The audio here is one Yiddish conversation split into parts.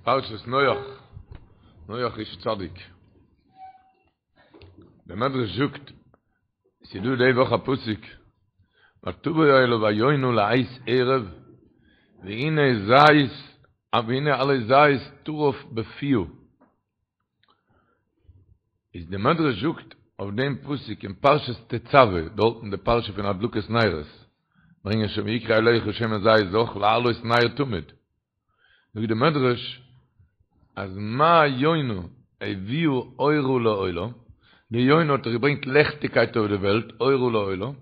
פרשת נח, נח איש צדיק. דער מדרש זאגט, ס'איז דא די וואך א פסוק, ותבא אליו היונה לעת ערב, והנה זית, והנה עלה זית טרף בפיה. איז די מדרש זאגט אויף דעם פסוק אין פרשת תצוה, דארט אין די פרשה פון הדלקת נרות, ברענגען שוין ויקחו אליך שמן זית זך להעלות נר תמיד, זאגט די מדרש אז מה יונה הביאה אורה לעולם, די יונה האט דאך געברענגט לעכטיגקייט אויף די וועלט, אורה לעולם,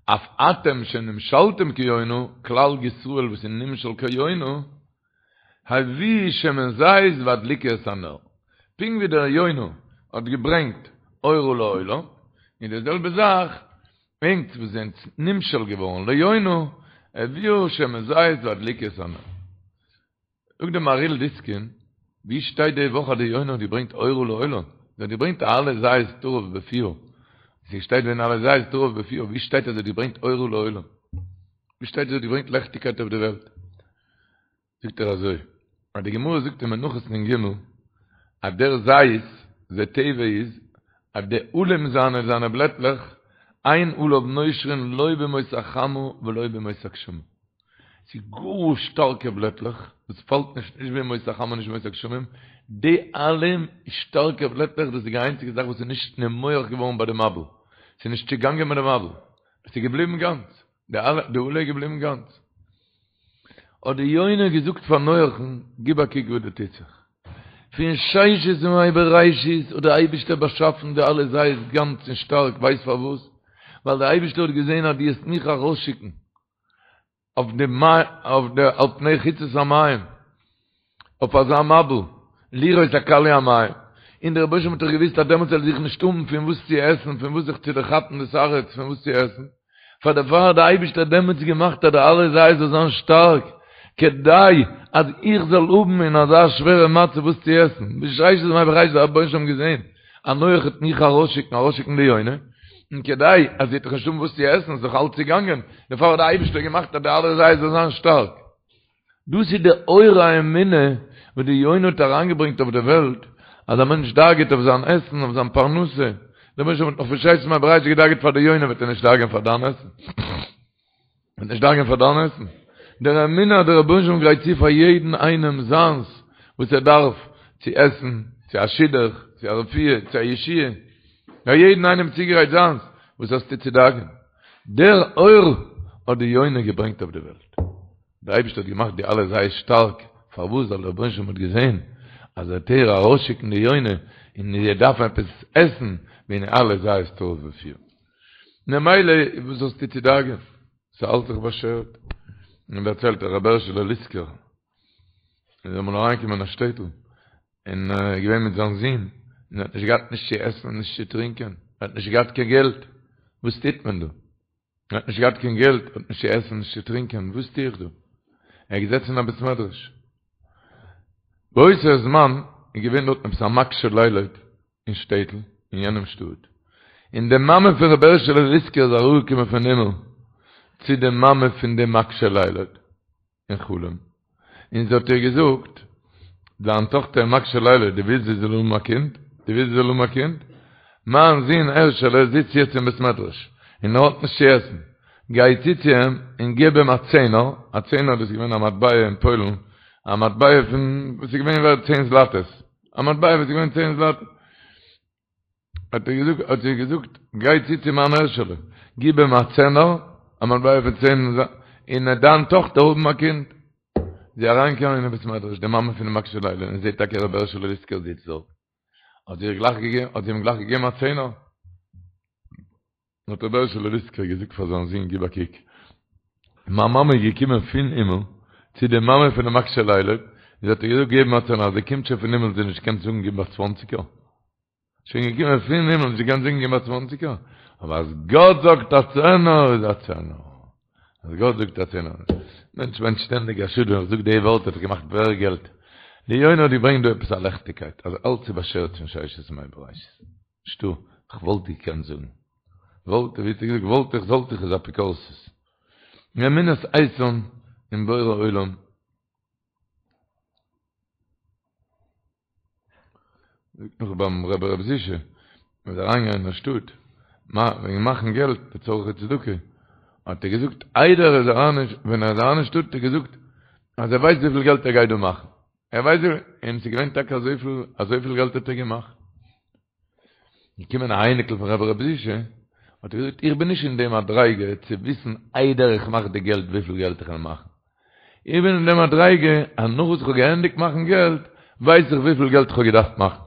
אף אתם שנמשלתם כיונה, כלל ישראל וואס איז נמשל כיונה, הביאו שמן זית והדליקו את הנר. פונקט ווי דער יונה האט געברענגט אורה לעולם, איז די זעלבע זאך, ענק וואס זענט נמשל געווארן ליונה, הביאו שמן זית והדליקו את הנר. זאגט דער מהריל דיסקין, ווי שטייט די וואך אז די יונה האט געברענגט אורה לעולם? זי האט געברענגט א עלה זית טרף בפיה. ס'שטייט והנה עלה זית טרף בפיה, ווי שטייט אז זי האט געברענגט אורה לעולם? ווי שטייט אז זי האט געברענגט לעכטיגקייט אויף די וועלט? זאגט ער אזוי, אז די גמרא זאגט אין מנחות נ ג, אז דער זית, די טבע איז, אז די עלים זיינע, זיינע בלעטלעך, אין עליו נושרין לא בימות החמה ולא בימות הגשמים. ס'איז גאר שטארקע בלעטלעך, וואס פאלט נישט נישט בימות החמה נישט בימות הגשמים, די עלים שטארקע בלעטלעך דאס איז די איינציגע זאך וואס איז נישט נמוח געווארן ביי די מבול, ס'איז נישט צעגאנגען מיט די מבול, עס איז געבליבן גאנץ. די עלה, די עלה איז געבליבן גאנץ. האט די יונה געזאגט פאר נוח'ן, גיב א קוק וואס דא טוט זיך. פון ששת ימי בראשית האט דער אייבישטער באשאפן די עלה זית גאנץ און שטארק, ווייסט פארוואס? ווייל דער אייבישטער האט געזען אז דו וועסט מיך ארויסשיקן אויף די אויף די על פני חוצות המים, אויף אזא מבול, לראות הכלו המים, און דער רבוש"ע האט דאך געוואוסט אז דעמאלטס וועל איך נישט האבן פון וואס צו עסן, פון וואס זיך צו דערכאפן דאס הארץ, פון וואס צו עסן, פאר דערפאר האט דער אייבישטער דעמאלטס געמאכט אז די עלה זית זאל זיין שטארק, כדי אז איך זאל האבן אין אזא שווערע מצב וואס צו עסן, בששת ימי בראשית האט דער רבוש"ע געזען אז נח וועט מיך ארויסשיקן, ארויסשיקן די יונה, און כדי אז זי וועט דאך נישט האבן וואס צו עסן, איז דאך אלץ צעגאנגען, דערפאר האט דער אייבישטער געמאכט אז די עלה זית זאל זיין שטארק. דאס איז די אור האמונה וואס די יונה האט אריינגעברענגט אויף די וועלט, אז א מענטש דאגה'ט אויף זיין עסן, אויף זיין פרנסה, דער רבוש"ע האט נאך פון ששת ימי בראשית געדאגה'ט פאר די יונה, וועט ער נישט דאגה'ן פאר דיין עסן? וועט נישט דאגה'ן פאר דיין עסן? דער אמונה אז דער רבוש"ע גרייט צו פאר יעדן איינעם זיינס וואס ער דארף, צו עסן, צו א שידוך, צו א רפואה, צו א ישועה, פאר יעדן איינעם צוגעגרייט זיינס, וואס האסטו צו דאגה'ן? דער אור האט די יונה געברענגט אויף די וועלט. דער אייבערשטער האט געמאכט די עלה זית שטארק, פארוואס? ווייל דער רבונו של עולם האט געזען אז ער וועט איר ארויסשיקן די יונה און זי דארף עפעס עסן, והנה עלה זית טרף בפיה. ממילא וואס האסטו צו דאגה'ן? ס'איז אלץ דאך באשערט. און דערציילט רבי הערשעלע ליסקער, איז אמאל אריינגעקומען אין א שטעטל, און ער איז געווען מיט זיין זון, און ער האט נישט געהאט נישט צו עסן און נישט צו טרינקען, ער האט נישט געהאט קיין געלט, וואס טוט מען דא? ער האט נישט געהאט קיין געלט, האט נישט צו עסן, נישט צו טרינקען, וואס טו איך דא? ער איז געזעצן אין א בית מדרש. באותו זמן איז געווען דארטן עפעס א מקשה לילד אין שטעטל, אין יענעם שטאט, און די מאמע פון רבי הערשעלע ליסקער איז אראפגעקומען פון הימל צו די מאמע פון דעם מקשה לילד, אין חלום, און זי האט איר געזאגט, דיין טאכטער מקשה לילד, דו ווילסט זי זאל האבן א קינד? דו ווילסט זי זאל האבן א קינד? מיין זון הערשעלע זיצט יעצט אין בית מדרש, און ער האט נישט צו עסן, גיי צו צו אים און גיב אים א צענער, א צענער דאס איז געווען א מטבע אין פוילן, א מטבע פון וואס איז געווען ווערט צען זלאטעס, א מטבע וואס איז געווען צען זלאטעס. האט ער געזאגט, האט זי געזאגט, גיי צו צו מיין הערשעלע, גיב אים א צענער, א מטבע פון צען, און וועט דיין טאכטער האבן א קינד. זי אריינגעקומען אין בית מדרש, די מאמע פונעם מקשה לילד, און זעט טאקע רבי הערשעלע ליסקער זיצט דארט. האט זי איר גלייך געגעבן, האט זי אים גלייך געגעבן א צענער. האט רבי הערשעלע ליסקער געזאגט פאר זיין זון, גיב א קוק, מיין מאמע איז געקומען פון הימל צו די מאמע פונעם מקשה לילד, און זי האט איר געזאגט געבן א צענער, אז זי קומט שוין פון הימל זי נישט געקענט זאגן גיב א צוואנציגער. שוין געקומען פון הימל נישט געקענט זאגן גיב א צוואנציגער, אבער אז גאט זאגט א צענער איז א צענער, אז גאט זאגט א צענער, מענטש מיינט שטענדיג א שאד ווען איך זאג די ווארט האט ער געמאכט מער געלט, די יונה האט געברענגט דא עפעס א לעכטיגקייט אז אלץ איז באשערט פון ששת ימי בראשית, נישטא, כ'וואלט געקענט זאגן, וואלט, ווי האט ער געזאגט, וואלט איך זאלט איך איז אפיקורסות, אמונת איתן אין בורא עולם. זאגט נאך ביים רבי ר' זישע, מ'איז אריינגעגאנגען אין א שטאט וועגן מאכן געלט לצרכי צדקה, האט ער געזאגט איידער ער איז אריין ווען ער איז אריין אין שטאט האט ער געזאגט אז ער ווייסט וויפיל געלט ער גייט דא מאכן, ער ווייסט וויפיל, און ס'איז געווען טאקע אזויפיל, אזויפיל געלט האט ער געמאכט. געקומען א אייניקל פון רבי ר' זישע, האט ער געזאגט איך בין נישט אין די מדריגה צו וויסן איידער איך מאך די געלט וויפיל געלט איך וועל מאכן, איך בין אין די מדריגה אז נאך וואס איך האב געענדיגט מאכן געלט ווייס איך וויפיל געלט איך האב געדארפט מאכן.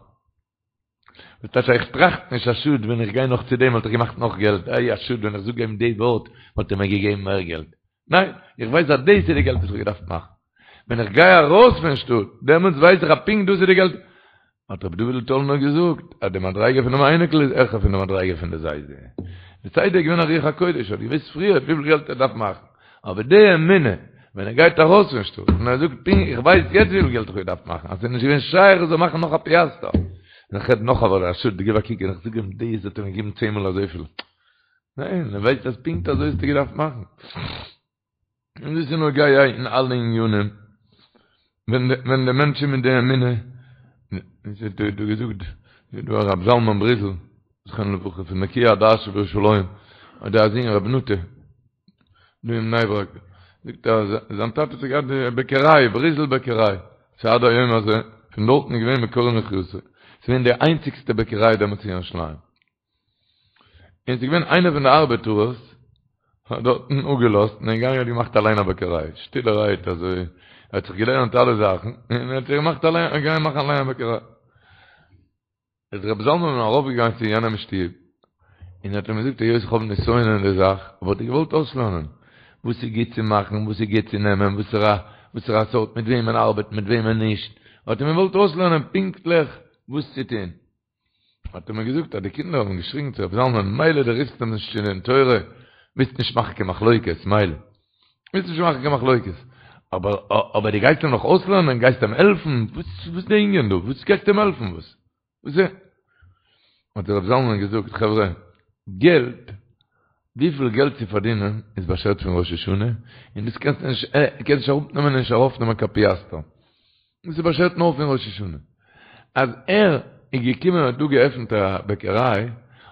דאס טייטש איך טראכט נישט א שאד ווען איך גיי נאך צו דעם וואלט איך געמאכט נאך געלט, איי א שאד ווען איך זאג אים די ווארט וואלט ער מיר געגעבן מער געלט. ניין, איך ווייס אז דאס איז די געלט וואס איך האב געדארפט מאכן. ווען איך גיי ארויס פון שטאט, דעמאלטס ווייס איך אז פונקט דאס איז די געלט. האט רבי דוד'ל טאלנער געזאגט אז די מדריגה פונעם אייניקל איז העכער פון די מדריגה פון די זיידע. די זיידע איז געווען א רוח הקודש, האט געוואוסט פריער וויפיל געלט ער דארף מאכן. אבער די אמונה, ווען ער גייט ארויס פון שטאט און ער זאגט פונקט איך ווייס יעצט וויפיל געלט איך האב געדארפט מאכן, אז ס'איז נישט געווען שייך איך זאל מאכן נאך א פיאסטער. און איך רעד נאך אבער א שאד, גיב א קוק און איך זאג אים דאס האט ער מיר געגעבן צען מאל אזויפיל. ניין, ער ווייסט אז פונקט אזוי האסטו געדארפט מאכן. און דאס איז נוגע אין אלע ענינים, ווען ווען די מענטשן מיט די אמונה, עס האט דא געזאגט דא הרב זלמן בריזל, זכרונו לברכה, פון נקיי הדעת שבירושלים, האט ער א זון רבי נטע, דא אין בני ברק, זאגט ער אז זיין טאטע האט געהאט די בעקעריי, בריזל בעקעריי, ס'איז עד היום הזה, פון דארטן איז געווען מקור מחיותו, ס'איז געווען די איינציגסטע בעקעריי דעמאלטס אין ירושלים. און ס'איז געווען איינער פון די ארבעטארערס האט דארטן אפגעלאזט און איז געגאנגען האט געמאכט אליין א בעקעריי, שטילערהייט אזוי, ער האט זיך געלערנט אלע זאכן, און ער האט זיך געמאכט אליין, געגאנגען מאכן אליין א בעקעריי. איז רבי זלמן ארויפגעגאנגען צו יענעם שטוב, און האט אים געזאגט היות איך האב נסיון אין די זאך, וואלט איך געוואלט אויסלערנען וואס איז גוט צו מאכן, וואס איז גוט צו נעמען, וואסערע וואסערע סארט, מיט וועמען ארבעטן, מיט וועמען נישט, האט ער אים געוואלט אויסלערנען פונקטליך וואס צו טון. האט ער מיר געזאגט אז די קינדער האבן געשריגן צו רבי זלמן מילא דו רופסט אים נישט צו דין תורה, ווילסט נישט מאכן קיין מחלוקת, מילא, ווילסט נישט מאכן קיין מחלוקת, אבער אבער דו גייסט אים נאך אויסלערנען, גייסט אים העלפן, וואס וואס די ענין דא, וואס גייסטו אים העלפן, וואס וואס איז? האט רבי זלמן געזאגט, חברה, געלט, וויפיל געלט צו פארדינען איז באשערט פון ראש השנה, און דאס קענסטו נישט, קענסט נישט אראפנעמען און נישט ארויפנעמען קיין פיאסטער. דאס איז באשערט נאר פון ראש השנה. אז ער איז געקומען און האט דא געעפנט א בעקעריי,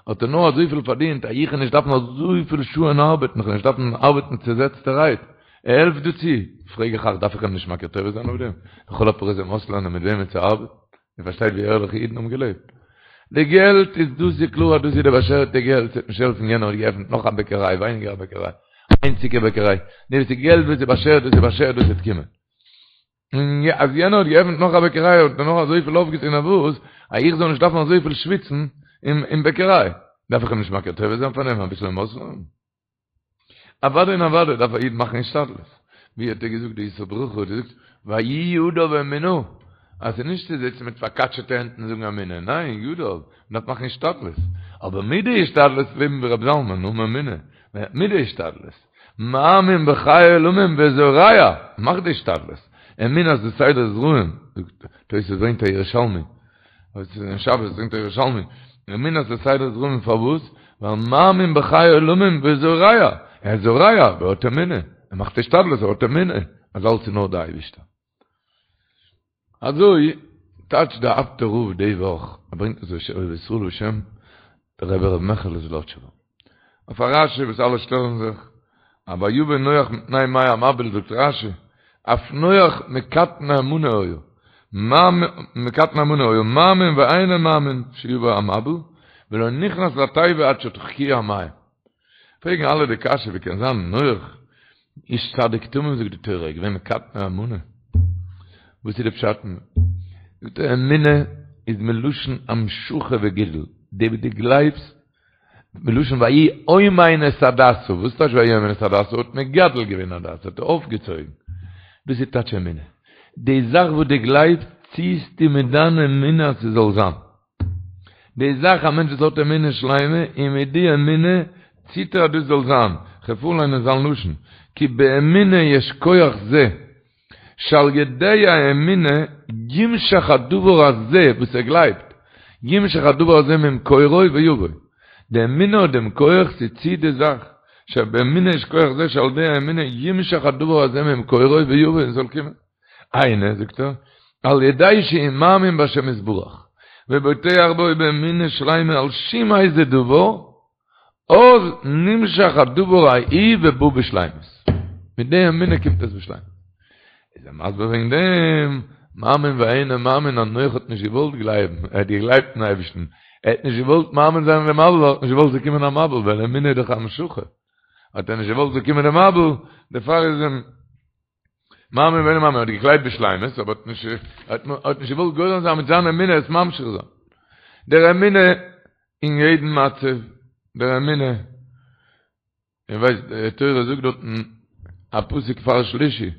האט ער נאר אזויפיל פארדינט אז איך וועל נישט דארפן אזויפיל שעה'ן ארבעטן, איך וועל נישט דארפן ארבעטן צעזעצטערהייט. ער העלפט דא צו. פרעג איך אייך, דארף איך אים נישט מכיר טובה זיין אויף דעם? לכל הפחות אים אויסלערנען מיט וועמען צו ארבעטן? איר פארשטייט ווי ערליכע אידן האבן געלעבט? די געלט איז דאס איז קלאר אז דאס איז די באשערטע געלט, ס'וועט נישט העלפן יענער האט געעפנט נאך א בעקעריי, ווייניגער א בעקעריי, איינציגע בעקעריי, די וואס איז געלט וואס איז באשערט דאס איז באשערט דאס וועט קומען. און אז יענער האט געעפנט נאך א בעקעריי האט ער נאך אזויפיל אויפגעטון אויף וואס אז איך זאל נישט דארפן אזויפיל שוויצן אין בעקעריי, דארף איך אים נישט מכיר טובה זיין פאר דעם אביסל אים אויסלערנען? אוודאי און אוודאי דארף א איד מאכן השתדלות, ווי האט ער געזאגט די ישא ברכה האט געזאגט ויהי ידיו אמונה, אז ס'איז נישט צו זיצן מיט פארקאטשעטע הענט און זאגן אמונה, ניין, ידיו, מ'דארף מאכן השתדלות, אבער מיט די השתדלות לעבן ווי רבי זלמן, האבן אמונה, מיט די השתדלות, מאמין בחי עולמים וזורע, מאך די השתדלות, אמונה זה סדר זרעים, זאגט תוס' ברענגט א ירושלמי, וואס איז אין שבת ברענגט א ירושלמי, אמונה זה סדר זרעים פארוואס? ווייל מאמין בחי עולמים וזורע, ער איז זורע, ער האט אמונה, ער מאכט השתדלות, ער האט אמונה, אז אלץ איז נאר די אייבישטער. אזוי טייטשט דער אפטער רב די וואך, ער ברענגט עס בשם אוהב ישראל בשם דער רבי ר' מעכעלע זלאטשובער, אויף א רשי וואס אלע שטעלן זיך, א ויבא נח מפני מי המבול זאגט רשי, אף נח מקטני אמנה היה, מקטני אמנה היה מאמין ואינו מאמין שיבא המבול, ולא נכנס לתיבה עד שדחקוהו המים. פרעגן אלע די קשיא ווי קען זיין נח איש צדיק תמים זאגט די תורה איז געווען מקטני אמנה וואס איז די פשט זאגט ער אמונה איז מלשון המשכה וגידול די וואס דו גלייבסט מלשון ויהי אומן את הדסה וואס טייטש ויהי אומן את הדסה האט מגדל געווען הדסה האט ער אויפגעצויגן דאס איז טייטש אמונה די זאך וואס דו גלייבסט ציעסטו מיט דיין אמונה אז ס'זאל זיין די זאך א מענטש וואס האט אמונה שלימה און מיט די אמונה ציט ער אז דאס זאל זיין, כ'וועל פארליינען זיין לשון, כי באמונה יש כח זה, שעל ידי האמונה ימשך הדבר הזה וואס ער גלייבט, ימשך הדבר הזה ממקורו ויבוא, די אמונה האט דעם כח ס'ציט די זאך, שבאמונה יש כח זה שעל ידי האמונה ימשך הדבר הזה ממקורו ויבוא און ס'זאל קומען. היינו, זאגט ער, על ידי שהוא מאמין בהשם יתברך. ובוטח בו באמונה שלימה על שום איזה דבר, אז נמשך הדבר ההוא ובא בשלימות. מיט די אמונה קומט עס בשלימות. איז ער מסביר וועגן דעם, מאמין ואינו מאמין אז נח האט נישט געוואלט גלייבן, ער האט געגלייבט אין אייבערשטן, ער האט נישט געוואלט מאמין זיין אין דעם מבול, ער האט נישט געוואלט ס'זאל קומען א מבול, ווייל אמונה איז דאך המשכה, האט ער נישט געוואלט ס'זאל קומען די מבול, דערפאר איז אים מאמין ואינו מאמין, האט געגלייבט בשלימות, אבער האט נישט האט נישט געוואלט גורם זיין מיט זיין אמונה עס ממשיך זיין. דער אמונה אין יעדן מצב, דער אמונה, איר ווייסט די תורה זאגט דארטן א פסוק פאר שלישי,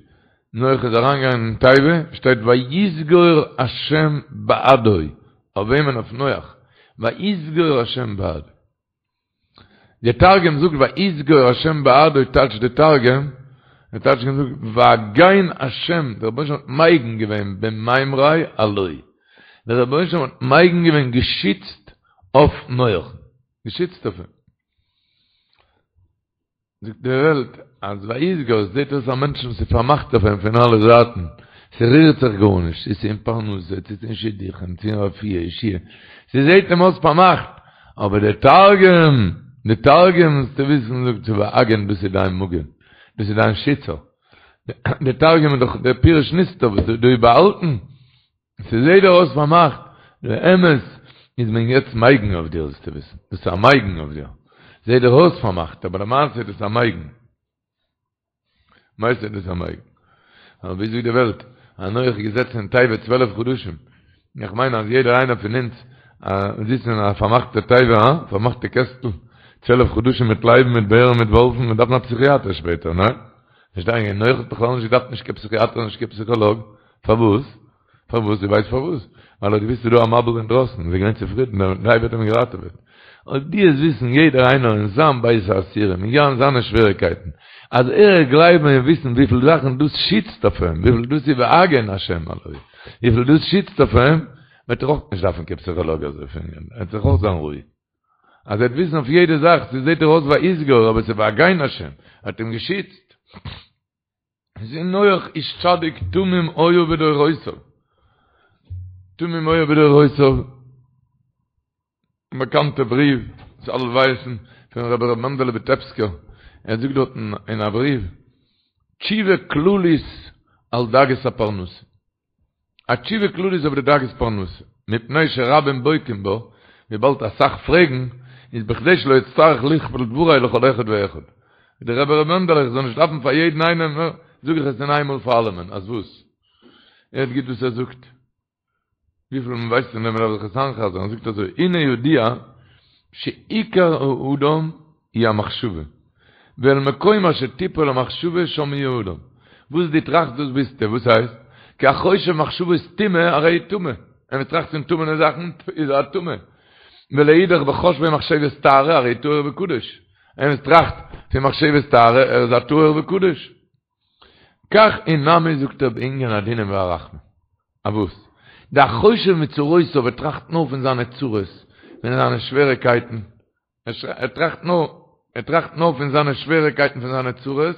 נח איז אריינגעגאנגען אין תיבה, שטייט ויסגור השם בעדו, אויף וועמען? אויף נח, ויסגור השם בעדו. די תרגום זאגט ויסגור השם בעדו טייטשט די תרגום, די תרגום זאגט והגן השם, דער רבונו של עולם האט מגין געווען במימריה עלוי, דער רבונו של עולם האט מגין געווען געשיצט אויף נח, געשיצט אויף אים. זאגט די וועלט אז ויסגור עס זעט אויס א מענטשן וואס איז פארמאכט אויף אים פון אלע זייטן, ס'רירט זיך גארנישט, צו ס'איז אין פרנסה, צו ס'איז אין שידוכים, צו אין רפואה, ישועה, ס'זעט אים אויס פארמאכט, אבער די תרגום, די תרגום זאלסטו וויסן זאגט צו והגן דאס איז דיין מגן, דאס איז דיין שיצער, די תרגום איז דאך דער פירוש נסתר וואס איז דא באהאלטן. ס'זעהט דיר אויס פארמאכט, די אמת איז מען יעצט מגין אויף דיר זאלסטו וויסן, דאס איז א מגין אויף דיר, זעהט דיר אויס פארמאכט אבער למעשה איז דאס א מגין, למעשה איז דאס א מגין, אבער ווי זאגט די וועלט, אז נח איז געזעצן אין תיבה 12 חדשים, איך מיין אז יעדער איינער פון אונז זיצן אין א פארמאכטע תיבה, הא? פארמאכטע קעסטל, 12 חדשים מיט לייבן מיט בערן מיט וואלפן, מען דארף א פסיכיאטער שפעטער, ניין? נישט דיין נח האט בכלל נישט געדארפט נישט קיין פסיכיאטער נישט קיין פסיכאלאג, פארוואס? פארוואס? דו ווייסט פארוואס? ווייל ער האט געוואוסט ס'איז דא א מבול אינדרויסן, איז ער געווען צופרידן, דער תיבה האט אים געראטעוועט. אויב דו וועסט וויסן יעדער איינער אין זיין בית האסירים, אין זיינע שוועריקייטן, אז ער וועט גלייבן און וויסן וויפיל זאכן דאס שיצט אויף אים, וויפיל דאס איז והגן השם עלי, וויפיל דאס שיצט אויף אים, וועט ער אויך נישט דארפן קיין פסיכאלאג אזוי פון אים, ער וועט זיך אויך זיין רואיג. אז ער וועט וויסן אויף יעדע זאך, ס'זעט דיר אויס ויסגור, אבער ס'איז והגן השם, ער האט אים געשיצט. זה נח איש צדיק תמים היה בדורותיו. תמים היה בדורותיו. באקאנטע בריוו, וואס אלע ווייסן, פון רבי ר' מענדעלע וויטעפסקער. ער זאגט דארטן אין א בריוו, תשובה כללית על דאגות הפרנסה. א תשובה כללית אויף די דאגות פרנסה, מפני שרבים בוקעים בה, וויבאלד אסאך פרעגן, איז בכדי שלא אצטרך לכפול דברי לכל אחד ואחד. ווי דער רבי ר' מענדעלע, איך זאל נישט דארפן פאר יעדן איינעם, זאג איך עס אין איינמאל פאר אלעמען, אז וואס? הערט גוט וואס ער זאגט. וויפיל מען ווייסט פון דעם מ'דארף זיך עס איינ'חזר'ן, ער זאגט אזוי, הנה ידוע שעיקר האדם היא המחשבה, ואל מקום אשר תיפול המחשבה שם יהיה האדם. וואס דו טראכסט דאס ביסטו, וואס הייסט? כי החושב מחשבות טומאה הרי הוא טמא, ווען מען טראכט פון טמא'נע זאכן איז ער א טמא. ולאידך בחושבו מחשבות טהרה הרי הוא טהור וקדוש, ווען מען טראכט פון מחשבות טהרה ער איז א טהור וקדוש. כך הוא נמי זאגט ער בענין הדינים והרחמים. א וואס? דהחושב מצרותיו ער טראכט נאר פון זיינע צרות, פון זיינע שוועריקייטן, ער טראכט נאר, ער טראכט נאר פון זיינע שוועריקייטן פון זיינע צרות,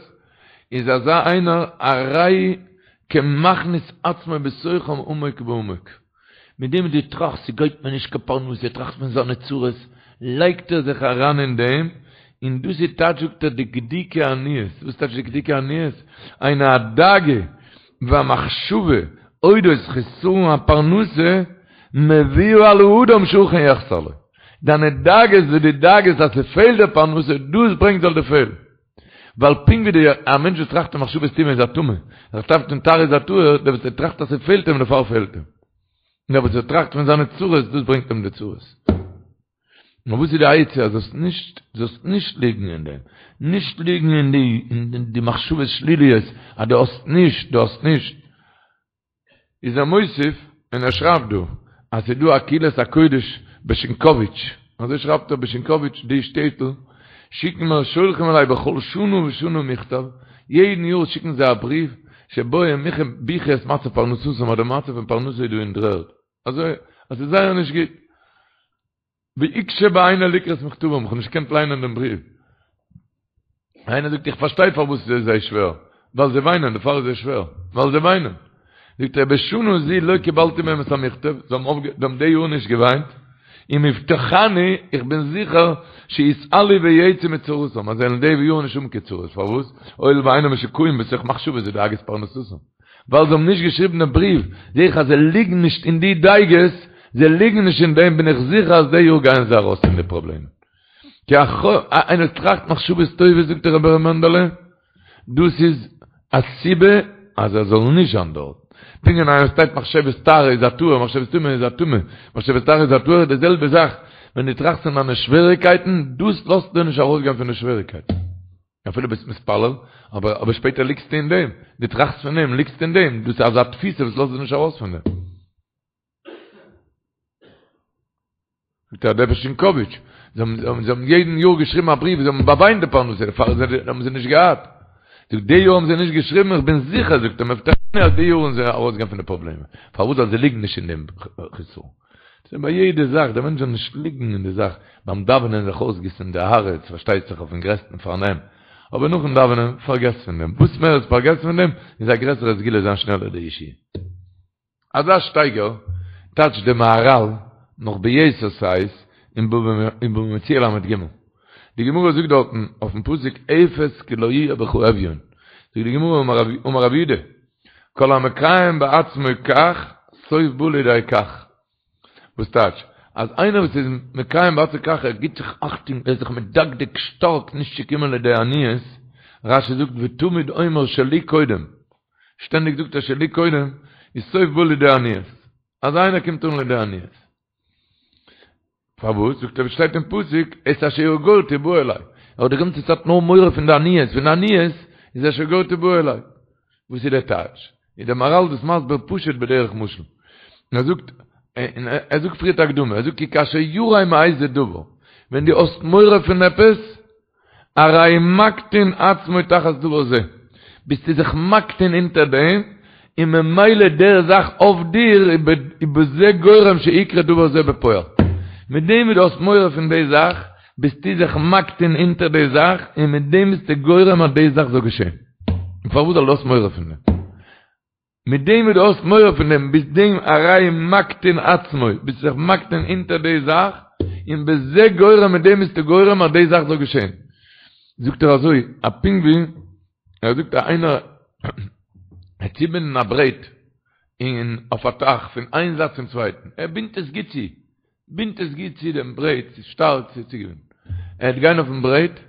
איז אזא איינער הרי כמכניס עצמו בתוכם עמוק בעמוק. מיט דעם וואס דו טראכסט ס'גייט מיר נישט קיין פרנסה, ער טראכט פון זיינע צרות, לייגט ער זיך אריין אין דעם, און דאס איז טייטש זאגט ער דקדוקי עניות, וואס טייטש דקדוקי עניות? היינו הדאגה והמחשבה אודות חסרון הפרנסה מביאה על האדם שאכן יחסר לו. דיינע דאגות וואס דו דאגה'סט אז ס'פעלט דיר פרנסה, דאס ברענגט זאל דיר פעלן. ווייל פונקט ווי די א מענטש וואס טראכט אין מחשבות טומאה איז א טמא, ער טראכט פון טהרה איז א טהור, דער וואס ער טראכט אז ס'פעלט אים דערפאר פעלט אים. און דער וואס ער טראכט פון זיינע צרות דאס ברענגט אים די צרות. נאר וואס איז די עצה אז זאלסט נישט זאלסט נישט ליגן אין דעם, נישט ליגן אין די אין די מחשבות שליליות אז דו האסט נישט, דו האסט נישט. איז ער מוסיף און ער שרייבט דא אז ס'איז דא א קהילת הקודש בשינקאוויטש, אזוי שרייבט ער בשינקאוויטש די שטעטל שיקן מיר שולחים אליי בכל שנה ושנה מכתב, יעדן יאר שיקן זיי א בריוו שבו הם מוחה בכי את מצב פרנסתם אז די מצב פון פרנסה איז דא אין דר'ערד, אזוי אז ס'איז זייער נישט גוט. ויקשה בעיני לקרות מכתבם, איך האב נישט געקענט ליינען דעם בריוו. איינער זאגט איך פארשטיי פארוואס עס איז זיי שווער, ווייל זיי וויינען, דערפאר איז זיי שווער, ווייל זיי וויינען. זאגט ער בשנה זו לא קיבלתי מהם את המכתב, זיי האבן די יאר נישט געוויינט, ומובטחני, איך בין זיכער, שיתעלו ויצאו מצרותם, אז זיי וועלן די יאר נישט האבן קיין צרות, פארוואס? הואיל ואינם משוקעים בתוך מחשבות ודאגות פרנסתם. ווייל זיי האבן נישט געשריבן דעם בריוו, זעה איך אז זיי ליגן נישט אין די דאגות, זיי ליגן נישט אין דעם, בין איך זיכער אז די יאר גייען זיי ארויס פון די פראבלעמען. כי איינער טראכט מחשבות טובות זאגט דער רבי ר' מענדעלע, דאס איז א סיבה אז ער זאל נישט זיין דארט. פונקט ווי איינער שטייט מחשבת טהרה איז א טהור, מחשבת טומאה איז א טמא, מחשבת טהרה איז א טהור, די זעלבע זאך ווען דו טראכסט פון דיינע שוועריקייטן, דאס לאזט דיר נישט ארויסגיין פון די שוועריקייטן. אפילו ביסט מתפלל, אבער אבער שפעטער ליגסטו אין דעם, דו טראכסט פון דעם, ליגסט אין דעם, דאס איז אזא תפיסה וואס לאזט דיר נישט ארויס פון דעם. זאגט ער דער שינקאוויטש, זיי האבן זיי האבן יעדן יאר געשריבן א בריוו, זיי האבן באוויינט די פרנסה, דערפאר האבן זיי נישט געהאט. זאגט די יאר האבן זיי נישט געשריבן, איך בין זיכער, זאגט ער, מובטחני אז די יאר וועלן זיי ארויסגיין פון די פראבלעמען. פארוואס? ווייל זיי ליגן נישט אין דעם חיסרון. ס'איז ביי יעדע זאך, דער מענטש זאל נישט ליגן אין די זאך, ביים דאווענען זיך אויסגיסן די הארץ, פארשטייט זיך אויפן גרעסטן פארנעם, אבער נאכן דאווענען, פארגעס פון דעם, וואס מער עס פארגעסט פון דעם, איז א גרעסערע סגולה זיין שנעלער די ישועה. אזא שטייגער טייטשט די מהרל נאך ביתר שאת אין בבא מציעא ל"ג. די גמרא זאגט דארטן אויפן פסוק אפס כי לא יהיה בך אביון, זאגט די גמרא אמר רב יהודה כל המקיים בעצמו כך סוף בא לידי כך, וואס טייטש אז איינער וואס איז מקיים בעצמו כך ער גיבט זיך אכטונג ער איז זיך מדקדק שטארק נישט צו קומען לידי עניות, רש"י זאגט ותמיד אומר שלי קודם, שטענדיג זאגט ער שלי קודם, איז סוף בא לידי עניות. אז איינער קומט אן לידי עניות. פארוואס? זאגט ער ווי שטייט אין פסוק, את אשר יגורתי בא אלי. ער האט די גאנצע צייט נאר מורא פון די עניות, פון די עניות איז אשר יגורתי בא אלי. וואס איז דער טייטש? איז דער מהר"ל דאס מסביר פשוט בדרך משל. און ער זאגט, און ער זאגט פריערט א הקדמה, ער זאגט כי כאשר ירא מאיזה דבר, ווען דו האסט מורא פון עפעס, הרי מקטין עצמו תחת דבר זה, ביסטו זיך מקטין אונטער דעם, און ממילא דער זאך אויף דיר איז בזה גורם שיקרה דבר זה בפועל. מיט דעם וואס דו האסט מורא פון די זאך, ביסטו זיך מקטין אונטער די זאך, און מיט דעם ביסטו גורם אז די זאך זאל געשען. און פארוואס ווייל דו האסט מורא פון דעם? מיט דעם וואס דו האסט מורא פון דעם, ביסט דעם הרי מקטין עצמו, ביסט זיך מקטין אונטער די זאך, און בזה גורם מיט דעם ביסטו גורם אז די זאך זאל געשען. זאגט ער אזוי, א פונקט ווי, ער זאגט אז איינער וועט צובינדן א ברעט אין אויף א טייך פון איין זייט צום צווייטן, ער בינדט עס גוט צו, בינדט עס גוט צו דעם ברעט, ס'איז שטארק ס'איז צוגעבינדן, ער וועט גיין אויפן ברעט,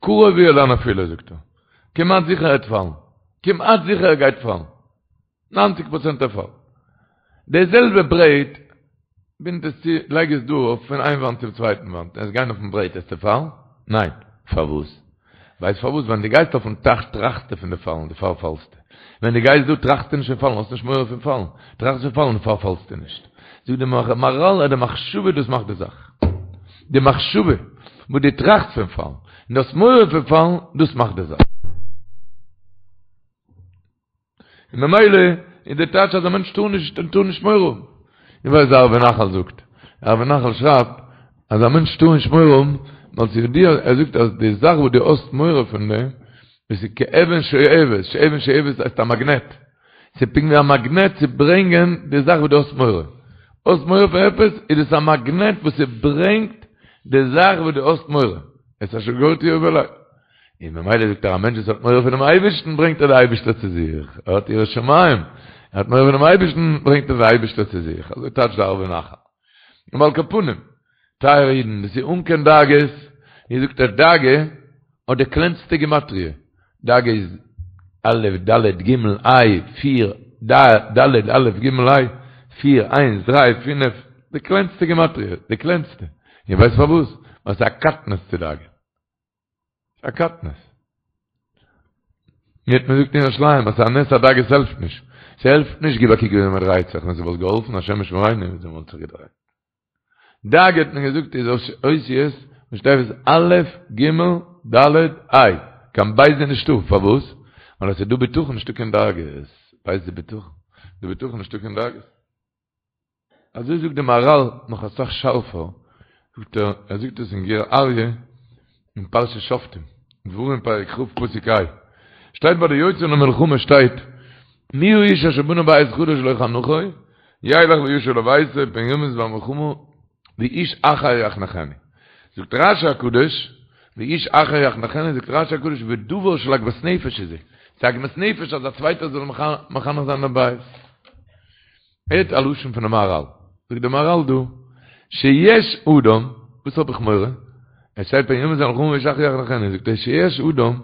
קרוב הוא אל הנפילה זאגט ער, כמעט זיכער ער וועט פאלן, כמעט זיכער ער גייט פאלן, ניינציג פראצענט ער פאלט. די זעלבע ברעט, בינד עס צו, לייג עס דא אויף פון איין וואנט צום צווייטן וואנט, וועסט גיין אויפן ברעט וועסטו פאלן? ניין. פארוואס? ווייסט פארוואס? ווען דו גייסט אויפן טייך טראכסטו פון די פאלן, דערפאר פאלסטו. ווען דו גייסט דא טראכסטו נישט פון פאלן, האסט נישט מורא פון פאלן. טראכסט פון פאלן דערפאר פאלסטו נישט. זאגט די מהר"ל אז די מחשבה דאס מאכט די זאך. די מחשבה וואס דו טראכסט פון פאלן, און דו האסט מורא פון פאלן, דאס מאכט די זאך. און ממילא איז די טייטש אז א מענטש טאר נישט און טאר נישט מורא האבן. איך ווייס די ערבי נחל זאגט, ערבי נחל שרייבט אז א מענטש טאר נישט מורא האבן, ווייל ס'איז ידוע, ער זאגט אז די זאך וואס דו האסט מורא פון דעם, דאס איז כאבן שואבת, שאבן שואבת הייסט א מאגנעט, ס'איז פונקט ווי א מאגנעט צו ברענגען די זאך וואס דו האסט מורא. האסט מורא פון עפעס, איז דאס א מאגנעט וואס ס'ברענגט די זאך וואס דו האסט מורא. את אשר יגורתי יבא אלי. און ממילא זאגט ער א מענטש וואס האט מורא פונעם אייבערשטן ברענגט ער די אייבערשטער צו זיך, ער האט יראת שמים, ער האט מורא פונעם אייבערשטן ברענגט ער די אייבערשטער צו זיך, אזוי טייטשט די ערבי נחל. און על כל פנים, טייערע אידן, דאס איז אן קיין דאגות, ווי זאגט ער דאגה האט די קלענסטע גימטריא, דאגה איז א' ד' ג' ה' פיר, ד ד' א' ג' ה', פיר, איינס, דריי, פינף, די קלענסטע גימטריא, די קלענסטע, איר ווייסט פארוואס? ווייל ס'איז א קטנות צו דאגה. א קטנות. מיר האט מען געזאגט אין ירושלים אז ס'איז א נס אז דאגות העלפט נישט. ס'העלפט נישט גיב א קוק וויאזוי מ'דרייט זיך, ווען ס'וואלט געהאלפן השם ישמרינו וויאזוי מ'וואלט זיך געדרייט. דאגה האט מען געזאגט איז אותיות ראשי תיבות א' ג' ד' ה'. קיין בית איז נישטא. פארוואס? ווייל אז ס'איז דא בטחון נישטא קיין דאגות. בית איז בטחון. דא בטחון נישטא קיין דאגות. אזוי זאגט די מהרל נאך אסאך שארפער, זאגט ער, ער זאגט עס אין גור אריה אין פרשת שופטים, דברים פרק כ' פסוק ה', שטייט ביי די יוצאים למלחמה שטייט. מי האיש אשר בנה בית חדש ולא חנכו, ילך וישוב לביתו פן ימות במלחמה ואיש אחר יחנכנו. זאגט רשי הקדוש, ואיש אחר יחנכנו, זאגט רשי הקדוש, ודבר של עגמת נפש איז זה. ס'איז עגמת נפש אז א צווייטער זאל מחנך זיין דעם בית. הערט א לשון פונעם מהרל, זאגט דער מהרל דא, שיש אדם, וואס האב איך מורא? עס שטייט פן ימות במלחמה ואיש אחר יחנכנו, זאגט ער שיש אדם,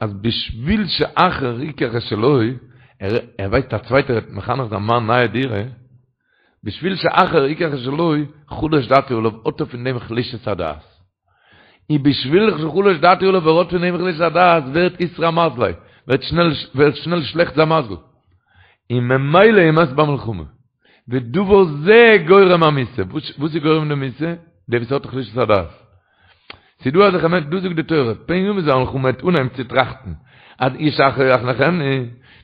אז בשביל שאחר ייקח את שלו, ער ווייסט א צווייטער וועט מחנך זיין מיין נייע דירה, בשביל שאחר ייקח את שלו, חלש דעתו עליו, האט ער פון דעם חלישת הדעת. און בשביל שחלש דעתו עליו ער האט פון דעם חלישת הדעת ווערט איתרע מזליה, ווערט שנעל ווערט שנעל שלעכט זיין מזל, און ממילא ומת במלחמה. ודבר זה גורם המיתה, וואס איז גורם די מיתה? דער וואס האט חלישת הדעת. ס'איז דא אזעלכע מענטשן, דא זאגט די תורה, פן ימות במלחמה וועט אנהייבן צו טראכטן אז איש אחר יחנכנו,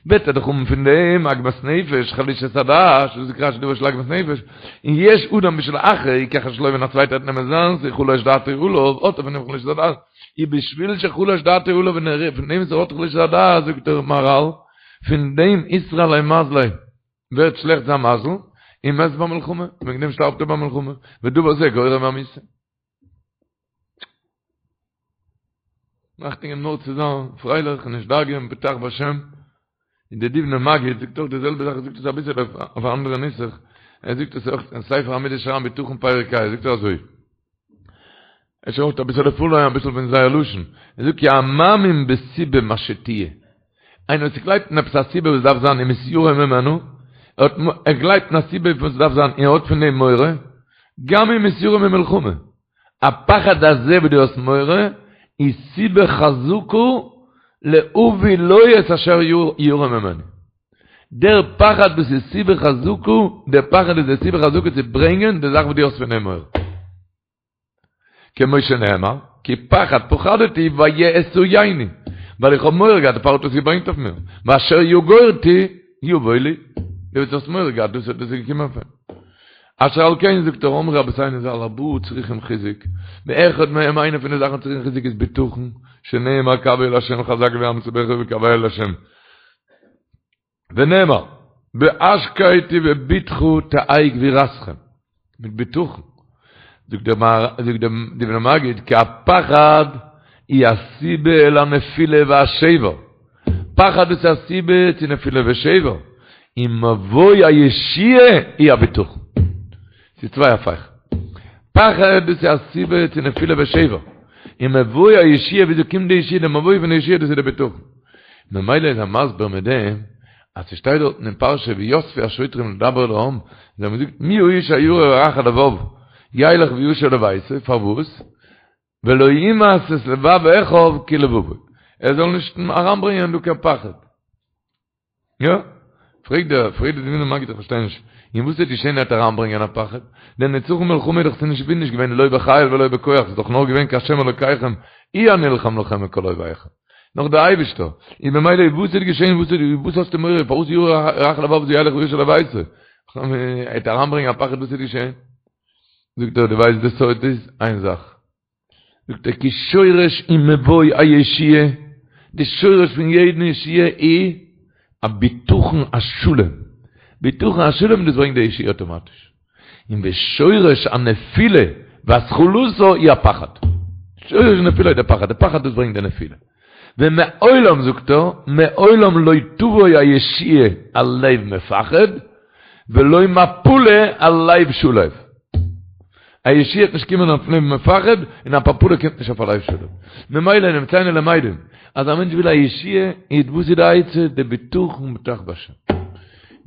וועט ער דאך האבן פון דעם עגמת נפש, חלישת הדעת, וואס זאגט רשי דבר של עגמת נפש, און יש אדם בשביל אחר יקח את שלו ווען א צווייטער וועט נעמען זיינס, חלש דעתו עליו, האט ער פון דעם חלישת הדעת, ובשביל שחלש דעתו עליו און ער פון דעם וואס ער האט חלישת הדעת, זאגט דער מהרל, פון דעם איתרע ליה מזליה, ווערט שלעכט זיין מזל, און מת במלחמה, וועגן דעם שטארבט ער במלחמה, ודבר זה גורם המיתה. אכטונג געבן נאר צו זיין פרייליך און נישט דאגה'ן, בטח בשם. און דער דובנער מגיד זאגט אויך די זעלבע זאך, ער זאגט עס אביסל אויף א אנדערע נוסח, ער זאגט עס אויך אין ספר המידות שער הבטחון פרק ה, זאגט ער אזוי, ער שרייבט אביסעלע פארליינען אביסל פון זייער לשון, ער זאגט כי המאמין בסיבה מה שתהיה, איינער וואס גלייבט אין עפעס א סיבה וואס דארף זיין ומתיירא ממנו, ער האט ער גלייבט אין א סיבה וואס דארף זיין און ער האט פון דעם מורא, גם אם מתיירא ממלחמה, הפחד הזה וואס דו האסט מורא, איז סיבה חזקה להביא לו את אשר ירא ממנו. דער פחד דאס איז סיבה חזקה, דער פחד איז די סיבה חזקה צו ברענגען די זאך וואס דו האסט פון דעם מורא. כמו שנאמר, כי פחד פחדתי ויאתיני, ווייל איך האב מורא געהאט, דערפאר האט עס געברענגט אויף מיר, ואשר יגורתי יבוא לי, דו וואס האסט מורא געהאט, דאס איז געקומען אויף אים. אשר על כן זאגט ער אמרו רבותינו ז"ל ארבעה צריכים חיזוק, ואחד מהם איינע פון די זאכן צריכים חיזוק איז בטחון, שנאמר קוה אל ה' חזק ויאמץ לבך וקוה אל ה'. ונאמר, בהשקט ובבטחה תהא גבורתכם, מיט בטחון, זאגט דער זאגט דער דובנער מגיד, כי הפחד היא הסיבה אל הנפילה והשבר, פחד איז א סיבה צו נפילה ושבר, ומבוא הישועה היא הבטחון. ס'איז צוויי הפכים. פחד דאס איז א סיבה צו נפילה ושבר, און מבוא הישועה וויאזוי קומט די ישועה, די מבוא פון די ישועה דאס איז די בטחון. ממילא איז ער מסביר מיט דעם אז ס'שטייט דארטן אין פרשה ויספו השוטרים לדבר אל העם, זיי האבן געזאגט מי האיש הירא ורך הלבב ילך וישוב לביתו, פארוואס? ולא ימס את לבב אחיו כלבבו, ער זאל נישט אריינברענגען דא קיין פחד. יא? פרעגט דער, פרעגט דער דובנער מגיד איך פארשטיי נישט, און וואס וועט געשען ער וועט אריינברענגען א פחד? דער נצחון מלחמה איז דאך נישט נישט געווען לא בחיל ולא בכח, ס'איז דאך נאר געווען כי השם אלוקיכם הוא הנלחם לכם מכל אויביכם. נאר דער אייבישטער. און במילא וואס וועט געשען, וואס וואס האסטו מורא, פארוואס ירא רך הלבב זה ילך וישוב לביתו? ער וועט אריינברענגען א פחד וואס וועט געשען? זאגט ער, דו ווייסט די סוד איז איין זאך, זאגט ער כי שורש ומבוא הישועה, די שורש פון יעדן ישועה איז א בטחון השלם, בטחון השלם דאס ברענגט די ישועה אטאמאטיש, און ושורש הנפילה והתחלתה היא הפחד, שורש הנפילה איז די פחד, די פחד דאס ברענגט די נפילה. ומעולם זאגט ער, מעולם לא תבוא הישועה על לב מפחד, ולא מפלה על לב שלו. א ישועה וועט נישט קומען אויף לב מפחד, און א מפלה קומט נישט אויף א לב שלו. ממילא נמצאנו למדים, אז א מענטש וויל א ישועה, איז וואס איז די עצה? די בטחון בטח בהשם.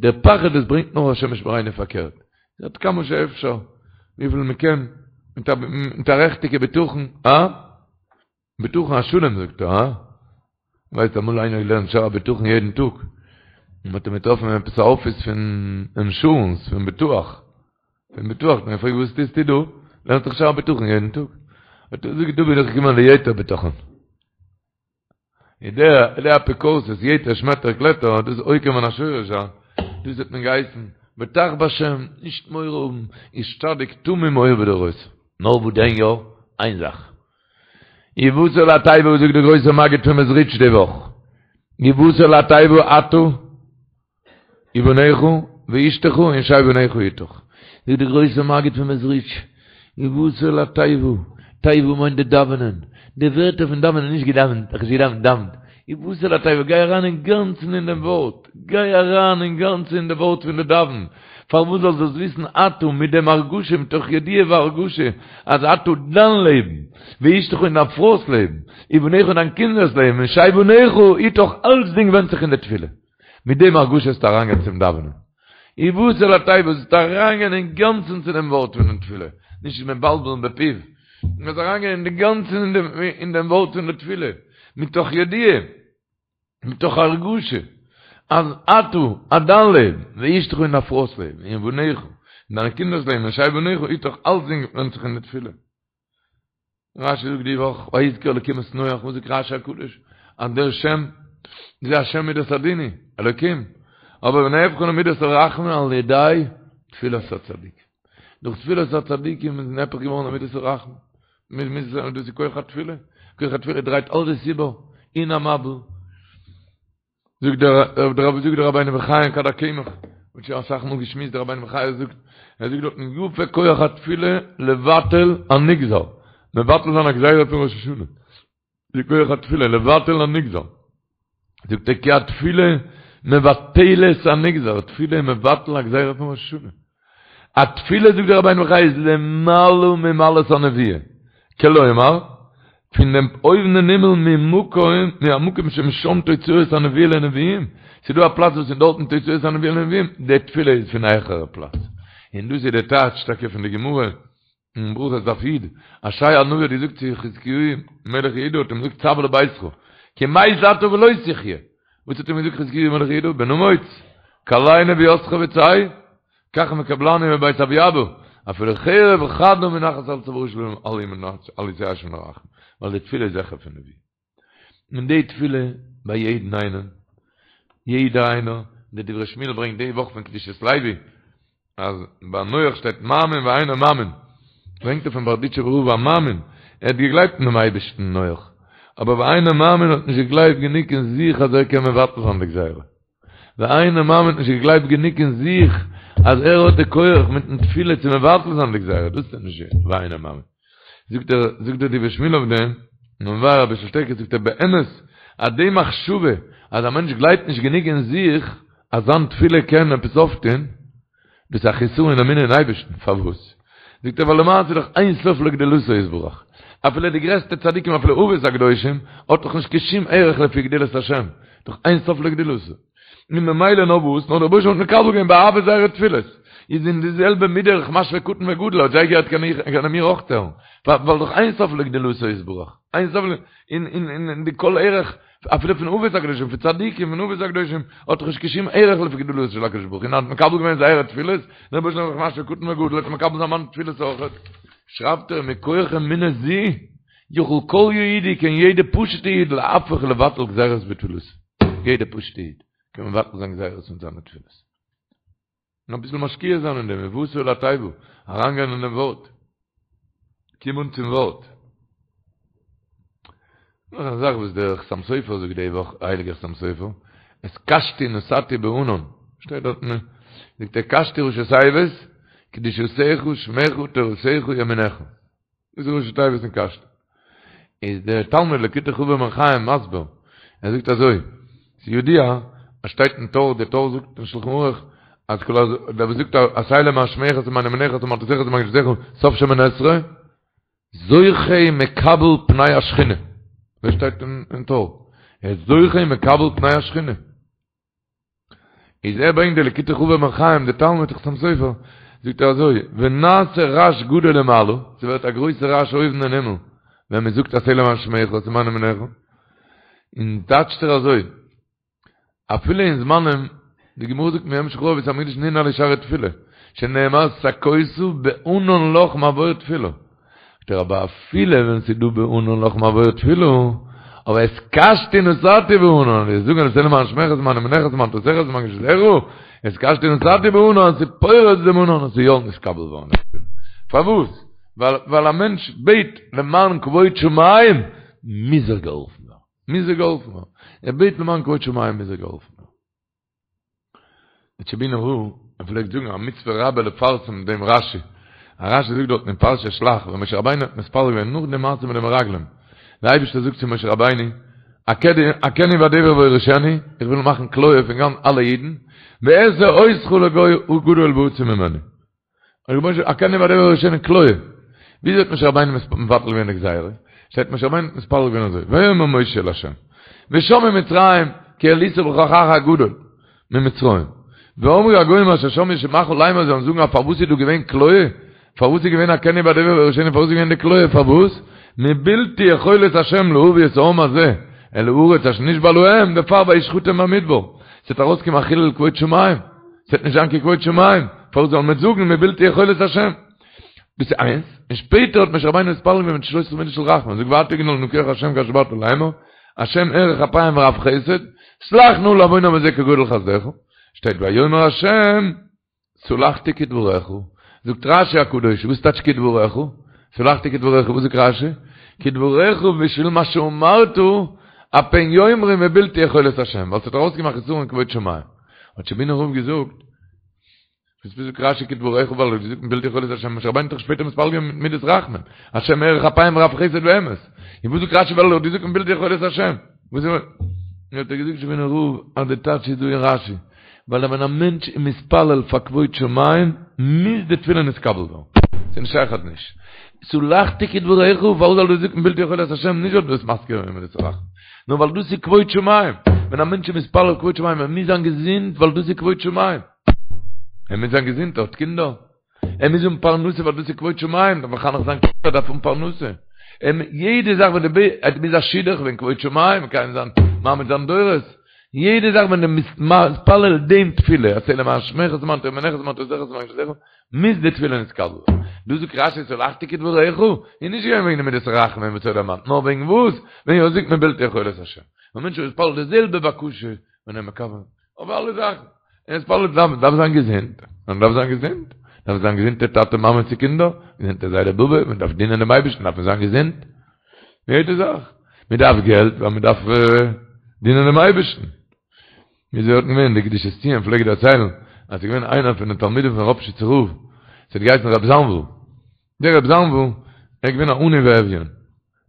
דער פחד דאס ברענגט נאר השם ישמרינו פארקערט. עד כמה שאפשר, וויפיל מען קען, מיט א רעכטיגע בטחון, אה? בטחון השלם זאגט ער, הא? ווייסט אמאל איינער געלערנט שער הבטחון יעדן טאג, און מ'האט אים געטראפן אין עפעס א אפיס פון אינשורענס, פון ביטוח, פון ביטוח, האט מען געפרעגט וואס טוסטו דא? לערנסט דאך שער הבטחון יעדן טאג. האט ער געזאגט דא בין איך געקומען ליתר בטחון. איז דער דער אפיקורסות, יתר שמעטער קלעטער, דאס איז עוקר מן השורש, הא? דאס האט מען געהייסן, בטח בשם, נישט מורא האבן, איש צדיק תמים היה בדורותיו. נאר וואס דען יא? איין זאך. ובאת אל התיבה וואס זאגט דער גרויסער מגיד פון מעזריטש די וואך? ובאת אל התיבה אתה? ובניך ואשתך ונשי בניך אתך. זאגט דער גרויסער מגיד פון מעזריטש, ובאת אל התיבה, תיבה מיינט די דאווענען, די ווערטער פון דאווענען, נישט געדאווענט, איך האב נישט געדאווענט, דאווענט, ובאת אל התיבה, גיי אריין אינגאנצן אין דעם ווארט, גיי אריין אינגאנצן אין די ווארט פון די דאווען, פארוואס זאלסט דאס וויסן אתה מיט דעם הרגשה מתוך ידיעה והרגשה אז אתה דיין לעבן, ואשתך און דיין פרוי'ס לעבן, ובניך און דיין קינדער'ס לעבן, ונשי בניך אתך אלצדינג ווענדט זיך אין די תפילה. מיט דעם הרגשה זאלסטו אריינגיין צום דאווענען. ובאת אל התיבה זאלסטו אריינגיין אינגאנצן צו דעם ווארט פונעם תפילה, נישט מבלבל בפיו, מ'זאל אריינגיין אינגאנצן אין דעם ווארט פון די תפילה, מתוך ידיעה, מתוך הרגשה, אז אתה, אז דיין לעבן, ואשתך און דיין פרוי'ס לעבן, ובניך, און דיינע קינדער'ס לעבן, ונשי בניך אתך, אלצדינג ווענדט זיך אין די תפילה. רשי זאגט די וואך, ויזכר אלקים את נח, וואס זאגט רשי הקדוש? אז דער שם זה השם מידת הדין הוא, אלקים, אבער ונהפכה למידת הרחמים על ידי תפילת הצדיק. דורך תפילת הצדיקים איז נהפך געווארן למידת הרחמים. דאס איז כח התפילה, כח התפילה דרייט אלעס איבער, אין א מבול. זאגט דער דער זאגט דער רבינו בחיי אין כד הקמח, מ'האט שוין אסאך מאל געשמועסט דער רבינו בחיי זאגט, ער זאגט דארטן יפה כח התפילה לבטל הנגזר, מבטל זיין א גזירה פון ראש השנה, די כח התפילה לבטל הנגזר, זאגט ער כי התפילה מבטלת הנגזר, תפילה איז מבטל א גזירה פון ראש השנה. א תפילה זאגט דער רבינו בחיי איז למעלה ממעלת הנבואה, כלומר, פון דעם אויבן אין הימל ממקום מהמקום שמשם תוצאות הנבואה לנביאים, ס'איז דא א פלאץ וואס איז דארטן תוצאות הנבואה לנביאים, די תפילה איז פון א העכערע פלאץ, און דאס איז די טייטש טאקע פון די גמרא אין ברכות דף י', אז ישעי' הנביא האט געזאגט צו חזקיהו מלך יהודה האט אים געזאגט צו לביתך, כי מת אתה ולא תחיה, וואס האט אים געזאגט חזקיהו מלך יהודה, בן אמוץ, כלה נבואתך וצא, כך מקובלני מבית אבי אבא, אפילו חרב חדה מונחת על צווארו של אל יתייאש מן הרחמים, ווייל די תפילה איז העכער פון נבואה. און די תפילה ביי יעדן איינעם, יעדער איינער, די דברי שמואל ברענגט די וואך פון קדושת לוי, אז ביי נח שטייט מאמין ואינו מאמין, ברענגט ער פון בארדיטשובער רב א מאמין, ער האט געגלייבט אין דעם אייבערשטן נח, אבער ואינו מאמין האט נישט געגלייבט גענוג אין זיך אז ער קען מבטל זיין די גזירה. ואינו מאמין האט נישט געגלייבט גענוג אין זיך אז ער האט די כח מיטן תפילה צו מבטל זיין די גזירה, דאס איז נישט ואינו מאמין. זאגט דער זאגט דער דברי שמואל אויף דעם, און מבאר אביסל שטערקער זאגט ער באמת אז די מחשבה אז א מענטש גלייבט נישט גענוג אין זיך אז זיין תפילה קען עפעס אויפטון, דאס איז א חסרון אין אמונה אין אייבערשטן, פארוואס? זאגט ער ווייל למעשה איז דאך אין סוף לגדולתו יתברך, אפילו די גרעסטע צדיקים אפילו אבות הקדושים האט דאך נישט קיין שום ערך לפי גדולת השם, דאך אין סוף לגדולתו, און ממילא נאר וואס? נאר דער רבוש"ע האט מקבל געווען באהבה זייערע תפילות, איז אין די זעלבע מידה איך משווה קטן וגדול, האט זיי געהערט קען איך קען ער מיר אויך הערן, ווייל דאך אין סוף לגדולתו יתברך, אין סוף אין אין אין די כל ערך אפילו פון אבות הקדושים, פון צדיקים, פון אבות הקדושים, האט דאך נישט קיין שום ערך לפי גדולתו של הקדוש ברוך הוא, און האט מקבל געווען זייערע תפילות, דער רבוש"ע איז דאך משווה קטן וגדול, וועט מקבל זיין מיינע תפילות אויך. שרייבט ער, מכח אמונה זו, יכול כל יהודי, קען יעדע פשוטע איד להפוך ולבטל גזירות בתפילתו. יעדע פשוטע איד קען מבטל זיין גזירות מיט זיינע תפילות. און אביסל משקיע זיין אין דעם, ובאת אל התיבה, אריינגיין אין דעם ווארט, קום אן צום ווארט. נאך א זאך וואס דער חתם סופר זאגט די וואך, הייליגער חתם סופר, את קשתי נתתי בענן, שטייט דארט, זאגט ער קשתי ראשי תיבות, קדושתך שמך תורתך ימינך. דאס איז ראשי תיבות פון קשתי. איז דער תלמיד ליקוטי חבר בן חיים מסביר, ער זאגט אזוי, ס'איז ידוע אז שטייט אין טור, דער טור זאגט אין שלחן ערוך, אז כל הז, דער וואס זאגט עשה למען שמך ולמען ימינך ולמען תורתך ולמען קדושתך, סוף שמונה עשרה, זוכה ומקבל פני השכינה. אזוי שטייט אין טור. ער איז זוכה ומקבל פני השכינה. איז ער ברענגט די ליקוטי חבר בן חיים די תלמיד חתם סופר זאגט ער אזוי ונעשה רעש גדול למעלה ס'ווערט א גרויסע רעש אויבן אין הימל ווען מען זאגט עשה למען שמך ולמען ימינך און טייטשט ער אזוי אפילו אין זמנים די גמרא זאגט מיום שחרב בית המקדש ננעלו שערי תפילה שנאמר סכותה בענן לך מעבור תפילה זאגט ער אבער אפילו ווען ס'איז דא בענן לך מעבור תפילה, אבער את קשתי נתתי בענן, ווי זאגן עשה למען שמך ולמען ימינך ולמען תורתך ולמען קדושתך, את קשתי נתתי בענן, ס'איז פורץ דעם ענן און ס'איז יא נתקבל געווארן. פארוואס? ווייל א מענטש בעט למען כבוד שמים, מוז ער געהאלפן ווערן. מוז ער געהאלפן ווערן. ער בעט למען כבוד שמים מוז ער געהאלפן ווערן. דער טשעבינער רב ער פלעגט זאגן א מצוה רבה לפרסם דעם רשי, א רשי זאגט דארטן אין פרשת שלח ווען משה רבינו האט מתפלל געווען נאך די מעשה מיט די מרגלים, דער אייבערשטער זאגט צו משה רבינו, אכנו בדבר ואורישנו, איך וויל מאכן כליה פון גאנץ אלע אידן, ואעשה אותך לגוי גדול ועצום ממנו. אכנו בדבר ואורישנו כליה. וויאזוי האט משה רבינו מבטל געווען די גזירה? שטייט משה רבינו האט מתפלל געווען אזוי, ויאמר משה אל ה', ושמעו מצרים כי העלית בכוחך הגדול ממצרים, ואמרו הגוים אשר שמעו שמעך לאמר זיי וועלן זאגן אז פארוואס איז דא געווען כליה? פארוואס איז געווען אכנו בדבר ואורישנו פארוואס איז געווען די כליה פארוואס? מבלתי יכולת ה' להביא את העם הזה אל הארץ אשר נשבע להם דערפאר וישחטם במדבר ס'וועט ארויסקומען א חילול כבוד שמים ס'וועט נישט זיין קיין כבוד שמים, פארוואס זאל מען זאגן מבלתי יכולת השם? דאס איז איינס, און שפעטער האט משה רבינו מתפלל געווען מיט שלש עשרה מידות של רחמים, זאגט ועתה יגדל נא כח השם כאשר דברת לאמר, השם ארך אפים ורב חסד, סלח נא לעון העם הזה כגודל חסדך, שטייט ויאמר השם סלחתי כדברך, זאגט רשי הקדוש, וואס טייטש כדברך? סלחתי כדברך, וואס זאגט רשי? כדברך בשביל מה שאמרת, הפן יאמרו מבלתי יכולת השם, ווייל ס'האט ארויסגעמאכט חסרון כבוד שמים. האט טשעבינער רב געזאגט, וואס זאגט רשי כדברך ווייל ער האט געזאגט מבלתי יכולת השם, משה רבינו האט דאך שפעטער מתפלל געווען מיט מידת רחמים, השם ארך אפים ורב חסד ואמת, און וואס זאגט רשי ווייל ער האט געזאגט מבלתי יכולת השם, וואס איז האט ער געזאגט טשעבינער רב אז די טייטש איז דא אין רשי, ווייל ווען א מענטש איז מתפלל פאר כבוד שמים, מוז די תפילה נתקבל ווערן, ס'איז נישט שייך אז נישט. סלחתי כדברך, פארוואס זאל דאס זאגן מבלתי יכולת השם, נישט ווייל דו ביסט מזכיר געווען מידת הרחמים. נאר ווייל דאס איז כבוד שמים, ווען א מענטש איז מתפלל כבוד שמים, ער מוז זיין געזונט ווייל דאס איז כבוד שמים, ער מוז זיין געזונט, ער האט קינדער, ער מוז האבן פרנסה ווייל דאס איז כבוד שמים, דארף מחנך זיין קינדער, דארף האבן פרנסה, יעדע זאך ווען די ער מוז א שידוך וועגן כבוד שמים, מקיים זיין מעמיד זיין דורות, יעדע זאך ווען דו ביסט מתפלל דעם תפילה, עשה למען שמך ולמען ימינך ולמען תורתך ולמען קדושתך, מוז די תפילה נתקבל ווערן. דא זאגט רשי סלחתי כדברך, איז נישט געווען וועגן די מידת רחמים וואס ער האט דערמאנט, נאר וועגן וואס? וועגן ער זאגט מבלתי יכולת השם. א מענטש איז מתפלל די זעלבע בקשה ווען ער מקבל אויף אלע זאכן. ער איז מתפלל דארף דארף זיין געזונט, מען דארף זיין געזונט, דארף זיין געזונטע טאטע מאמע צו קינדער, געזונטע זיידע באבע, מען דארף דינען דעם אייבערשטן דארף מען זיין געזונט. יעדע זאך. מען דארף געלט ווייל מען דארף דינען דעם אייבערשטן. ווי אזוי האט געווען די קדושת ציון פלעגט דערציילן אז ס'איז געווען איינער פון די תלמידים פון ראפשיצער רב, ס'האט געהייסן רב זאנוויל, דער רב זאנוויל ער איז געווען א עני ואביון,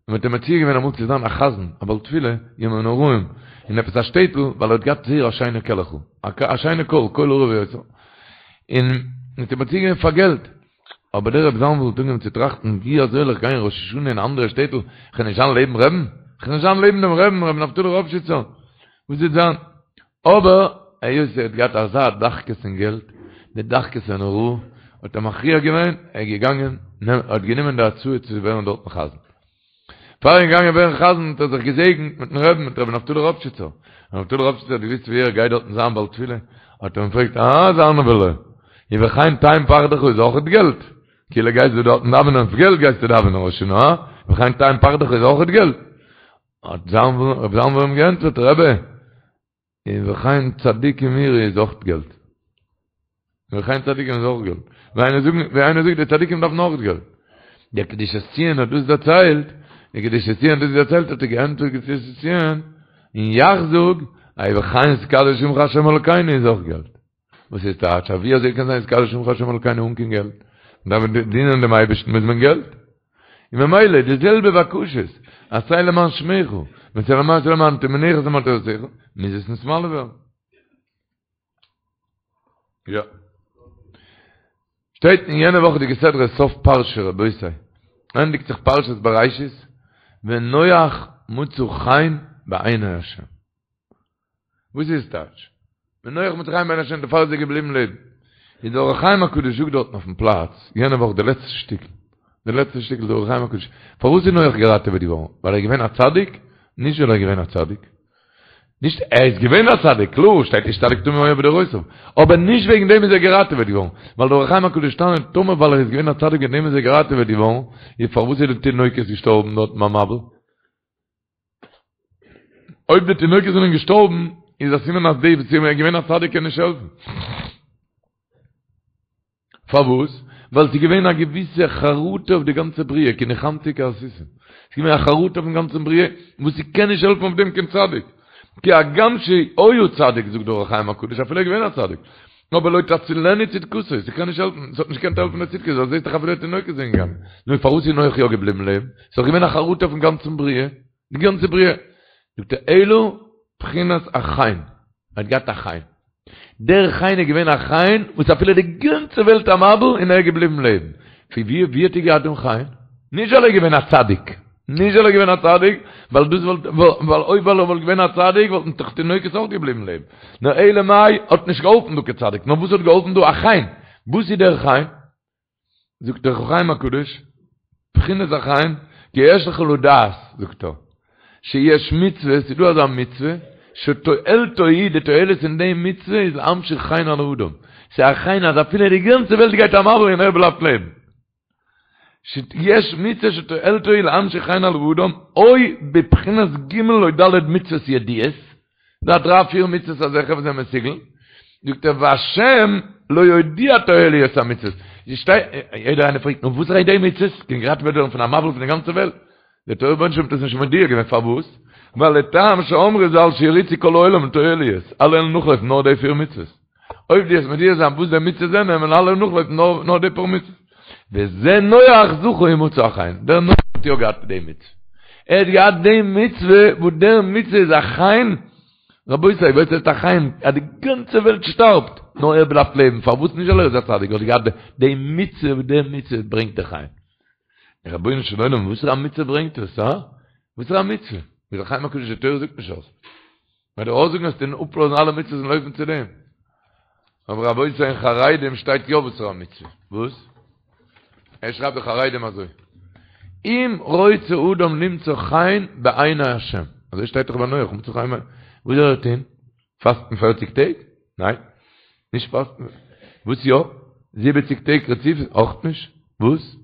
און מ'האט אים מציע געווען אמאל צו זיין א חזן, א בעל תפילה, ימים נוראים, אין עפעס א שטעטל, ווייל ער האט געהאט זייער א שיינע קעלעכל, א שיינע קול, קול ערב ויוצר, און מ'האט אים מציע געווען פאר געלט, אבער דער רב זאנוויל האט אנגעהויבן צו טראכטן, ווי אזוי זאל איך גיין ראש השנה אין א אנדערע שטעטל, איך וועל נישט זיין לעבן רעבן, איך וועל נישט זיין לעבן דעם רעבן, רבי נפתלי ראפשיצער, וואס וועט זיין? אבער היות ער האט געהאט אזא דחקות אין געלט, די דחקות אין הוראה, האט ער מכריע געווען, ער איז געגאנגען, ער האט גענומען די הצעה צו ווערן דארטן חזן. פאר ער איז געגאנגען ווערן חזן האט ער זיך געזעגנט מיטן רעבן, מיט רבי נפתלי ראפשיצער. רבי נפתלי ראפשיצער האט געוואוסט ווי ער גייט דארטן זיין בעל תפילה, האט ער אים געפרעגט, אה, זאנווילע, ובכן תן פחדך איז אויכעט געלט? כאילו גייסטו דארטן דאווענען אויף געלט גייסטו דאווענען ראש השנה, הא? ובכן תן פחדך איז אויכעט געלט? האט רב זאנוויל אים געענטפערט, רבי, ובכן צדיקים יראו איז אויך געלט. ובכן צדיקים איז אויך געלט. ווי איינער זאגט, ווי איינער זאגט, די צדיקים דארפן אויך געלט. דער קדושת ציון האט דאס דערציילט, דער קדושת ציון האט דאס דערציילט, האט ער געענטפערט קדושת ציון, און יאך זאג, ובכן יתקדש שמך השם אלקינו איז אויך געלט. וואס איז טייטש? ווי אזוי קען זיין יתקדש שמך השם אלקינו אן קיין געלט? מען דארף דינען דעם אייבערשטן מוז מען געלט. און ממילא די זעלבע בקשות, עשה למען שמך, ועשה למען למען ימינך ולמען תורתך, מוז עס נתמלא ווערן. יא. שטייט אין יענע וואכעדיגע סדרה סוף פרשה רבותי, ענדיגט זיך פרשת בראשית, ונח מצא חן בעיני השם. וואס איז טייטש? ונח מצא חן בעיני השם דערפאר איז ער געבליבן לעבן. איז דער אור החיים הקדוש זאגט דארטן אויפן פלאץ, יענע וואך די לעצטע שטיקל, די לעצטע שטיקל דער אור החיים הקדוש, פארוואס איז נח געראטעוועט געווארן? ווייל ער איז געווען א צדיק? נישט ווייל ער איז געווען א צדיק. נישט, ער איז געווען א צדיק, קלאר, שטייט איש צדיק תמים היה בדורותיו. אבער נישט וועגן דעם איז ער געראטעוועט געווארן. ווייל דער אור החיים הקדוש טענה'ט, טאמער ווייל ער איז געווען א צדיק וועגן דעם איז ער געראטעוועט געווארן, איז פארוואס איז די תינוקות געשטארבן דארטן ביים מבול? אויב די תינוקות זענען געשטארבן, איז א סימן אז די וואס איז געווען א צדיק קען נישט העלפן. פארוואס? ווייל ס'איז געווען א געוויסע חרטה אויף די גאנצע בריאה, כי נחמתי כי עשיתם. ס'איז געווען א חרטה אויפן גאנצן בריאה, וואס ס'קען נישט העלפן אויף דעם קיין צדיק. כי הגם שהיה צדיק, זאגט דער אור החיים הקדוש, אפילו ער איז געווען א צדיק. אבער לא תצילנו צדקתו, ס'קען נישט העלפן, ס'האט נישט געקענט העלפן די צדקות, ווייל זעסט דאך אפילו תינוקות זענען געגאנגען. נו פארוואס איז נח יא געבליבן לעבן? ס'איז דאך געווען א חרטה אויפן גאנצן בריאה, די גאנצע בריאה. זאגט ער אלא בחינת החן, ער האט געהאט א חן. דער חן איז געווען א חן וואס אפילו די גאנצע וועלט א מבול און ער איז געבליבן לעבן. פון ווי ווי האט ער געהאט דעם חן? נישט ווייל ער איז געווען א צדיק, נישט ווייל ער איז געווען א צדיק, ווייל דאס וואלט ווייל אויב ווייל ער וואלט געווען א צדיק וואלטן דאך תינוקות אויך געבליבן לעבן. נאר אלא מאי האט נישט געהאלפן דא קיין צדיק, נאר וואס האט געהאלפן דא? א חן. וואס איז דער חן? זאגט דער אור החיים הקדוש, בחינת החן, כי יש לך לדעת, זאגט ער, שיש מצוה, ס'איז דא אזא מצוה, שתועלתו היא, די תועלת אין די מצוה איז להמשיך חן על האדם, ס'איז א חן אז אפילו די גאנצע וועלט גייט א מבול און ער בלייבט לעבן. שיש מצוה שתועלתו היא להמשיך חן על האדם, או בבחינת ג' או ד' מצוות ידועות, דא דריי פיר מצוות אזעלכע וואס זענען מסוגל, זאגט ער והשם לא הודיע תועליות המצוות, יעדער איינער פרעגט נו וואס איז די מצוות, קען געראטעוועט ווערן פון א מבול פון די גאנצע וועלט, דער רבונו של עולם האט עס נישט מודיע געווען פארוואס? ווייל לטעם שאמרו ז"ל שירוצו כל העולם לתועליות, אלע וועלן נאכלויפן נאר די פיר מצוות, אויב דו וועסט מודיע זיין וואס די מצוות זענען וועלן אלע נאכלויפן נאר די פאר מצוות. וזה נח זכה ומצא חן, דער נח האט יא געהאט די מצוה, ער האט געהאט די מצוה וואס דער מצוה איז א חן, רבותי וואס הייסט א חן? אז די גאנצע וועלט שטארבט נאר ער בלייבט לעבן, פארוואס נישט ווייל ער איז א צדיק, ער האט געהאט די מצוה וואס די מצוה ברענגט די חן. רבונו של עולם וואסערע א מצוה ברענגט עס, הא? וואסערע א מצוה? ווי דער אור החיים הקדוש די תורה זאגט נישט אויס. ווען דו אויסזאגן וועסטו אפלאזן אלע מצוות און לויפן צו דעם. אבער רבותי אין חרדים שטייט יא וואסערע א מצוה. וואס? ער שרייבט די חרדים אזוי. אם רוצה אדם למצוא חן בעיני השם. אזוי שטייט דאך ביי נח, מצא חן בעיני. וואס זאל ער טון? פאסטן פערציג טעג? ניין. נישט פאסטן. וואס יא? זיבעציג טעג רציף? אויך נישט. וואס?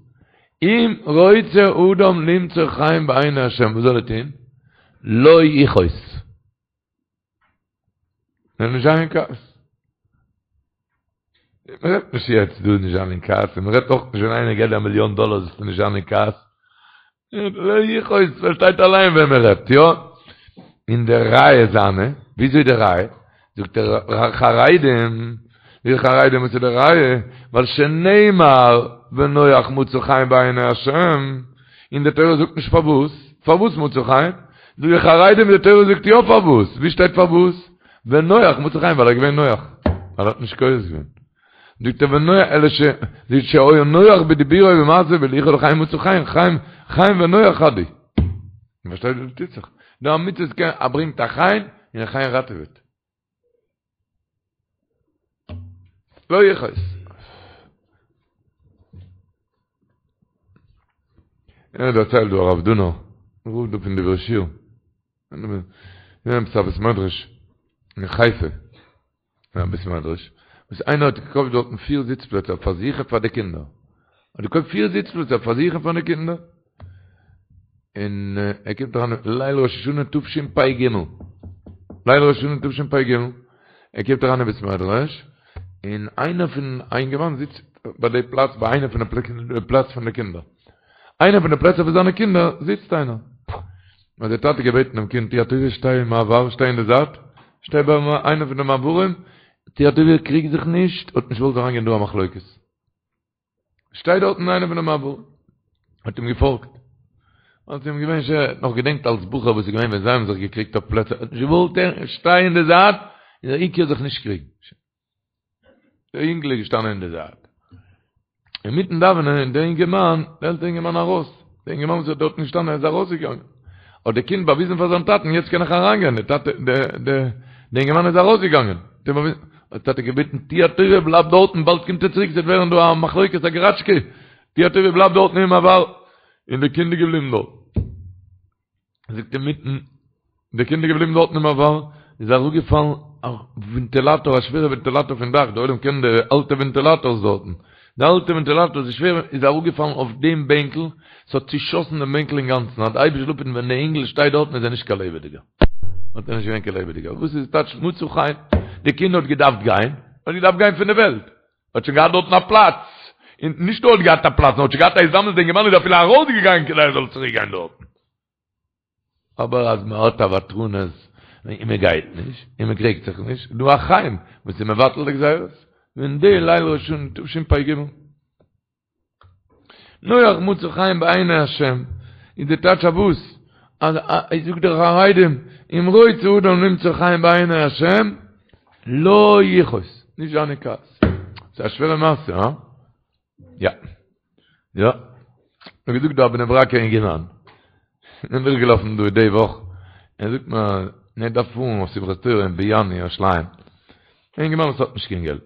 אם רוצה אדם למצוא חן בעיני השם, וואס זאל ער טון? לא יכעוס. זאל נישט זיין אין כעס. מען רעדט נישט יעצט דא נישט זיין אין כעס, און מען רעדט אויך נישט ווען איינער געבט דיר א מיליאן דאלער זאלסטו נישט זיין אין כעס. לא יכעוס, פארשטייט אליין ווען מען רעדט, יא? און די ראיה זיינע, וויאזוי די ראיה? זאגט ער חרדים, די חרדים וואס איז די ראיה? ווייל שנאמר ונח מצא חן בעיני השם, און די תורה זאגט נישט פארוואס, פארוואס מצא חן? זאגט די חרדים די תורה זאגט יא פארוואס, ווי שטייט פארוואס? ונח מצא חן ווייל ער איז געווען נח, ווייל ער האט נישט כועס געווען. זאגט ער ונח אלא ש זאגט שהיה נוח בדיבורו ובמעשהו והוליכו לחיים מצא חן, חן, חן ונוח חד הוא. פארשטייט וואס טוט זיך? דא א מצוה קען א ברענגט א חן און א חן ראטעוועט. לא יכעוס. ער דערציילט דא הרב דונא, רב דא פון דברי שיר. אין עפעס א בית מדרש אין חיפה. אין א בית מדרש, וואס איינער האט געקויפט דארטן פיר זיץ פלעצער פאר זיך און פאר די קינדער. האט געקויפט פיר זיץ פלעצער פאר זיך און פאר די קינדער. און ער קומט אריין ליל ראש השנה תשפ"ג. ליל ראש השנה תשפ"ג. ער קומט אריין אין בית מדרש, און איינער פון א אינגערמאן זיצט ביי די פלאץ ביי איינע פון די פלאץ פון די קינדער. איינע פון די פלעצער פון זיינע קינדער זיצט איינער. האט דער טאטע געבעטן דעם קינד, טו א טובה שטיי אין מעבר, שטיי אין די זייט, שטיי ביי איינע פון די מעברים, טו א טובה קריג זיך נישט, האט נישט געוואלט אריינגיין דא א מחלוקת. שטיי דארט אין איינע פון די מעברים. האט אים געפאלגט. האט אים געווען שווער, ער האט נאך געדענקט אלס בחור וואס איז געווען ווען זיי האבן זיך געקריגט אויף פלעצער, ער האט נישט געוואלט הערן, שטיי אין די זייט, און דער עיקר זיך נישט קריגן. דער אינגל איז געשטאנען אין די זייט. אינמיטן דאווענען איז דער אינגערמאן, דער עלטערע אינגערמאן ארויס. דער אינגערמאן וואס איז דארטן געשטאנען איז ארויסגעגאנגען. האט דער קינד באוויזן פאר זיין טאטן, יעצט קען איך אריינגיין, דער טאטע, דער, דער, דער אינגערמאן איז ארויסגעגאנגען. האט אים באוויזן, האט דער טאטע געבעטן, טו א טובה, בלייב דארטן, באלד קומט ער צוריק, ס'וועט ווערן דא א מחלוקת, א געראטשקע. טו א טובה, בלייב דארטן אין מעבר. און דער קינד איז געבליבן דארט. זאגט אינמיטן, די קינד איז געבליבן דארטן אין מעבר, איז אראפגעפאלן א ווענטילאטאר, א שווערע ווענטילאטאר פון דאך, די עולם קען די אלטע ווענטילאטארס דארטן, די אלטע ווענטילאטאר איז שווער, איז אראפגעפאלן אויף דעם בענקל, ס'האט צושאסן דעם בענקל אינגאנצן, אז די אייבערשטער זאל אפהיטן ווען די אינגל שטייט דארטן איז ער נישט קיין לעבעדיגער, האט ער נישט געווען קיין לעבעדיגער, וואס איז טייטש מצא חן? די קינד האט געדארפט גיין, האט געדארפט גיין פון די וועלט, האט שוין געהאט דארטן א פלאץ, און נישט נאר האט געהאט א פלאץ, נאר האט שוין געהאט א הזדמנות, די אינגערמאן איז אפילו ארויסגעגאנגען כדי ער זאל צוריק גיין דארטן. אבער אז מען האט א ותרנות, און מען גייט נישט, און מען קריגט זיך נישט, איז דא א חן וואס איז מבטל די גזירות. ווען די ליל ראש השנה תשפ"ג. נח מצא חן בעיני השם, איז די טייטש אויף וואס? אז זאגט דער חרדים, אם רוצה אדם למצוא חן בעיני השם, לא יכעוס, נישט זיין אין כעס. ס'איז א שווערע מעשה, הא? יא. יא. מיר געזאגט דא א בני ברק'ער אינגערמאן. איז דורכגעלאפן דא די וואך. ער זאגט מיר, ער דארף פארן אויף שמחת תורה אין באיאן ירושלים. א אינגערמאן וואס האט נישט קיין געלט.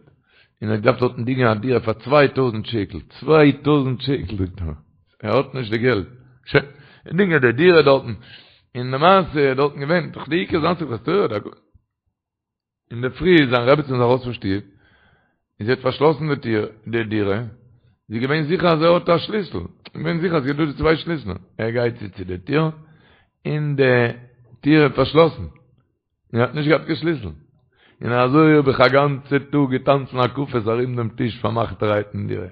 און ער האט געדארפט דארטן דינגען א דירה פאר 2000 שקל. 2000 שקל זאגט ער. ער האט נישט די געלט. שוין. ער דינגען די דירה דארטן. און למעשה איז דארטן געווען, דאך די עיקר זיין שמחת תורה. אינדערפרי איז זיין רעבעצין איז ארויס פון שטוב, און זי האט פארשלאסן די טיר, די דירה, זי איז געווען זיכער אז ער האט א שליסל, געווען זיכער אז ס'איז דא די צוויי שליסלען, ער גייט צו צו די טיר, און די טיר איז פארשלאסן, און ער האט נישט געהאט קיין שליסל, און אזוי האב איך א גאנצע טאג געטאנצן הקפות ארום דעם טיש פארמאכטערהייט אין דירה.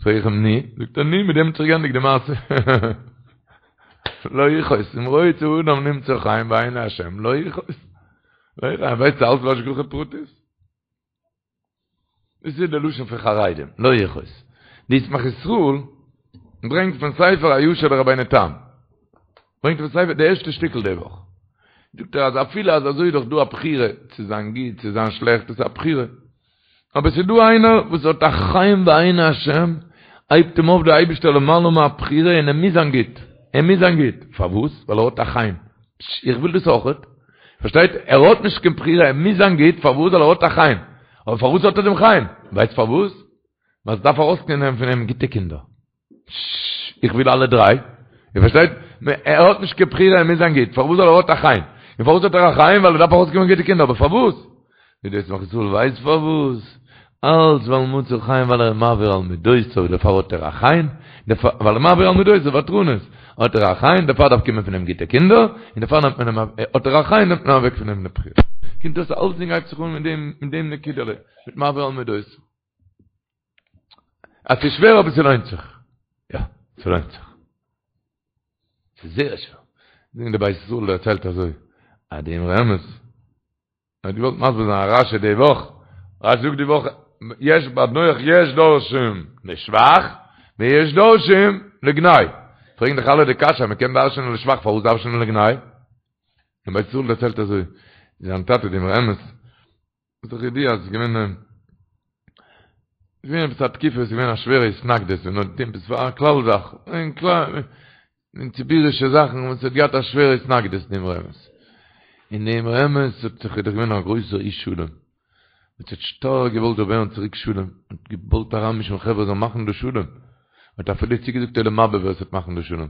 פרעג איך אים ני? זאגט ער ני, מיט דעם האט זיך געענדיגט די מעשה. לא יכעוס, אם רוצה אדם למצוא חן בעיני השם, לא יכעוס. לא יכעוס, ווייסט אלץ בהשגחה פרטית? דאס איז די לשון פון חרדים, לא יכעוס. די ישמח ישראל ברענגט פון ספר הישר לרבינו תם. ברענגט פון ספר די ערשטע שטיקל די וואך. זאגט ער אז אפילו אז אזוי איז דאך דא א בחירה צו זיין גוט צו זיין שלעכט, דאס איז א בחירה. אבער ס'איז דא איינער וואס האט א חן בעיני השם, הייבט אים אויף דער אייבערשטער למעלה מהבחירה און ער מוז זיין גוט, ער מוז זיין גוט, פארוואס? ווייל ער האט א חן, פשש, איך וויל דאס אויכעט, פארשטייט? ער האט נישט קיין בחירה, ער מוז זיין גוט, פארוואס? ווייל ער האט א חן, אבער פארוואס האט ער דעם חן? ווייסט פארוואס? ווייל ס'דארף ארויסקומען פון אים גוטע קינדער. איך וויל אלע דריי. איר פארשטייט? ער האט נישט קיין בחירה, ער מוז זיין גוט. פארוואס? ווייל ער האט א חן. און פארוואס האט ער א חן? ווייל ער דארף ארויסקומען גוטע קינדער. אבער פארוואס? ווי דער ישמח ישראל ווייסט פארוואס? אלץ ווייל מצא חן ווייל ער איז מעביר על מידותיו, דערפאר האט ער א חן, ווייל ער איז מעביר על מידותיו, ותרנות, האט ער א חן, דערפאר דארף קומען פון אים גוטע קינדער, און דערפאר נעמט מען אים, האט ער א חן נעמט מען אוועק פון אים די בחירה. קומט אויס אלצדינג הייבט זיך אן מיט דעם, מיט דעם נקודה'לע, מיט מעביר על מידותיו. אז ס'איז שווער אבער ס'לוינט זיך. יא, ס'לוינט זיך. ס'איז זייער שווער. זאגן די בית ישראל דערציילט אזוי, אז די אמרי אמת האט געוואלט מסביר זיין א רשי די וואך, רשי זאגט די וואך, יש ביי נח יש דורשים לשבח ויש דורשים לגנאי. פרעגן דאך אלע די קשיא, מ'קען דרש'נען לשבח, פארוואס דרש'נען לגנאי? די בית ישראל דערציילט אזוי, זיין טאטע די אמרי אמת, איז דאך ידוע אז עס איז געווען עס איז געווען עפעס א תקופה עס איז געווען א שווערע התנגדות און האט געטון עפעס פאר א כלל זאך אין כלל אין ציבור'ישע זאכן וואס האט געהאט א שווערע התנגדות די אמרי אמת און די אמרי אמת האט זיך איז דאך געווען א גרויסער איש שלום וואס האט שטארק געוואלט זאל ווערן צוריק שלום האט געוואלט אריינמישן חברה זאלן מאכן דא שלום האט אפילו צוגעזאגט עולם הבא ווער עס וועט מאכן דא שלום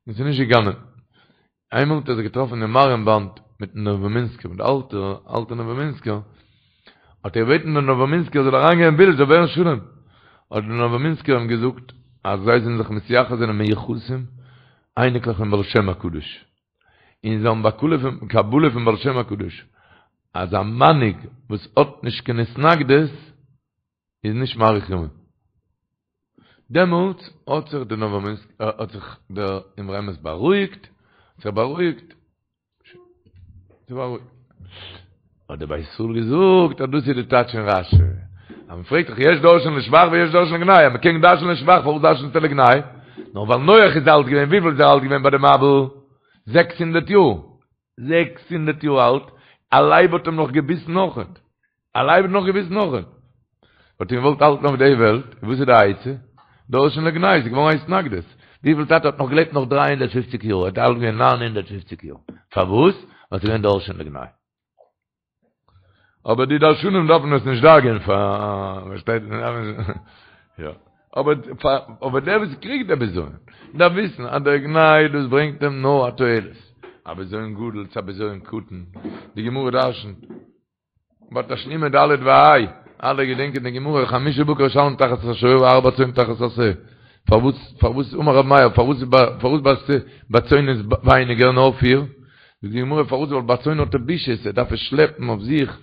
און ס'איז נישט געגאנגען איינמאל האט ער זיך געטראפן אין מאריענבאד מיטן נאוואמינסקער, מיט די אלטע, אלטע נאוואמינסקער, האט ער געבעטן דעם נאוואמינסקער זאל אריינגיין אין בילד, זאל ווערן שלום. האט דער נאוואמינסקער אים געזאגט אז זיי זענען זיך מתייחס זענען מיוחסים, אייניקלעך פון בעל שם הקדוש, און זיי האבן בקבלה פון, קבלה פון בעל שם הקדוש, אז א מנהיג וואס האט נישט קיין התנגדות, איז נישט מאריך ימים. דעמאלטס האט זיך דער נאוואמינסק האט זיך דער אמרי אמת בארואיגט, האט זיך בארואיגט, זיך בארואיגט. האט דער בית ישראל געזאגט אז דאס איז די טייטש אין רשי. אז מען פרעגט דאך יש דורשין לשבח ויש דורשין לגנאי, אז מען קען דרש'ן לשבח פארוואס דרש'נסטו לגנאי? נאר ווייל נח איז אלט געווען, וויפיל איז ער אלט געווען ביי די מבול? זעקס הונדערט יאר. 600 יאר אלט, א לייב האט אים נאך געביסן אויכעט. א לייב האט נאך געביסן אויכעט. האט אים געוואלט האלטן אויף די וועלט, וואס איז די עצה? דורשין לגנאי, ס'איז געווארן א התנגדות. וויפיל טאטע האט נאך געלעבט נאך 350 יאר, ער האט אלט געווען 950 יאר. פארוואס? ווייל ס'איז געווען דורשין לגנאי. אבער די דרשנים דארפן עס נישט דאגה'ן פאר, פארשטייט יא. אבער אבער דער וואס קריגט די בזיון דארף וויסן אז דער גנאי דאס ברענגט אים נאר א תועלת, א בזיון גדול צו א בזיון קטן, די גמרא דרשנ'ט ביי תשלומי ד' וה', אלע געדענקען די גמרא חמשה בקר ישלם תחת השור וארבע צאן תחת השה, פארוואס פארוואס אמר רב מאיר פארוואס פארוואס ביי ביי צאן איז ווייניגער נאר פיר, זאגט די גמרא פארוואס ווייל ביי צאן האט ער בושות ער דארף עס שלעפן אויף זיך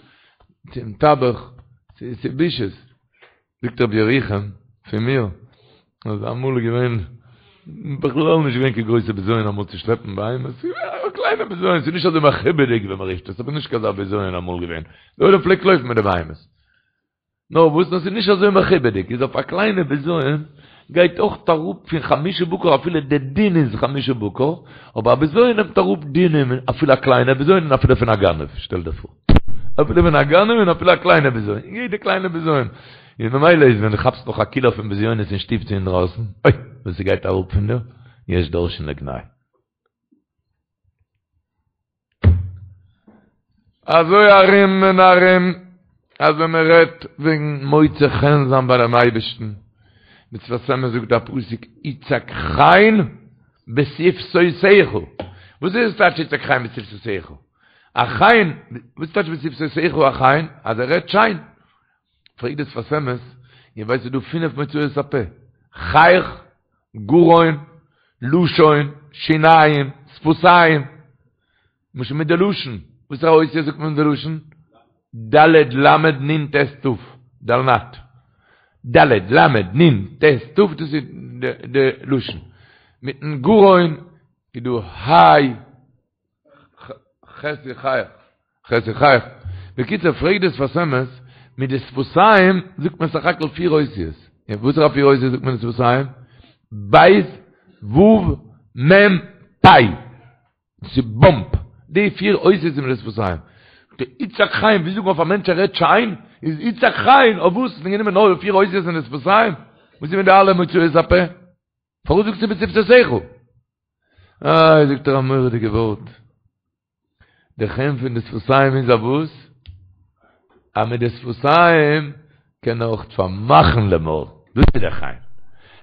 צום טבח, ס'איז בושות. זאגט רבי ירוחם פון מיר אז אמאל איז געווען בכלל נישט געווען קיין גרויסע בזיון אמאל צו שלעפן בהמות, א קליינע בזיון, ס'איז נישט אזוי מכובד'יג ווי מ'רופט עס, אבער נישט קיין אזא בזיון אמאל געווען, די עולם פלעגט לויפן מיט די בהמות. נאר וואס נאר ס'איז נישט אזוי מכובד'יג, איז אויף א קליינע בזיון גייט אויך אראפ פון חמשה בקר אפילו די דין איז חמשה בקר, אבער א בזיון נעמט אראפ דינים אפילו א קליינע בזיון און אפילו פון א גנב, שטעל דיר פאר. אפילו פון א גנב און אפילו א קליינע בזיון, יעדע קליינע בזיון. און ממילא איז ווען דו כאפסט נאך א קילא פון בזיונות אין שטוב צו אינדרויסן, אוי וואס ס'גייט אראפ פון דיר, יש דורשין לגנאי. אזוי ארום און ארום, אז ווען מען רעדט וועגן מוצא חן זיין ביי דעם אייבערשטן, דער שפת אמת זאגט א פסוק יצעק חן בשפתותיך, וואס איז עס טייטש יצעק חן בשפתותיך? א חן, וואס טייטש בשפתותיך א חן? אז ער רעדט שיין. פרעגט דער שפת אמת, איר ווייסט ס'איז דא פינף מוצאות הפה, חיך, גרון, לשון, שיניים, שפתיים, למשל מיט די לשון, וואסערע אותיות זאגט מען מיט די לשון? ד' ל' נ' ט' ת', דלנ"ת. ד' ל' נ' ט' ת', דאס איז די לשון. מיטן גרון איז דא ה', ח' איז חיך, ח' איז חיך. בקיצור, פרעגט די שפת אמת, מיט די שפתיים זאגט מען סך הכל פיר אותיות. און וואסערע פיר אותיות זאגט מען מיט די שפתיים? ב' ו' מ' פ'. דאס איז באמפ. די פיר אותיות איז מיט די שפתיים. די יצעק חן, ווי זאגט מען אויף א מענטש ער רעדט שיין? איז יצעק חן, אויף וואס? האט מען גענומען נאר די פיר אותיות אין די שפתיים? וואס איז מיט די אלע מוצאות הפה? פארוואס זאגסטו בשפתותיך? איי, זאגט ער א מורא'דיגע ווארט. די חן פון די שפתיים איז א וואס? אז מיט די שפתיים קען ער אויך פארמאכן די מויל. דאס איז די חן.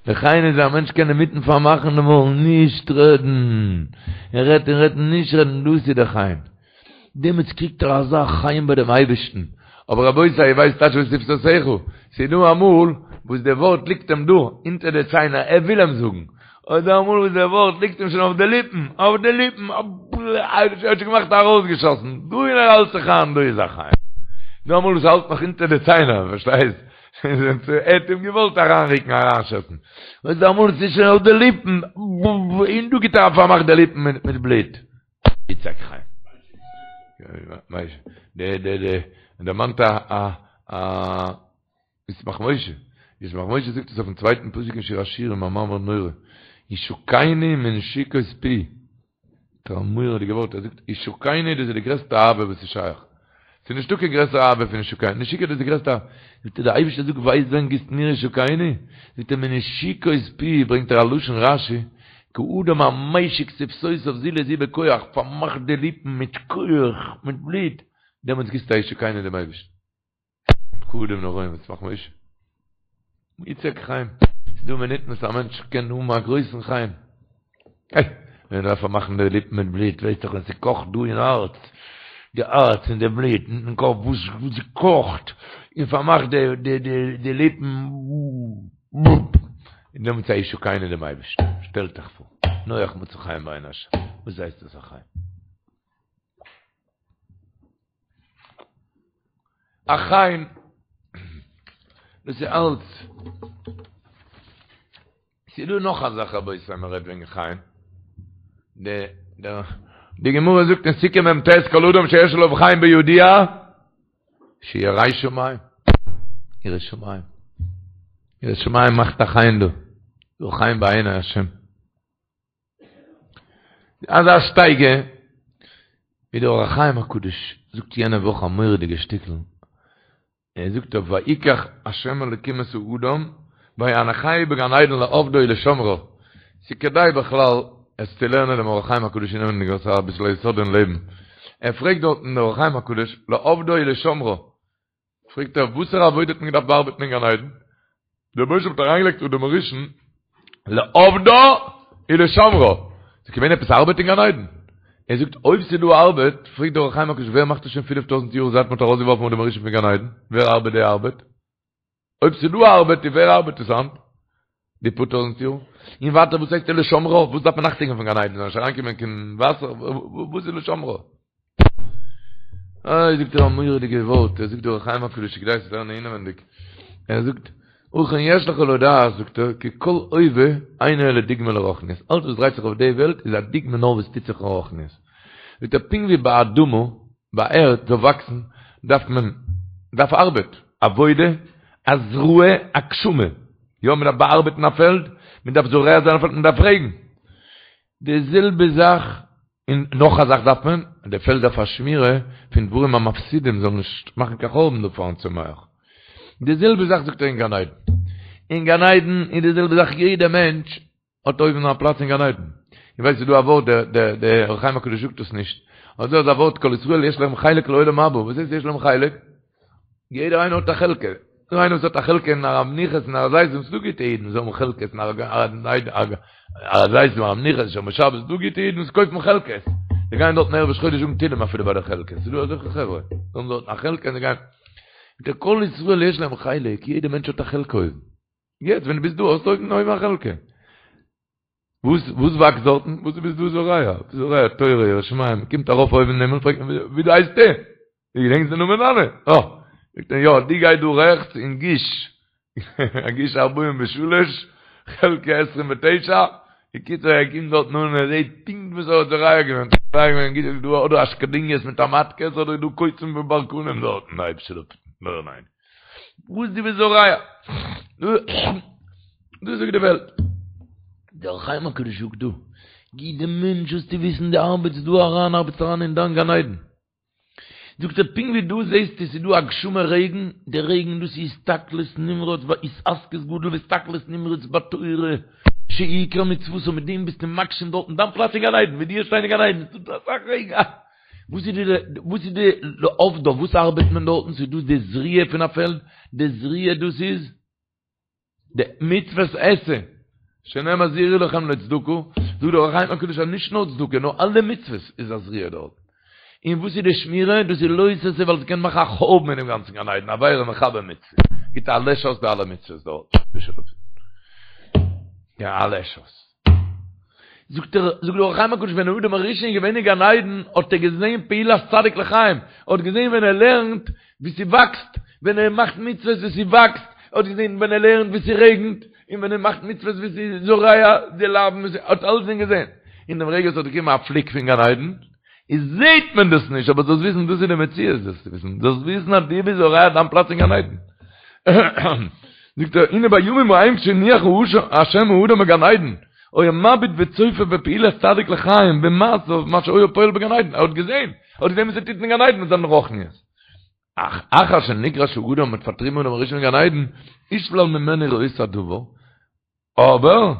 די חן איז א מענטש קען אינמיטן פארמאכן די מויל, נישט רעדן. ער רעדט און רעדט נישט רעדן, דאס איז די חן. דעמאלטס קריגט ער אזא חן ביי דעם אייבערשטן. אבער רבותי, איר ווייסט טייטש בשפתותיך? ס'איז דא אמאל וואס די ווארט ליגט אים דא, אונטער די ציינער, ער וויל אים זאגן. און דא אמאל וואס די ווארט ליגט אים שוין אויף די ליפן, אויף די ליפן, ער האט שוין געמאכט ארויסגעשאסן, דא און ער האלט זיך איין, דא איז א חן. דא אמאל וואס האלט נאך אונטער די ציינער, פארשטייסט? ער האט אים געוואלט אריינרוקן, אריינשאסן. און דא אמאל ס'איז שוין אויף די ליפן, און דא גיבט ער א פארמאך די ליפן מיט בלוט. יצעק חן. די די די דערמאנט א א א ישמח משה, ישמח משה זאגט עס אויפן צווייטן פסוק אין שיר השירים א מאמר נורא, ישקני מנשיקות פי, א מורא'דיגע ווארט, ער זאגט ישקני דאס איז די גרעסטע אהבה וואס איז שייך, ס'איז נישטא קיין גרעסערע אהבה פון ישקני, נשיקה דאס איז די גרעסטע אהבה, זאגט ער דער אייבערשטער זאגט ווייסט ווען גיבסט מיר ישקני? זאגט ער מנשיקות פי, ברענגט ער א לשון רשי, כאדם המשיק שפתותיו זו לזו בכח, פארמאכט די ליפן מיט כח, מיט בלוט, דעמאלטס גיבסטו א ישקני דעם אייבערשטן. פקודים נוראים ישמח משה. יצעק חן. ס'איז דא מינוטן וואס א מענטש קען האבן א גרויסן חן. איי, ווען מ'דארף פארמאכן די ליפן מיט בלוט, ווייסט דאך ווען ס'קאכט דא אין הארץ, די הארץ און די בלוט און קאפ וואס ס'קאכט, און פארמאכט די די די די ליפן, און דעמאלטס א ישקני דעם אייבערשטן. שטעלט אייך פאר, נח מצא חן בעיני השם. וואס הייסט דאס א חן? א חן, דאס איז אלץ. ס'איז דא נאך א זאך רבותי מען רעדט וועגן חן. די די גמרא זאגט אין סוכה מ"ט כל אדם שיש עליו חן בידוע שירא שמים. ירא שמים. ירא שמים מאכט א חן דא. דא חן בעיני השם. אזא שטייגער ווי דער אור החיים הקדוש זאגט יענע וואך א מורא'דיגע שטיקל, ער זאגט אויף ויקח ה' אלקים את האדם ויניחהו בגן עדן לעבדה ולשמרה, ס'איז כדאי בכלל עס צו לערנען דעם אור החיים הקדוש אינעווייניג ס'איז אביסל א יסוד אין לעבן, ער פרעגט דארטן דער אור החיים הקדוש לעבדה ולשמרה, פרעגט ער, וואסערע עבודה האט מען געדארפט באארבעטן אין גן עדן? דער רבוש"ע האט אריינגעלייגט אדם הראשון לעבדה ולשמרה. ס'איז געווען עפעס ארבעט אין גן עדן? ער זאגט, אויב ס'איז דא ארבעט, פרעגט דער אור החיים הקדוש, ווער מאכט עס שוין פינף טויזנט יאר זייט מ'האט ארויסגעווארפן אדם הראשון פון גן עדן? ווער ארבעט די ארבעט? אויב ס'איז דא ארבעט, איז ווער ארבעט עס היינט? די פאר טויזנט יאר? און ווייטער וואס הייסט ולשמרה? וואס דארף מען אכטונג געבן פון גן עדן? זאל נישט אריינקומען קיין וואסער? וואס איז ולשמרה? איי זאגט ער א מורא'דיגע ווארט, ער זאגט דער אור החיים הקדוש כדאי צו לערנען אינעווענדיג, ער זאגט, ובכן יש לך לדעת, זאגט ער, כי כל הווה אינו אלא דוגמא לרוחניות, אלץ וואס דרייט זיך אויף די וועלט איז א דוגמא נאר וואס טוט זיך אין רוחניות. זאגט ער, פונקט ווי ביי אדמה, ביי ערד זאל וואקסן, דארף מען, דארף ארבעט. עבודה, הזרעה, הגשמה. יא, מען דארף באארבעטן א פעלד, מען דארף זורע זיין א פעלד, מען דארף רעגן. די זעלבע זאך, און נאך א זאך דארף מען, די פעלד דארף א שמירה פון דברים המפסידים זאלן נישט מאכן קיין חורבן דא פארן צומח. די זעלבע זאך זאגט ער אין גן עדן. אין גן עדן איז די זעלבע זאך יעדע מענטש האט אויבן א פלאץ אין גן עדן. איך ווייס ס'איז דא א ווארט, דער דער דער אור החיים הקדוש זאגט עס נישט, אבער דא איז א ווארט כל ישראל יש להם חלק לעולם הבא, וואס הייסט יש להם חלק? יעדער איינער האט א חלקה. דא איינער וואס האט א חלקה אין הר המנוחות אין הר הזיתים, ס'דא גוטע אידן וואס האבן חלקות אין הר הזיתים, הר המנוחות, שומרי שבת, ס'דא גוטע אידן וואס קויפן חלקות. זיי גייען דארטן ערב ראש חודש זאגן תהילים אפילו ביי די חלקות. ס'דא אזעלכע חברה. זיי האבן דארטן א חלקה און זיי גייען. כל ישראל יש להם חלק, יעדער מענטש האט א חלקה אויבן. יעצט ווען דו ביסט דא האסטו אויבן אויבן א חלקה. וואס וואס וואקסט דארטן? וואס דו ביסט דא זורע? זורע תורה יראת שמים, מ'קומט ארויף אויבן אין הימל פרעגט מען ווי דו הייסט דו? דו געדענקסט די נאמען דיינע? אה! זאגט ער יא, דו גיי דא רעכטס אין גוש, גוש ארבעים ושלש, חלקה עשרים ותשע, בקיצור ער קומט דארטן אן און ער זעט פונקט וואס ער האט זורע געווען, זורע געווען גוט איז דא אדער אשקדוניות מיט א מאטקעס אדער איז דא קוצים וברקנים דארטן, אייבערשטער זאל אפהיטן. וואס דו ביסט זורע? דאס זאגט די וועלט. דער אור החיים הקדוש זאגט דא, יעדע מענטש זאלסטו וויסן דו ארבעטסט דא אריין, ארבעטסט אריין אין דיין גן עדן. זאגט ער, פונקט ווי דא זעסטו ס'איז דא הגשמה רעגן, די רעגן דאס איז הסתכלות נמרץ והתעסקות גדול והסתכלות נמרץ בתורה, שעיקר מצוות, מיט דעם ביסטו מגשים דארטן דיין פלאץ אין גן עדן, ווי דו שטיין אין גן עדן, ס'איז דא אסאך רעגן, וואס איז די וואס איז די לעבדה וואס ארבעט מען דארטן ס'איז דא די זריעה פון א פעלד די זריעה דאס איז די מצוות עשה שנאמר זרעו לכם לצדקה זאגט דער אור החיים הקדוש אז נישט נאר צדקה נאר אלע מצוות איז א זריעה דארט און וואס איז די שמירה דאס איז לא תעשה ווייל ס'קען מאכן א חורבן אינעם גאנצן גן עדן עבירה מכבה מצוה גיט א לעש אויס די אלע מצוות דארט יא א לעש אויס זאגט ער, זאגט דער אור החיים הקדוש ווען אדם הראשון איז געווען אין גן עדן האט ער געזען פעולת צדיק לחיים, ער האט געזען ווען ער לערנט ווי ס'וואקסט, ווען ער מאכט מצוות ווי ס'וואקסט, ער האט געזען ווען ער לערנט ווי ס'רעגנט, און ווען ער מאכט מצוות ווי ס'איז זורע די לאוין, ער האט אלצדינג געזען. אין דעם רגע ס'האט געקומען א פליק פון גן עדן, איז זעט מען דאס נישט, אבער זאלסט וויסן דאס איז די מציאות, זאלסט וויסן, זאלסט וויסן אז דו ביסט זורע דיין פלאץ אין גן עדן. זאגט ער, הנה בימים ההם כשהניח השם האדם בגן עדן, היה מביט וצופה בפעולת צדיק לחיים במעשיו מה שהיה פועל בגן עדן, ער האט געזען, ער האט געזען וואס ער טוט אין גן עדן מיט זיין רוחניות. אך אחר שנגרש האדם מ'האט פארטריבן אדם הראשון מגן עדן, הושלל ממנו ראות הדבר, אבער,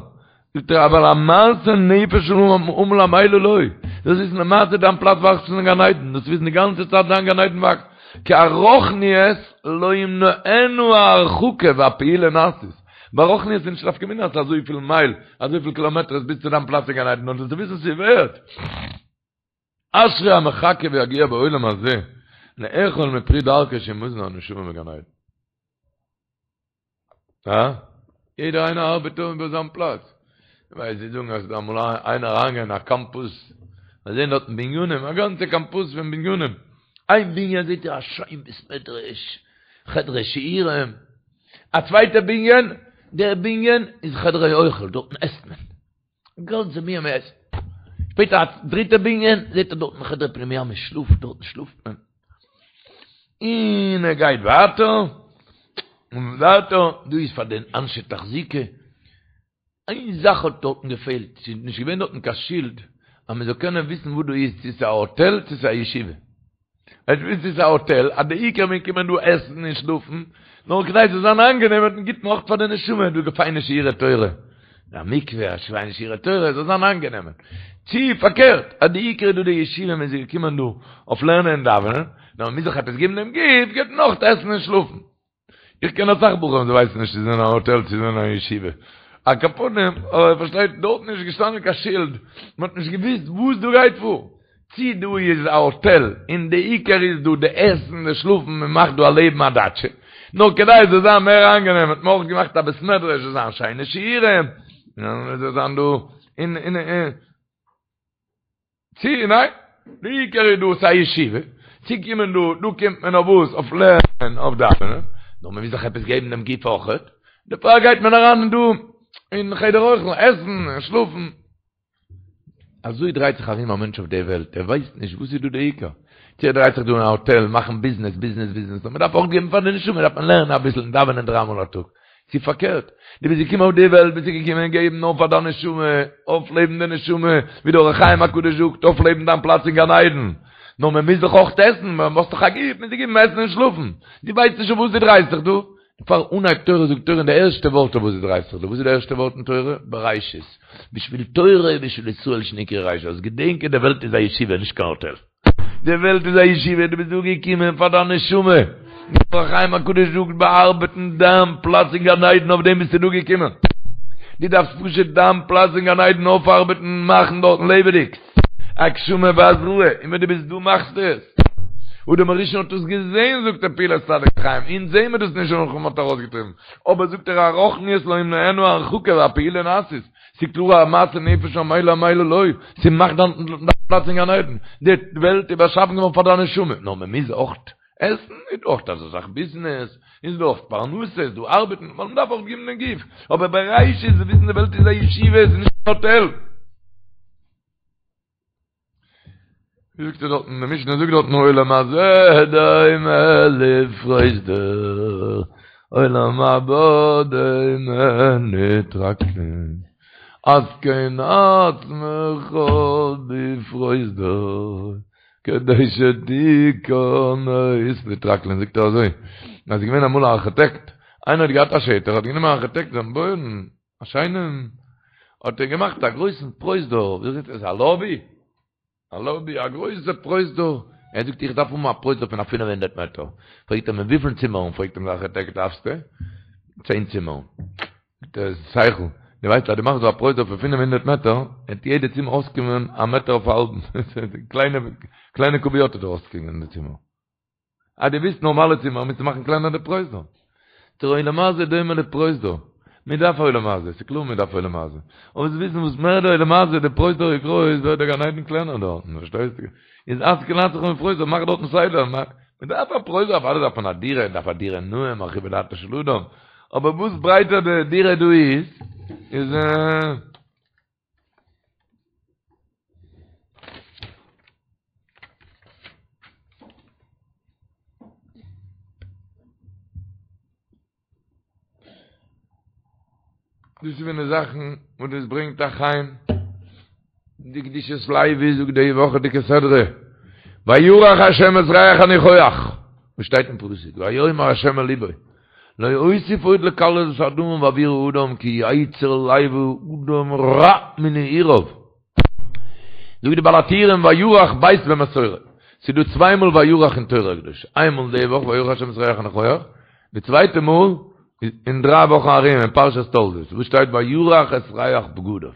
זאגט ער, אבל המעשה נפש העמל עמלה לו, דאס איז למעשה דיין פלאץ וואקסט אין גן עדן, דאס וויסן די גאנצע צייט דיין גן עדן וואקסט, כי הרוחניות לא ימנענו ההרחקה והפעולה נעשית, ביי רוחניות איז נישט נפקא מינה אז ס'איז אזויפיל מייל, אזויפיל קילאמעטערס ביז צו דיין פלאץ אין גן עדן, נאר דאס וויסן ס'ווערט. אשרי המחכה ויגיע בעולם הזה לאכול מפרי דרכו שהוא מזון הנשמה בגן עדן. הא? יעדער איינער ארבעט אן איבער זיין פלאץ. ווייל זיי זאגן אז אמאל איינער אריינגעגאנגען אין א קאמפוס, זיי זעהן דארטן בנינים, א גאנצע קאמפוס פון בנינים. איין בנין זעהט ער א שיין בית מדרש, חדרי שיעורים. א צווייטע בנין, דער בנין איז חדרי אוכל, דארטן עסט מען. גאנצע בנין מען עסט. שפעטער א דריטע בנין, זעט ער דארטן חדר פנימיה מען שלאפט, דארטן שלאפט מען. און ער גייט ווייטער, און ווייטער, דא איז פאר די אנשי תחזוקה. איין זאך האט דארטן געפעלט, ס'איז נישט געווען דארטן קיין שילד אז מען זאל קענען וויסן וואס דא איז, צו ס'איז א האטעל צו ס'איז א ישיבה. עס וויסט ס'איז א האטעל, אז די עיקר מען קומען דא עסן און שלאפן, נאר כדי ס'זאל זיין איינגענעם האט מען גיט מען אויך פאר די נשמה דא פיינע שיעורי תורה, א מקווה, א שיינע שיעורי תורה, זאל זיין איינגענעמען. צי פארקערט, אז די עיקר איז דא די ישיבה מען איז געקומען דא אויף לערנען און דאווענען, נאר מען מוז זיך עפעס געבן דעם גוף, געבט מען אויך עסן און שלאפן. איך קען אסאך בחורים זיי ווייסן נישט צו זיי זענען אין א האטעל צו זיי זענען אין א ישיבה. על כל פנים, אבער פארשטייט, דארטן איז נישט געשטאנען קיין שילד, מען האט נישט געוואוסט וואס דא גייט פאר. צי דא איז א האטעל און די עיקר איז דא די עסן די שלאפן מען מאכט דא א לעבן א דאטשע. נאר כדי עס זאל זיין מער איינגענעם האט מען אויך געמאכט א בית מדרש זאל זיין שיינע שיעורים, און עס זאל זיין דא און און און. צי ניין, די עיקר איז דא ס'א ישיבה, צו קומען דא, דא קומט מען אויף וואס? אויף לערנען, אויף דאווענען, נאר מ'מוז זיך עפעס געבן דעם גוף אויכעט, דערפאר גייט מען אריין דא אין חדר אוכל, עסן און שלאפן. אזוי דרייט זיך ארום א מענטש אויף די וועלט, ער ווייסט נישט וואס איז דא די עיקר. צו ער דרייט זיך דא אין א האטעל מאכן ביזנעס, ביזנעס, ביזנעס, נאר מען דארף אויך געבן פאר די נשמה, דארף מען לערנען אביסל און דאווענען דריי מאל א טאג. צו פארקערט, דו ביסט געקומען אויף די וועלט ביסטו געקומען געבן נאר פאר דיין נשמה, אויפלעבן די נשמה, ווי דער אור החיים הקדוש זאגט, אויפלעבן דיין פלאץ אין גן עדן. נאר מען מוז דאך אויך עסן, מען האסט דאך א גוף, מוז דיר געבן עסן און שלאפן. דו ווייסט נישט אויף וואס דו דרייסט זיך דא. פאר אנהייב תורה זאגט תורה אין די ערשטע ווארט אויף וואס דו דרייסט זיך דא, וואס איז די ערשטע ווארט אין תורה? בראשית. בשביל תורה ובשביל ישראל שנקראו ראשית. זאלסט געדענקען די וועלט איז א ישיבה נישט קיין האטעל. די וועלט איז א ישיבה, דו ביסט דא געקומען פאר דיין נשמה. דער אור החיים הקדוש זאגט באארבעטן דיין פלאץ אין גן עדן אויף דעם ביסטו דא געקומען. דו דארפסט פשוט דיין פלאץ אין גן עדן אויפארבעטן מאכן דארטן לעבעדיג. הגשמה והזרעה, און ווען דו ביסט דא מאכסטו עס. אדם הראשון האט עס געזען זאגט דער פעולת צדיק חיים, אונז זעהן מיר דאס נישט נאך מ'האט ארויסגעטריבן, אבער זאגט ער הרוחניות לא ימנענו הרחקה והפעולה נעשית, ס'איז קלאר א מעשה נפש עמלה עמלה לא, ס'מאכט דיין פלאץ אין גן עדן, די וועלט איז באשאפן געווארן פאר דיין נשמה, נאר מ'מוז אויך עסן, איז דא אויך אזא זאך ביזנעס, איז דא אויך פרנסה, איז דא ארבעטן, ווייל מ'דארף אויך געבן דעם גוף, אבער בראשית וויסן די וועלט איז א ישיבה, עס איז נישט קיין האטעל. ווי זאגט ער דארטן, די משנה זאגט דארטן עולם הזה דומה לפרוזדור, עולם הבא דומה לטרקלין, התקן עצמך בפרוזדור, כדי שתיכנס לטרקלין, זאגט ער אזוי, אז ס'איז געווען אמאל א ארכיטעקט, איינער האט געהאט א שטח, האט גענומען א ארכיטעקט זאל בויען א שיינעם, האט ער געמאכט א גרויסן פרוזדור, ווי זאגט עס, א לאבי? א לאבי, א גרויסע פרוזדור, ער זאגט איך דארף האבן א פרוזדור פון א פינף הונדערט מעטער, פרעגט ער אים וויפיל צימערן, פרעגט אים דער ארכיטעקט דארפסטו? צען צימערן. זאגט ער, שכל, דו ווייסט אז דו מאכסט דא א פרוזדור פון 500 מעטער, וועט יעדע צימער אויסקומען א מעטער אויף א האלבן, קליינע קליינע קוביות וועט אויסקומען אין די צימער. אז דו ווילסט נארמאלע צימער מוזטו מאכן קלענער די פרוזדור. דער עולם הזה דומה לפרוזדור. מען דארף עולם הזה, ס'איז קלאר מען דארף עולם הזה. אבער זאלסט וויסן וואס מער די עולם הזה, די פרוזדור איז גרויס, ווערט דער גן עדן קלענער דארטן, פארשטייסטו? איז התקן עצמך בפרוזדור, מאך דארטן סדר, מען דארף א פרוזדור, אוודאי דארף מען א דירה, מען דארף א דירה נאה, מרחיבה דעתו של אדם, אבער וואס ברייטער די דירה דא איז, איז. דאס איז פון די זאכן וואס דאס ברענגט א חן. די קדושת לוי זאגט די וואכעדיגע סדרה, וירח השם את ריח הניחוח, וואס שטייט אין פסוק, ויאמר השם אל לבו, לא אוסיף עוד לקלל את האדמה בעבור האדם כי יצר לב האדם רע מנעוריו. זאגט די בעל הטורים וירח ב' במסורה, ס'איז דא צוויי מאל וירח אין תורה הקדושה, איין מאל די וואך וירח השם את ריח הניחוח, די צווייטע מאל אין דריי וואכן ארום אין פרשת תולדות וואס שטייט וירח את ריח בגדיו.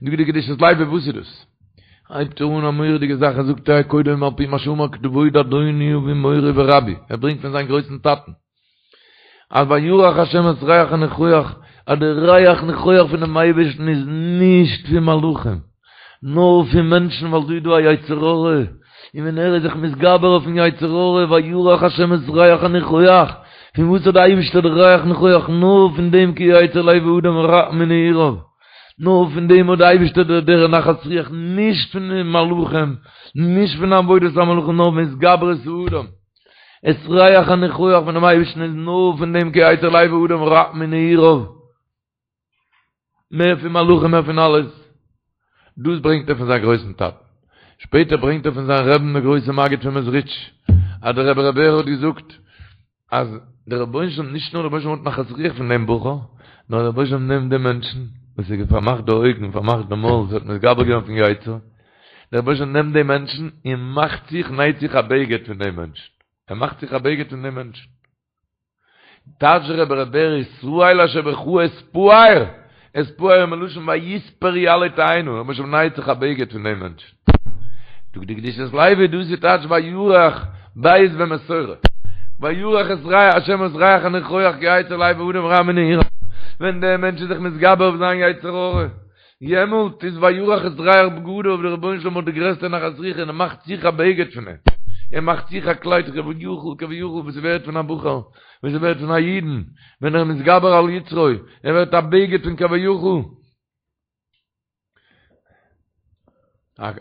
זאגט די קדושת לוי וואס איז דאס? הייבט ער אן א מורא'דיגע זאך ער זאגט ער קודם על פי מה שאמר כבוד אדוני אבי מורי ורבי, ער ברענגט פון זיין גרויסן טאטן, אז וירח השם את ריח הניחוח, אז די ריח ניחוח פונעם אייבערשטן איז נישט פון מלאכים, נאר פון מענטשן ווייל דא איז דא א יצר הרע, און ווען ער איז זיך מתגבר אויפן יצר הרע, וירח השם את ריח הניחוח, פון וואס האט די אייבערשטער די ריח ניחוח, נאר פון דעם כי יצר לב האדם רע מנעוריו, נאר פון דעם האט די אייבערשטער די דער נחת רוח, נישט פון די מלאכים, נישט פון עבודת המלאכים, נאר פון התגברות האדם. את ריח הניחוח פונעם אייבערשטן איז נאר פון דעם כי יצר לב האדם רע מנעוריו, מער פון מלאכים מער פון אלעס, דאס ברענגט ער פון זיין גרויסן טאטן, שפעטער ברענגט ער פון זיין רעבן דער גרויסער מגיד פון מעזריטש, אז דער רבי ר' בער האט געזאגט אז דער רבונו של עולם, נישט נאר דער רבונו של עולם האט נחת רוח פון דעם בחור, נאר דער רבונו של עולם נעמט דעם מענטשן וואס האט פארמאכט די אויגן, פארמאכט די מויל, וואס האט מתגבר געווען אויפן יצר, דער רבונו של עולם נעמט דעם מענטשן און מאכט זיך, נייט זיך א בגד פון דעם מענטשן. ער מאכט זיך א בגד פון דעם מענטשן. טייטשט דער רבי ר' בער ישראל אשר בך אתפאר, אתפאר מלשון ויתפרו עלה תאנה, דער רבונו של עולם נייט זיך א בגד פון דעם מענטשן. זאגט די קדושת לוי דאס איז טייטש וירח ב' במסורה, וירח את ריח השם את ריח הניחוח כי יצר לב האדם רע מנעוריו, ווען דער מענטש איז זיך מתגבר אויף זיין יצר הרע, יעמאלט איז וירח את ריח בגדיו, דער רבונו של עולם האט די גרעסטע נחת רוח און ער מאכט זיך א בגד פון אים, ער מאכט זיך א קלייד כביכול כביכול וואס ס'ווערט פון א בחור, וואס ס'ווערט פון א אידן, ווען ער איז מתגבר על יצרו, ער ווערט א בגד פון כביכול,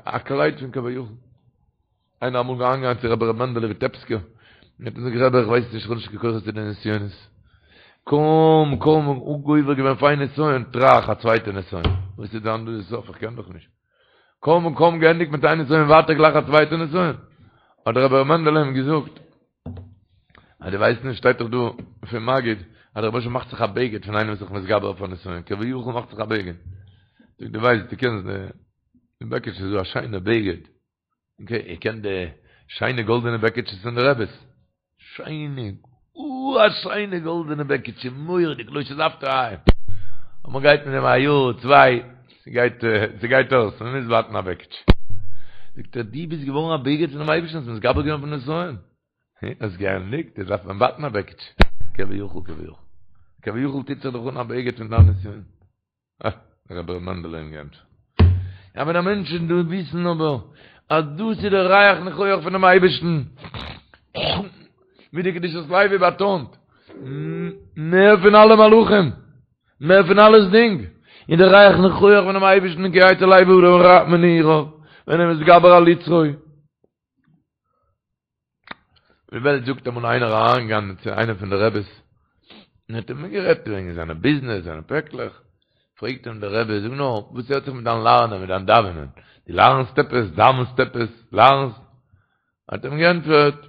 א קלייד פון כביכול. איינער אמאל אריינגעגאנגען צו רבי ר' מענדעלע וויטעפסקער, און האט אים געזאגט רבי איך ווייס נישט איך האב נישט קיין כוחות צו די נסיונות, קוים קוים גובר געווען אויף איין נסיון, טראך א צווייטע נסיון, וואס איז דען דא די סוף איך קען דאך נישט, קוים קוים געענדיגט מיט איין נסיון ווייטער גלייך א צווייטע נסיון, האט דער רבי ר' מענדעלע אים געזאגט, אז דו ווייסט נישט שטייט דאך דא פון מגיד אז דער רבוש"ע מאכט זיך א בגד פון איינעם וואס איז זיך מתגבר אויף א נסיון, כביכול מאכט זיך א בגד, זאגט דו ווייסט דו קענסט די בעקיטש איז דא א שיינע בגד, אקעי, איר קענט די שיינע גאלדענע בעקיטשעס פון די רעבעס? שיינע, אוי א שיינע גאלדענע בעקיטשע, מורא'דיג, לא שזפת עין. און מען גייט מיט דעם א יאר, צוויי, ס'גייט, ס'גייט אויס, מען מוז בייטן א בעקיטשע. זאגט ער, דו ביסט געווארן א בגד פונעם אייבערשטן, האסט מתגבר געווען אויפן נסיון. האסט געענדיגט, יעצט דארף מען בייטן א בעקיטשע. כביכול, כביכול. כביכול טוט זיך דאך אן א בגד פון דיין נסיון. אה, רבי ר' מענדעלע אים געענטפערט. יא ווען א מענטש איז דא וויסן אבער אז דאס איז דער ריח ניחוח פונעם אייבערשטן, ווי די קדושת לוי באטאנט, מער פון אלע מלאכים, מער פון אלעסדינג, איז דער ריח ניחוח פונעם אייבערשטן כי יצר לב האדם רע מנעוריו, ווען ער איז מתגבר על יצרו. די וועלט זאגט אמאל איינער אריינגעגאנגען צו איינעם פון די רעבעס און האט אים גערעדט וועגן זיינע ביזנעס זיינע פעקלעך, פרעגט אים דער רבי זאג נאר וואס הערט זיך מיט דיין לערנען מיט דיין דאווענען, דו לערנסט עפעס, דאווענסט עפעס, לערנסט? האט אים געענטפערט,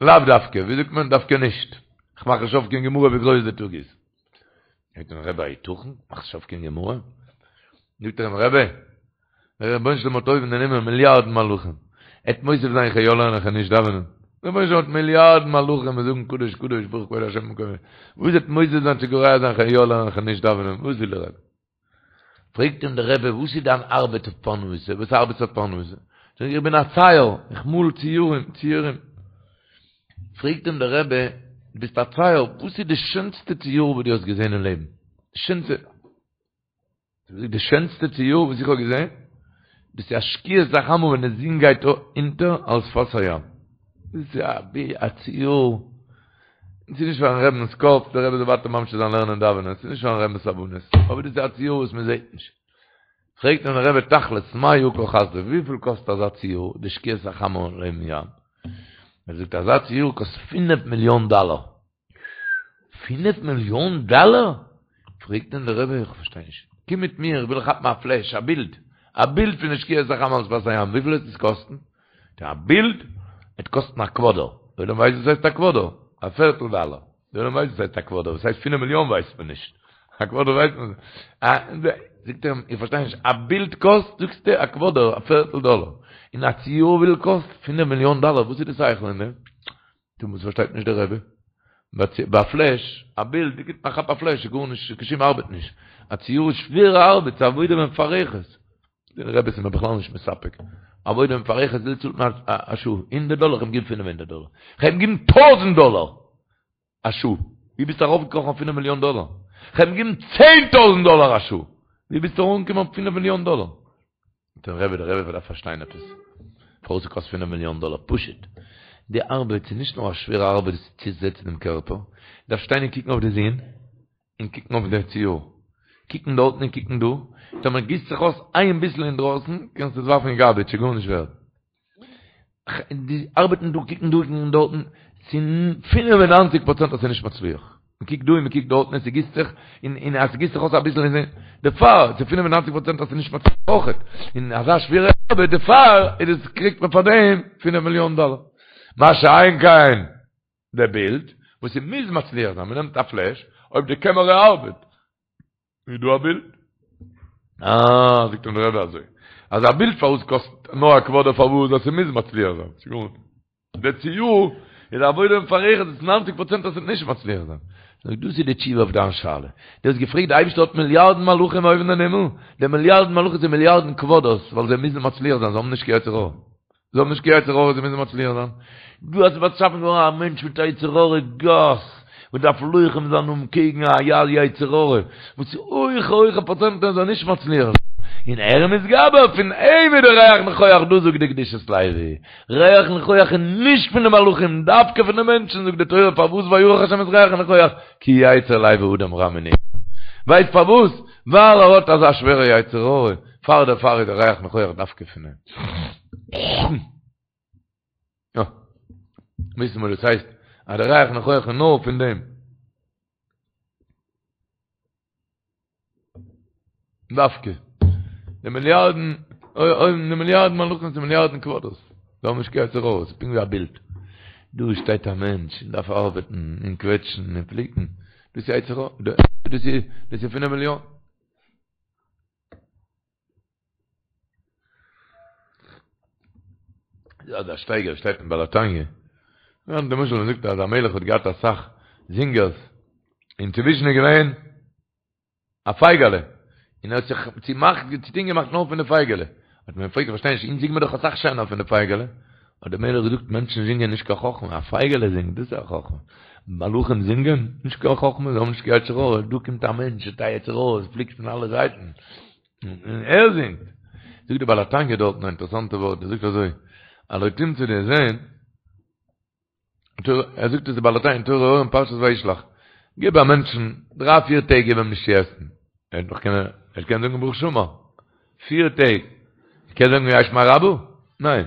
לאו דווקא, ווי זאגט מען, דווקא נישט, איך מאך נישט אויף קיין גמרא ווי גרויס די טאג איז. פרעגט אים דער רבי היתכן, מאכסט נישט אויף קיין גמרא? זאגט ער אים רבי, דער רבונו של עולם האט אויבן אין הימל מיליארדן מלאכים, עט מוסיף זיין איך יא לערנען איך נישט דאווענען, דער רבונו של עולם האט מיליארדן מלאכים וואס זאגן קדוש קדוש ברוך כבוד השם ממקומו, וואס עט מוסיף זיין צו גורע זיין איך יא לערנען איך נישט דאווענען, וואס וויל דער רבי? פרעגט אים דער רבי וואס איז דיין ארבעט אויף פרנסה, וואס ארבעטסטו אויף פרנסה? זאגט ער איך בין א צייר, איך מאל ציורים, ציורים. פרעגט אים דער רבי, דו ביסט א צייר, וואס איז די שענסטע ציור וואס דו האסט געזען אין לעבן? די שענסטע. זאגט די שענסטע ציור וואס איך האב געזען, דאס איז א שקיעת החמה ווען די זון גייט אונטער על שפת הים. דאס איז א ציור, ס'איז נישט פארן רבינ'ס קאפ, דער רבי זאל ווייטער ממשיך זיין לערנען און דאווענען, ס'איז נישט פארן רבינ'ס הבנות, אבער דאס איז א ציור וואס מען זעט נישט. פרעגט אים דער רבי תכלית, מה יקר חסדו, וויפיל קאסט אזא ציור, די שקיעת החמה לעבן ים? ער זאגט אזא ציור קאסט פינף מיליאן דאלער. פינף מיליאן דאלער? פרעגט אים דער רבי, איך פארשטיי נישט, קום מיט מיר, איך וויל כאפן א פלעש, א בילד, א בילד פון די שקיעת החמה על שפת הים, וויפיל וועט עס קאסטן? זאגט ער, א בילד וועט קאסטן א קוואדער, דער עולם ווייסט וואס הייסט א קוואדער? א פערטל דאלער, דער עולם ווייסט וואס הייסט א קוואדער, וואס הייסט פינף מיליאן ווייסט מען נישט, א קוואדער ווייסט מען, זאגט ער אים, איך פארשטיי נישט, א בילד קאסט, זאגסטו, א קוואדער, א פערטל דאלער, און א ציור וויפיל קאסט פינף מיליאן דאלער, וואס איז די שכל אין דעם? טא וואס פארשטייט נישט דער רבי? ביי א פלעש, א בילד, דו גיבסט א כאפ א פלעש, איז גארנישט, קיין שום ארבעט נישט. א ציור איז שווערע ארבעט, ס'איז עבודה מפרכת. דער רבי איז מיר בכלל נישט מספק. עבודה מפרכת וויפיל צאלט מען א שעה? הונדערט דאלער? כ'האב אים געגעבן פינף הונדערט דאלער. כ'האב אים געגעבן טויזנט דאלער א שעה. ווי ביסטו ארויפגעקראכן אויף פינף מיליאן דאלער? כ'האב אים געגעבן צען טויזנט דאלער א שעה. ווי ביסטו אנגעקומען אויף פינף מיליאן דאלער? דער רבי, דער רבי דארף פארשטיין עפעס, פארוואס ס'קאסט פינף מיליאן דאלער, פשוט, די ארבעט איז נישט נאר א שווערע ארבעט צו זעצן דעם קערפער, דארף שטיין און קוקן אויף די זון, און קוקן אויף די ציור, קוקן דארטן און קוקן דא, טאמער גיסט זיך אויס איין ביסל אינדרויסן, קענסטו עס ווארפן אין גארביטש, ס'איז גארנישט ווערד. די ארבעטן דא קוקן דא קוקן דארטן, ס'איז 95 פראצענט אז ס'איז נישט מצליח. מען קוקט דא און מען קוקט דארטן און ס'גיסט זיך, און און אז ס'גיסט זיך אויס אביסל איז דערפאר, ס'איז 95 פראצענט אז ס'איז נישט מצליח אויכעט. און אזא שווערע ארבעט דערפאר איז עס קריגט מען פאר דעם פינף מיליאן דאלער. מה שאין כן די בילד, וואס ס'מוז מצליח זיין, מ'נעמט א פלעש, אויב די קעמערע ארבעט, איז דא א בילד? אה, זאגט אים דער רבי אזוי, אז א בילד פארוואס קאסט נאר א קוואדער פארוואס אז ס'מוז מצליח זיין, ס'גארנישט. די ציור איז א עבודה מפרכת, ס'איז ניינציג פראצענט אז ס'וועט נישט מצליח זיין. זאג, דאס איז די תשובה אויף דיין שאלה. דו האסט געפרעגט די אייבערשטער האט מיליארדן מלאכים אויבן אין הימל, די מיליארדן מלאכים זענען מיליארדן קוואדערס ווייל זיי מוזן מצליח זיין, זיי האבן נישט קיין יצר הרע. זיי האבן נישט קיין יצר הרע, זיי מוזן מצליח זיין. דו האסט באשאפן געווארן א מענטש מיט א יצר הרע גס, וואס דארף לוחם זיין אנקעגן א יצר הרע, וואס איז הויכע הויכע פראצענטן ער זאל נישט מצליח זיין, און ער איז מתגבר, פון אים איז די ריח ניחוח דא זאגט די קדושת לוי, ריח ניחוח איז נישט פון די מלאכים, דווקא פון די מענטשן, זאגט די תורה פארוואס וירח השם את ריח הניחוח, כי יצר לב האדם רע מנעוריו, ווייסט פארוואס? ווייל ער האט אזא שווערע יצר הרע, פאר דערפאר איז די ריח ניחוח דווקא פון אים. וויסן וואס דאס הייסט אז דער ריח ניחוח איז נאר פון דעם. דווקא. די מיליארדן, אוי, די מיליארדן מלאכים און מיליארדן קוואדערס. זיי האבן נישט קיין יצר הרע, ס'איז פונקט ווי א בילד. דא שטייט א מענטש און דארף ארבעטן און קוועטשן און פליקן. דאס איז יצר הרע. דאס איז, דאס איז פינף מיליאן. אזא שטייגער שטייט אין בעל התניא. למשל מ'זאגט אז א מלך האט געהאט אסאך זינגערס. און צווישן איז געווען א פייגעלע, און ער האט זיך צומאכט, צוטון געמאכט נאר פון די פייגעלע. האט מען אים געפרעגט, איך פארשטיי נישט, אונז זינגן מיר דאך אסאך שענער פון די פייגעלע. האט דער מלך געזאגט, מענטשן זינגען נישט קיין חכמה, א פייגעלע זינגט, דאס איז א חכמה. מלאכים זינגען? נישט קיין חכמה, זיי האבן נישט קיין יצר הרע. דא קומט א מענטש מיט א יצר הרע, עס פליקט פון אלע זייטן, און ער זינגט. זאגט דער בעל התניא דארטן א אינטערעסאנטע ווארט, ער זאגט אזוי, הלא תמצא דו וועסט זען, ער זאגט עס די בעל התניא אין תורה אור אין פרשת וישלח, גיב א מענטשן דריי פיר טעג גיב אים נישט צו עסן, ער וועט נאך קענען, ער קען זאגן ברוך שאמר, פיר טעג, ער קען זאגן יהא שמיה רבא? ניין,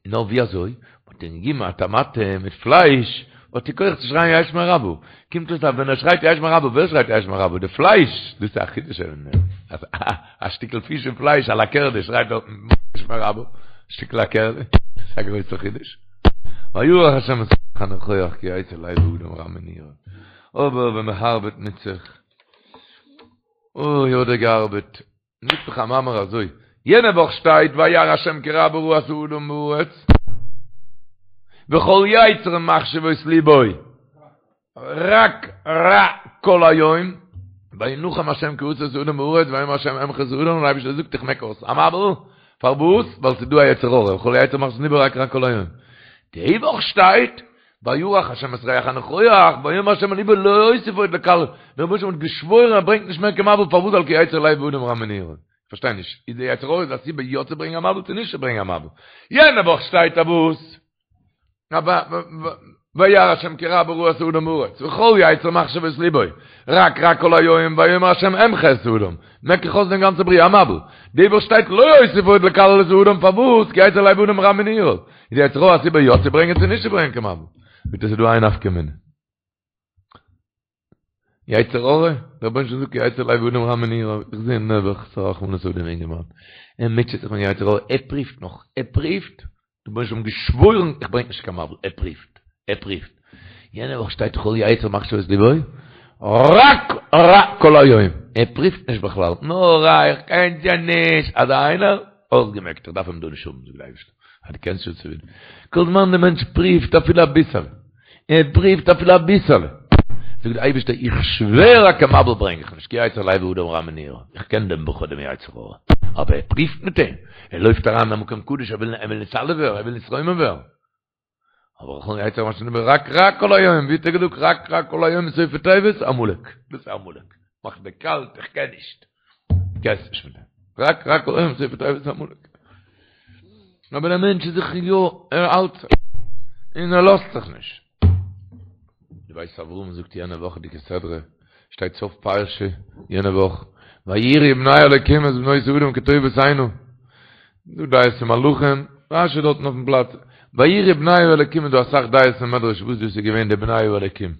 נאר ווי אזוי? מ'האט אים געגעבן א טאמאטע מיט פלייש, האט ער כח צו שרייען יהא שמיה רבא, קומט אויס אז ווען ער שרייט יהא שמיה רבא, ווער שרייט יהא שמיה רבא? די פלייש, דאס איז א חידוש אז א שטיקל פיש און פלייש א לאקערדע שרייט דארטן יהא שמיה רבא, שטיקל לאקערדע, דאס איז א גרויסע חידוש. וירח השם את ריח הניחוח כי יצר לב האדם רע מנעוריו. אבער ווען מען הארבעט מיט זיך, אוי האט ער געארבעט, זאגט דאך א מאמר אזוי, יענע וואך שטייט וירא השם כי רבה רעת האדם בארץ, וכל יצר מחשבות לבו. רק רע כל היום, וינחם השם כי עשה את האדם בארץ, ויאמר השם אמחה את האדם, און אייבערשטער זאגט איך מעק אויס א מבול, פארוואס? ווייל ס'איז דא א יצר הרע, וכל יצר מחשבות לבו רק רע כל היום. די וואך שטייט, וירח השם את ריח הניחוח, ויאמר השם אל לבו לא אוסיף עוד לקלל, דער רבונו של עולם האט געשוואוירן ער ברענגט נישט מער קיין מבול, פארוואס? ווייל כי יצר לב האדם רע מנעוריו. כ'פארשטיי נישט, איז די יצר הרע איז א סיבה יא צו ברענגען א מבול צו נישט צו ברענגען א מבול? יענע וואך שטייט א וואס? וירא השם כי רבה רעת האדם בארץ, וכל יצר מחשבות לבו, רק רע כל היום, ויאמר השם אמחה את האדם, מעק איך אויס דעם גאנצע בריאה א מבול. די וואך שטייט לא אוסיף עוד לקלל את האדם פארוואס? כי יצר לב האדם רע מנעוריו. איז די יצר הרע א סיבה יא צו ברענגען צו נישט צו ברענגען קיין מבול? ביטע ס'איז דא איין נפקא מינה. יצר הרע, דער רבונו של עולם זאגט יצר לב האדם רע מנעוריו, איך זע נעבעך ס'א רחמנות אויף דעם אינגערמאן, ער מוטשעט זיך מיט יצר הרע, ער פריווט נאך, ער פריווט, דער רבונו של עולם געשוואוירן איך ברענג נישט קיין מבול, ער פריווט, ער פריווט, יענע וואך שטייט כל יצר מחשבות לבו, רק רע כל היום, ער פריווט נישט בכלל, נאר רע, איך קען שוין נישט, אזא איינער, אויסגעמעקט, איך דארף אים דא נישט האבן, זאגט דער אייבערשטער, אז דו קענסט שוין צו כל זמן דער מענטש פריווט אפילו אביסעלע, ער פריווט אפילו אביסעלע, זאגט דער אייבערשטער איך שווער אז קיין מבול ברענג איך נישט, כי יצר לב האדם רע מנעוריו, איך קען דעם בחור דעם יצר הרע, אבער ער פריווט מיט אים, ער לויפט אריין אין א מקום קדוש, ער וויל ער וויל נתעלה ווערן, ער וויל נתרומם ווערן. אבער וכל יצר מחשבות לבו רק רע כל היום, ווי האט ער געזאגט רק רע כל היום סופי תיבות עמלק, דאס איז עמלק, מאכט דיר קאלט, איך קען נישט, קענסט נישט מיט דעם, רק רע כל היום סופי תיבות עמלק. אבער דער מענטש איז זיך יא, ער האלט זיך, און ער לאזט זיך נישט. די בית אברהם זאגט יענע וואכעדיגע סדרה, שטייט סוף פרשה יענע וואך, ויראו בני אלקים את בנות האדם כי טובות הנה, דא דעות פון מלאכים, רשי דארטן אויפן פלאץ, ויראו בני האלקים איז דא אסאך דעות אין מדרש וואס דאס איז געווען די בני האלקים.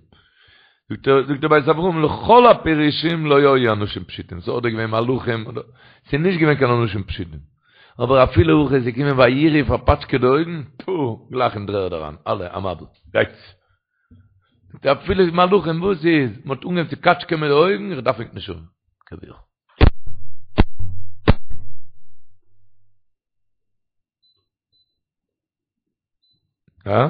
זאגט ער, זאגט דער בית אברהם, לכל הפירושים לא היו אנשים פשוטים, ס'איז אדער געווען מלאכים, אדער, ס'איז נישט געווען קיין אנשים פשוטים. אבער אפילו הכי איז געקומען ויראו פארפאטשקעט די אויגן, טפו, גלייך אין דר'ערד אריין, אלע, א מבול, גייטס. זאגט ער, אפילו מלאכים, וואס איז? מ'האט אנגעהויבן צו קאטשקען מיט די אויגן, איך דארף ענק נישט האבן. כביכול. הא?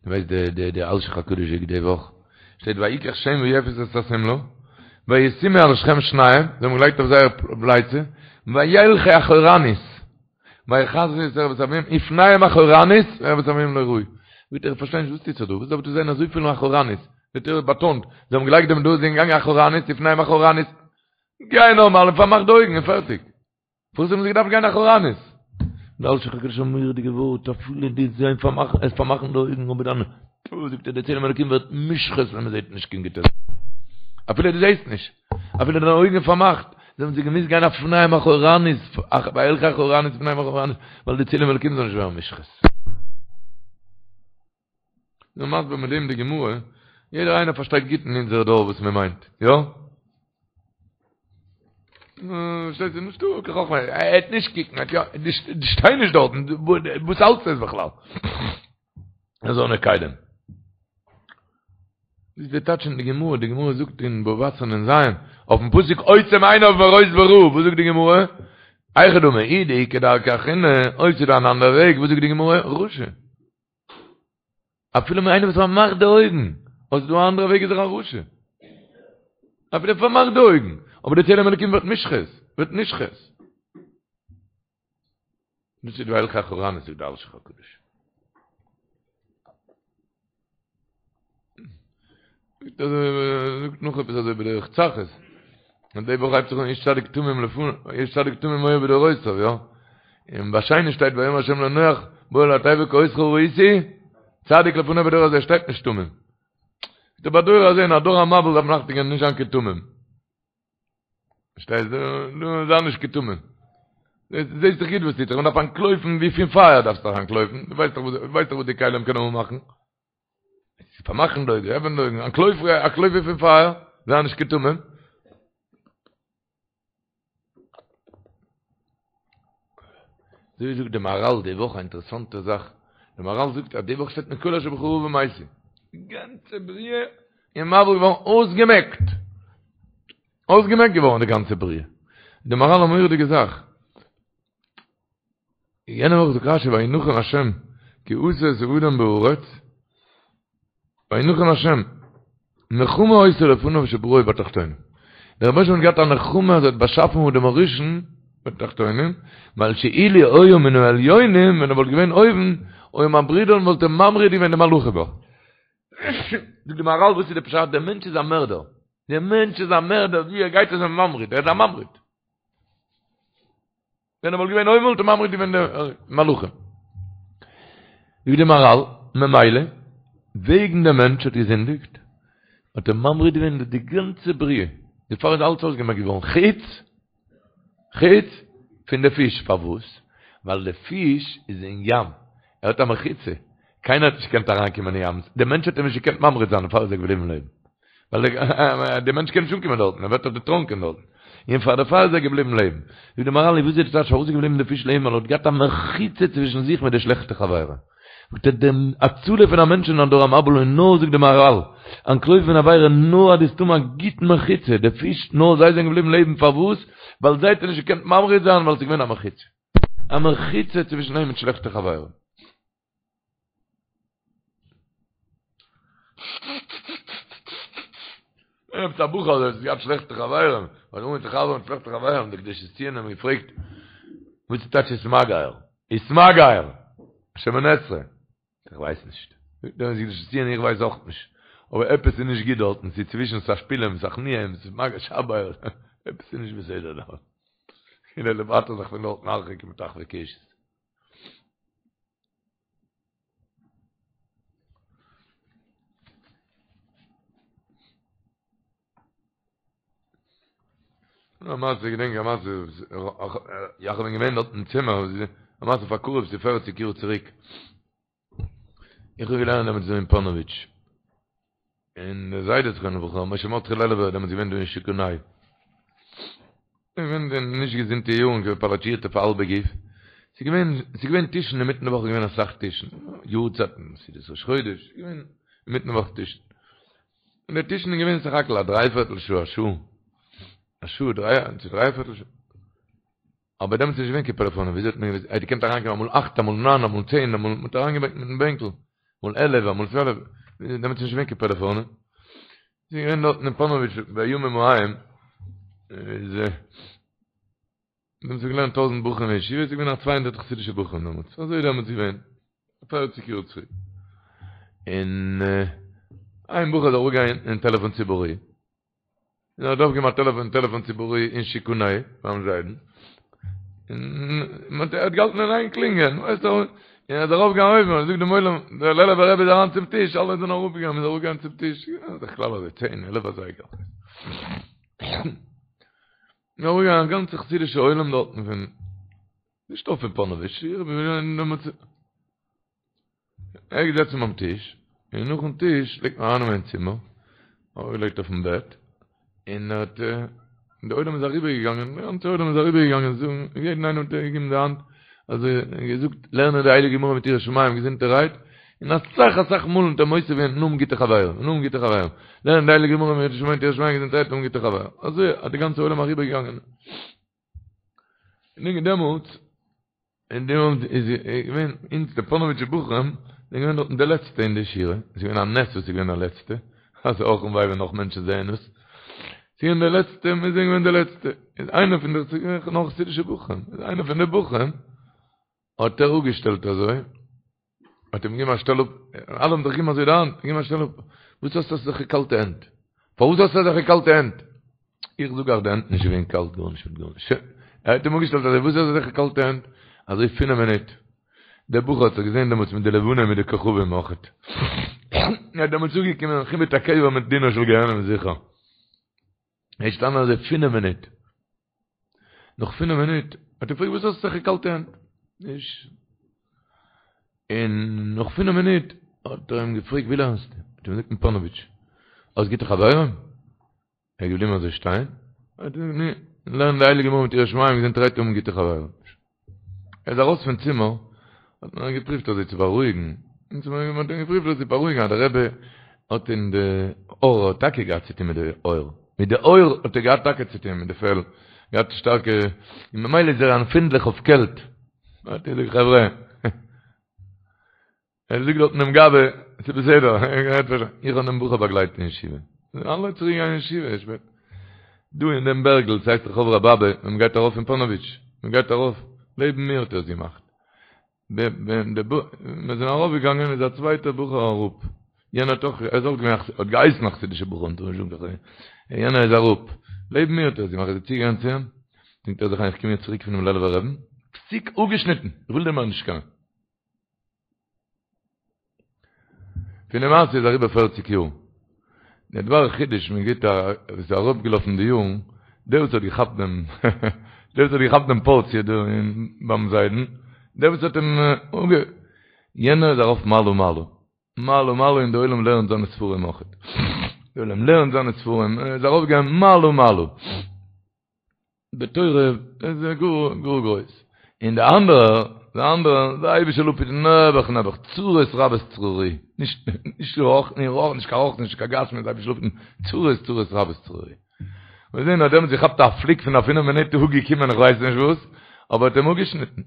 דו ווייסט די די די אלשיך הקדוש זאגט די וואך שטייט ויקח שם ויפת את השמלה וישימו על שכם שניהם זיי האבן געלייגט אויף זייער פלייצע וילכו אחורנית ויכסו את ערות אביהם ופניהם אחורנית וערות אביהם לא ראו זאגט ער איך פארשטיי נישט וואס טוט זיך דא וואס דארף דא זיין אזויפיל אחורנית די תורה באטאנט זיי האבן געלייגט דעם דא זיי זענען געגאנגען אחורנית ופניהם אחורנית גיי נארמאל און פארמאך די אויגן און פערטיג פארוואס האבן זיי געדארפט גיין אחורנית? דער אלשיך הקדוש א מורא'דיגע ווארט, אפילו די זיי פארמאכן, עס פארמאכן די אויגן, אבער דאן, פו, זאגט ער, די צלם אלוקים ווערט מושחת ווען מען זעט נישט קיין גוטע זאכן. אפילו דו זעסט נישט, אפילו דיינע אויגן פארמאכט, זיי האבן זיי געמוזט גיין ופניהם אחורנית, וילכו אחורנית ופניהם אחורנית, ווייל די צלם אלוקים זאל נישט ווערן מושחת. נו מסביר מיט דעם די גמרא, יעדער איינער פארשטייט גוט אין אונזער דור וואס מען מיינט, יא? שטייט ס'איז נישטא קיין חכמה, ער העט נישט קוקן, ער האט יא, דו שטיי נישט דארטן, וואס האלטסטו עס בכלל? אזאנע כלים. דאס איז די טייטש אין די גמרא, די גמרא זאגט אין בבא בתרא נ"ז, אויפן פסוק עוצם עיניו מראות ברע, וואס זאגט די גמרא? היכי דמי, אי דאיכא דרכא אחרינא, אויב ס'איז דא אן אנדערע וועג, וואס זאגט די גמרא? רשע. אפילו איינער וואס פארמאכט די אויגן, אויב ס'איז דא א אנדערע וועג איז ער א רשע. אפילו ער פארמאכט די אויגן, אבער די צלם אלוקים ווערט מושחת, ווערט נשחת. דאס איז וילכו אחורנית זאגט די אלשיך הקדוש. זאגט נאך עפעס אזוי בדרך צחות. און די וואך הייבט זיך אן איש צדיק תמים לפני, איש צדיק תמים היה בדורותיו, יא? און ביי שני שטייט ויאמר השם לנח בא אל התיבה כי אותך ראיתי צדיק לפני בדור הזה שטייט נישט תמים. דער בדור הזה אין א דור המבול דארף מען אכטונג געבן נישט זיין קיין תמים. פארשטייסט? דו זיי נישט קיין תמים. זעסט דאך גוט וואס טוט זיך, מען דארף אנטלויפן ווי פון פייער דארפסטו דאך אנטלויפן, דו ווייסט דאך וואס, ווייסט דאך וואס די כלים קענען אנמאכן. פארמאכן די אויגן, עפענען די אויגן, אנטלויף, אנטלויף ווי פון פייער, זיי נישט קיין תמים. אזוי זאגט די מהרל די וואך א אינטערעסאנטע זאך, די מהרל זאגט אז די וואך שטייט מכל אשר בך רעה ומתו, די גאנצע בריאה איז מבול געווארן אויסגעמעקט, אויסגעמעקט געווארן די גאנצע בריאה, די מהרל א מורא'דיגע זאך, יענע וואך זאגט רשי וינחם השם כי עשה את האדם בארץ, וינחם השם, נחמה היתה לפניו שבראו בתחתונים. דער רבונו של עולם האט געהאט א נחמה אז ער האט באשאפן אדם הראשון בתחתונים, ווייל שאילו היה מן העליונים, ווען ער וואלט געווען אויבן, היה ממרידן וואלט ער ממריד געווען די מלאכים. זאגט די מהרל וואס איז די פשט? דער מענטש איז א מערדער. דער מענטש איז א מערדער, ווי ער גייט איז ער ממריד, ער איז א ממריד. ווען ער וואלט געווען אויבן וואלט ער ממריד געווען די מלאכים. זאגט די מהרל, ממילא, וועגן דער מענטש האט געזינדיגט, האט ער ממריד געווען די גאנצע בריאה, דערפאר איז אלץ אויסגעמעקט געווארן, חוץ, חוץ פון די פיש, פארוואס? ווייל די פיש איז אין ים, ער האט א מחיצה, קיינער האט נישט געקענט אריינקומען אין ים, דער מענטש האט אים נישט געקענט ממריד זיין, דערפאר איז ער געבליבן לעבן. ווייל דער מענטש קען נישט אנקומען דארטן, ער ווערט דאך דערטראנקען דארטן. און פאר דערפאר איז ער געבליבן לעבן. זאגט די מהרל, וואס איז די טייטש פארוואס איז געבליבן די פיש לעבן, ווייל ער האט געהאט א מחיצה צווישן זיך מיט די שלעכטע חברה. זאגט ער, די הצלה פון א מענטש אין א דור המבול איז נאר, זאגט די מהרל, אנטלויפן פון עבירה נאר אז דו וועסט האבן א גוטן מחיצה, די פיש, נאר זיי זענען געבליבן לעבן, פארוואס? ווייל זיי האט ער נישט געקענט ממריד זיין ווייל עס איז געווען א מחיצה. א מחיצה צווישן אים מיט שלעכטע חברה. עפעס א בחור האט געהאט שלעכטע חברים, האט אנגעהויבן צו חבר'ן מיט שלעכטע חברים, דער קדושת ציון האט אים געפרעגט, וואס איז טייטש ותמגר? ותמגר! שמונה עשרה. איך ווייס נישט. זאגט דער קדושת ציון איך ווייס אויך נישט. אבער עפעס איז נישט גוט דארטן, ס'איז צווישן תשפילם, תכניעם, ותמגר, שבר, עפעס איז נישט בסדר דארט. און ער דערווייטערט זיך פון דארטן הרחק מטחווי קשת. א מעשה, איך געדענק א מעשה, יאך בין געווען דארט אין צימער, א מעשה פאר קרוב צו פערציג יאר צוריק. איך האב געלערנט דעמאלטס דא אין פאנאוויטש. און דער זיידע זכרונו לברכה, משה מרדכי לעלובער, דעמאלטס געווען דא אין שיכון ה'. געווען אין נישט געזונטע יארן, געווען פאלאטשירט אויף האלבע גוף. ס'איז געווען, ס'איז געווען טישן אינמיטן די וואך איז געווען אסאך טישן, יארצייטן, סעודת ראש חודש, ס'איז געווען אינמיטן וואך טישן. און די טישן איז געווען סך הכל א דרייפערטל שעה, א שעה, א שעה, דריי, צו דרייפערטל שעה. אבער דעמאלטס איז נישט געווען קיין פעלעפאנען, וויאזוי האט מען געוואוסט? ער האט געקענט אריינקומען אמאל אכט, אמאל ניין, אמאל צען, אמאל, מען האט אריינגעברענגט מיטן בענקל, אמאל עלף, אמאל צוועלף, דעמאלטס איז נישט געווען קיין פעלעפאנען. ס'איז געווען דארטן אין פאנאוויטש בימים ההם, איז דעמאלטס האט געלערנט טויזענט בחורים אין ישיבה, ס'איז געווען א צוויי הונדערט חסידישע בחורים דעמאלטס, אזוי איז דעמאלטס געווען, פערציג יאר צוריק. און איין בחור איז אראפגעגאנגען אין טעלעפאן ציבורי, און ער האט אויפגעהויבן א טעלעפאן טעלעפאן ציבורי אין שיכון ה' ביים זיידן, און ער האט געהאלטן אין איין קלינגען, ווייסט און ער איז ארויפגעגאנגען אויבן און זאגט דעם עולם, דער לעלובער רבי איז אריין צום טיש, אלע זענען אראפגעגאנגען, מ'איז אראפגעגאנגען צום טיש, בדרך כלל אזוי צען, עלף אזייגער. איז אראפגעגאנגען א גאנצע חסידישע עולם דארטן פון, נישט נאר פון פאנאוויטש, ער איז געזעצן ביים טיש. און נאכן טיש פלעגט מען ארייננעמען אין צימער, ארויפגעלייגט אויפן בעט, און ער האט, און די עולם איז אריבערגעגאנגען, די גאנצע עולם איז אריבערגעגאנגען זאגן, יעדן איינעם האט ער געגעבן די האנט, אזוי געזאגט, לערנען די הייליגע גמרא מיט יראת שמים געזונטערהייט, און אסאך אסאך מאל האט ער מוסיף געווען און האבן גוטע חברים, און האבן גוטע חברים, לערנען די הייליגע גמרא מיט יראת שמים געזונטערהייט און האבן גוטע חברים, אזוי האט די גאנצע עולם אריבערגעגאנגען. און דעמאלטס און דעמאלטס איז געווען אונז די פאנאוויטשע בחורים זענען געווען דארטן די לעצטע אין די שורה, עס איז געווען א נס וואס איז געווען די לעצטע, אז אך און וויי ווען נאך מענטשן זעען עס, ס'איז געווען די לעצטע, מיר זענען געווען די לעצטע, איז איינער פון די, ס'איז געווען נאך חסידישע בחורים, איז איינער פון די בחורים האט ער אפגעשטעלט אזוי, האט אים געגעבן א שטעל אפ, אלע האבן זיך געגעבן אזוי די האנט, געגעבן א שטעל אפ, וואס האסטו אזעלכע קאלטע הענט? פארוואס האסטו אזעלכע קאלטע הענט? איך זאג אייך די הענט נישט געווען קאלט גארנישט מיט גארנישט, שוין, ער האט אים אפגעשטעלט אזוי, וואס האסטו אזעלכע קאלטע הענט? אזוי פינעף מינוט, דער בחור האט זיך געזען דעמאלטס מיט די לבנה מיט די כוכבים אויכעט, ער האט דעמאלטס אפגעקומען חיבוט הקבר מיט דינו של גיהנום זיכער. ער איז געשטאנען אזוי פינף מינוט. נאך פינף מינוט האט ער געפרעגט וואס האסטו אזעלכע קאלטע הענט? נישט. און נאך פינף מינוט האט ער אים געפרעגט ווי לערנסטו? האט ער אים געזאגט אין פאנאוויטש. האסט גוטע חברים? ער איז געבליבן אזוי שטיין. האט ער געזאגט נו, לערן די הייליגע גמרא מיט יראת שמים געזונטערהייט האבן גוטע חברים. ער איז ארויס פון צימער, האט מען אים געפריווט אזוי צו בארואיגן, מען האט אים געפריווט אזוי צו בארואיגן אז דער רבי האט אין די עור האט טאקע געהאט צוטון מיט די עור, מיט די עור האט ער געהאט טאקע צוטון מיט די פעל, געהאט שטארקע, און ממילא איז ער עמפינדליך אויף קעלט, האט ער געזאגט חברה, ער זאגט דארטן דעם גבאי, ס'איז בסדר, איך האב דעם בחור באגלייט אין ישיבה. אלע צוריק געגאנגען אין ישיבה, שפעט. דא אין דעם בערגל, ס'הייסט רחוב רב אבא, ווען מ'גייט ארויף אין פאנאוויטש, מ'גייט ארויף, לעבן מיר האט ער עס געמאכט. ווען מיר זענען ארויפגעגאנגען איז א צווייטער בחור אראפ. יענער האט אויך, ער איז אויך געווען, האט געהייסן א חסידישער בחור, מ'טאר נישט זאגן קיין חסיד. יענער איז אראפ. לעבן מיר האט ער עס געמאכט, איז ער צוגעגאנגען צו אים, זינגט ער זיך איין, איך קום יעצט צוריק פונעם לעלובער רבי'ן, פסיק אפגעשניטן, איך וויל דיר מער נישט קענען. פון די מעשה איז אריבער פערציג יאר. דער דבר חידוש מען גיט א וואס איז אראפגעלאפן די יארן, דער וואס האט געכאפט דעם דער וואס האט געכאפט דעם פארציע דא אין ביים זיידן, דער וואס האט אים אנגע יענער איז ארויף מעלה מעלה, מעלה מעלה און די עולם לערנט זיינע ספרים אויכעט. די עולם לערנט זיינע ספרים, ער איז ארויפגעגאנגען מעלה מעלה. בתורה איז ער גאר גאר גרויס, און די אנדערע, די אנדערע, די אייבישטער זאל אפהיטן נעבעך נעבעך, צרות רבות צרורי, נישט נישט רוח, נישט רוח, נישט קיין רוח, נישט קיין גשמיות, די אייבישטער זאל אפהיטן, צרות צרות רבות צרורי. מיר זעהן אז דעמאלטס געכאפט א פליק פון א פינף מינוט אפגעקומען איך ווייס נישט וואס, אבער האט אים אפגעשניטן.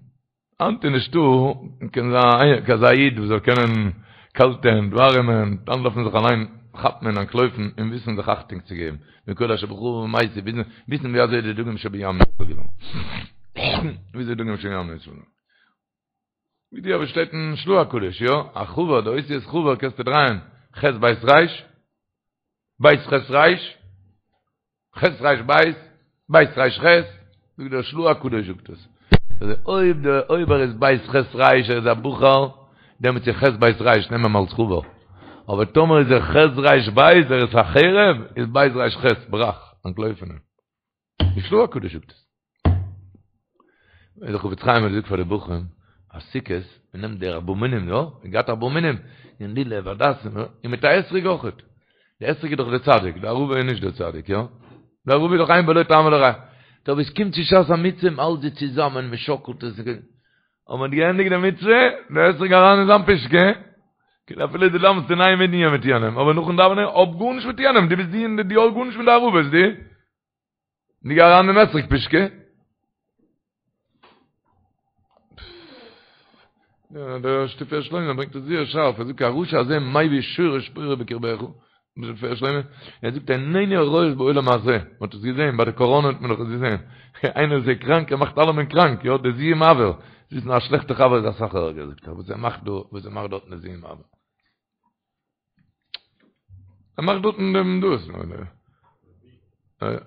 היינט איז נישטא קיין אזא איד וואס זאל קענען קאלטע הענט, ווארימע הענט, דאן דארף מען זיך אליין כאפן און אנטלויפן און וויסן זיך אכטונג צו געבן, מכל אשר בך ומעשה, וויסן ווי אזוי די דגים שבים ניצול געווארן. וויאזוי דגים שבים ניצול געווארן. ווי די אבער שטייט אין של"ה הקדוש, יא? א חבר, די אותיות חבר קענסטו דרייען, ח' בית ר', בית ח' ר', ח' ר' בית, בית ר' ח', זאגט דער של"ה הקדוש זאגט עס. אויב דער אויב ער איז בית ח' ר' ער איז א בחור, דעמאלטס איז ח' בית ר' נעם אים אלס חבר. אבער טאמער איז ער ח' ר' בית ער איז א חרב, איז בית ר' ח' ברח, אנטלויף פון אים. די של"ה הקדוש זאגט עס. דער חפץ חיים האט געזאגט פאר די בחורים אז סוכות מען נעמט די ארבעה מינים יא מען גייט ארבעה מינים און לולב הדסים און מיט א אתרוג אויכעט די אתרוג איז דאך די צדיק די ערבה איז נישט די צדיק יא די ערבה איז דאך אין בו לא טעם ולא ריח טא ווען עס קומט צו שעת המצוה מען האלט זיי צוזאמען מען שאקלט עס און מען האט געענדיגט די מצוה די אתרוג אריין אין זיין פושקע כאילו אפילו דו דאווענסט אין איין מנין מיט יענעם אבער נאכן דאווענען האב גארנישט מיט יענעם דו ביסט די און דו האסט גארנישט מיט די ערבות דו די גיי אריין אין אתרוג פושקע. דער תפארת שלמה ברענגט עס זייער שארף, ער זאגט הרשע הזה מביא שורש פורה בקרבך, תפארת שלמה, ער זאגט עינינו הרואות בעולם הזה, מען האט עס געזען, ביי די קאראנע האט מען דאך עס געזען, איינער איז קראנק ער מאכט אלעמען קראנק, יא דער זיהום אויר, זאגט א שלעכטע חבר איז אסאך ערגער זאגט ער, וואס ער מאכט דא, וואס ער מאכט דארט אין זיהום אויר. ער מאכט דארטן דעם דאס.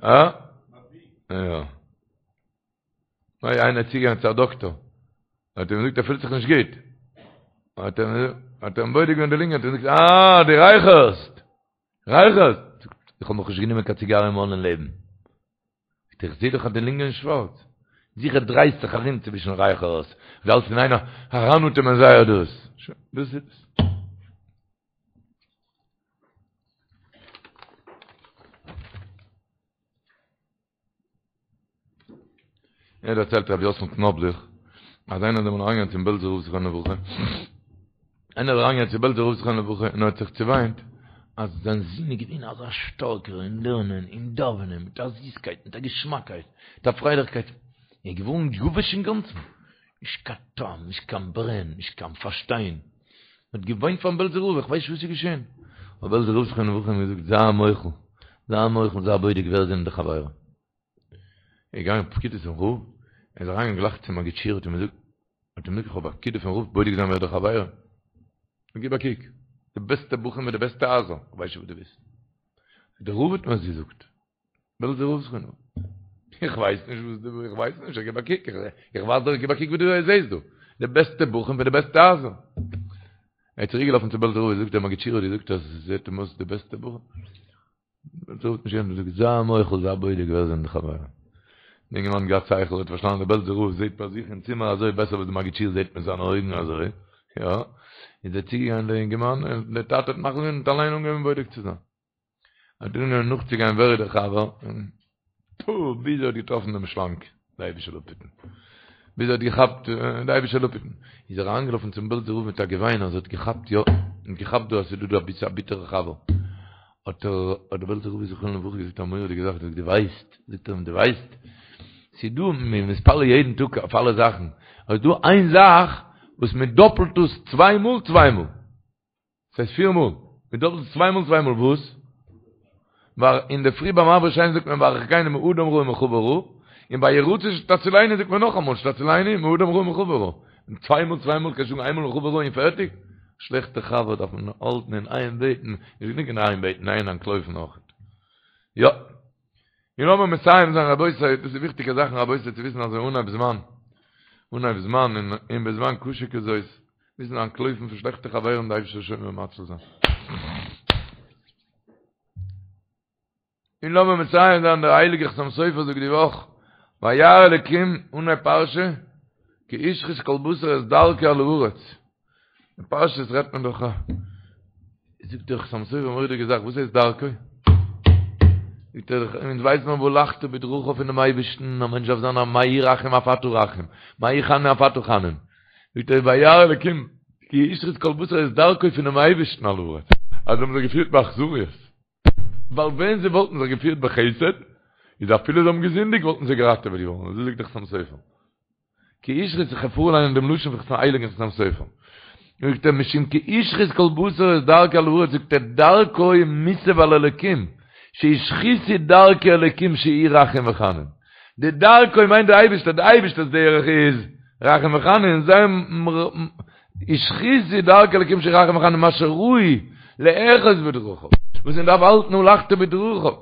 אה? יא. ניי, איינער איז צוגעגאנגען צו א דאקטאר. האט ער אים געזאגט ער פילט זיך נישט גוט. האט ער האט ער אים בודק געווען די לונגען, האט ער געזאגט, אה, דו רייכערסט! רייכערסט! איך האב נאכנישט גענומען קיין ציגאר אין מויל אין לעבן. איך זעה דאך אז די לונגען איז שווארץ. זיכער דרייסט זיך ארום צווישן רייכערס, דו האלסט אין איין אריינאטעמען זייער דאס. שוין, דאס איז עס. ער דערציילט רבי יוסל קנאבליך אז איינער איז אמאל אריינגעגאנגען צום בעלזער רב זכרונו לברכה, איינער איז אריינגעגאנגען צום בעלזער רב זכרונו לברכה און ער האט זיך צעוויינט אז זיין זון איז געווען אזא שטארקער אין לערנען און דאווענען מיט א זיסקייט מיט א געשמאקייט מיט א פרייליכקייט, ער איז געווארן יבש אינגאנצן, נישט קיין טעם, נישט קיין ברען, נישט קיין פארשטיין. מען האט געוויינט פארן בעלזער רב, איך ווייס נישט וואס איז געשען. האט בעלזער רב זכרונו לברכה אים געזאגט, זיי מוחל, זיי מוחל, זיי בודק ווער זענען די חברים. ער איז געגאנגען פקידה צום רב, ער איז אריינגעגאנגען גלייך צום מגיד שיעור, האט אים געזאגט, האט אים געזאגט, איך האב א פקידה פון רב, בודק זיין ווער די חברים. גיב א קוק, די בעסטע בחורים מיט די בעסטע הייזער, איך ווייס נישט וואס דו ווילסט. דער רב האט מיר עס געזאגט. בעלזער רב זכרונו. איך ווייס נישט וואס דו, איך ווייס נישט, איך גיב א קוק, איך ווייז דיר, גיב א קוק וואס דו זעסט דא. די בעסטע בחורים פון די בעסטע הייזער. ער איז צוריק געלאפן צו בעלזער רב, זאגט דער מגיד שיעור האט געזאגט אז עס זעט אים אויס די בעסטע בחורים. בעלזער רב האט נישט געענטפערט, זאגט זיי מוחל, זיי בודק ווער זענען די חברים. די אינגערמאן האט געהאט שכל, האט פארשטאנען דער בעלזער רב זעט ביי זיך אין צימער אזוי בעסער וואס די מגיד שיעור זעט מיט זיינע אויגן אזוי, יא. איז ער צוגעגאנגען דער אינגערמאן, און דער טאטע האט מחליט געווען און האט אליין אנגעהויבן בודק צו זיין. האט אנגעהויבן נאכצוגיין ווער איז דער חבר, און פו, ביז ער האט געטראפן דעם שלאנג, די אייבישטער זאל אפהיטן, ביז ער האט געכאפט, די אייבישטער זאל אפהיטן, איז ער אריינגעלאפן צום בעלזער רב מיט א געוויין אז ער האט געכאפט, יא, ער האט געכאפט דא אז ס'איז דא דא א ביטערע חבר, האט ער, האט דער בעלזער רב זכרונו לברכה געזאגט א מורא'דיגע זאך, זאגט דו ווייסט, זאגט ער אים דו ווייסט, ס'איז דא, מ'איז מתפלל יעדן טאג אויף אלע זאכן, אבער ס'איז דא איין זאך וואס מ'דאפלט עס צוויי מאל צוויי מאל. ס'הייסט פיר מאל. מ'דאפלט עס צוויי מאל צוויי מאל וואס? ווייל אינדערפרי ביים מעביר שינה זאגט מען והרחקני מאדם רע ומחבר רע, און ביי יהי רצון שתצילני זאגט מען נאכאמאל שתצילני מאדם רע ומחבר רע. און צוויי מאל צוויי מאל קענסט זאגן איינמאל מחבר רע און פערטיג? שלעכטע חבר דארף מען האלטן אין איין בעטן, נישט גענוג אין איין בעטן, אין אנטלויפן אויך. יא. און לאמיר מסיים זיין רבותי, דאס איז וויכטיגע זאכן רבותי צו וויסן אזוי אנהייב זמן, אנהייב זמן און און בזמן קשה כזאת, מוזן אנטלויפן פון שלעכטע חברים די אייבערשטער זאל שומר ומציל זיין. און לאמיר מסיים זיין דער הייליגער חתם סופר זאגט די וואך, וירא אלקים אנהייב פרשה, כי השחית כל בשר את דרכו על הארץ. אין פשטות רעדט מען דאך א זאגט דער חתם סופר א מורא'דיגע זאך וואס הייסט דרכו? זאגט ער אונז ווייסן מיר והלכת בדרכיו פונעם אייבערשטן א מענטש דארף זיין א מה הוא רחום אף אתה רחום מה הוא חנון אף אתה חנון זאגט ער וירא אלקים כי השחית כל בשר את דרכו פונעם אייבערשטן על הארץ אז זיי האבן זיך געפירט באכזריות ווייל ווען זיי וואלטן זיך געפירט בחסד איז אפילו זיי האבן געזינדיגט וואלטן זיי געראטעוועט געווארן אזוי זאגט דער חתם סופר כי השחית איך פארליינען דעם לשון פון הייליגן חתם סופר. זאגט ער משום כי השחית כל בשר את דרכו על הארץ זאגט ער דרכו מוסב על אלקים שהשחיתו דרכי אלקים שהוא רחום וחנון. די דרכו מיינט די אייבערשטער, די אייבערשטער'ס דרך איז רחום וחנון, זיי השחיתו דרכי אלקים שהוא רחום וחנון מה שראוי לאחוז בדרכיו, וואס מען דארף האלטן והלכת בדרכיו,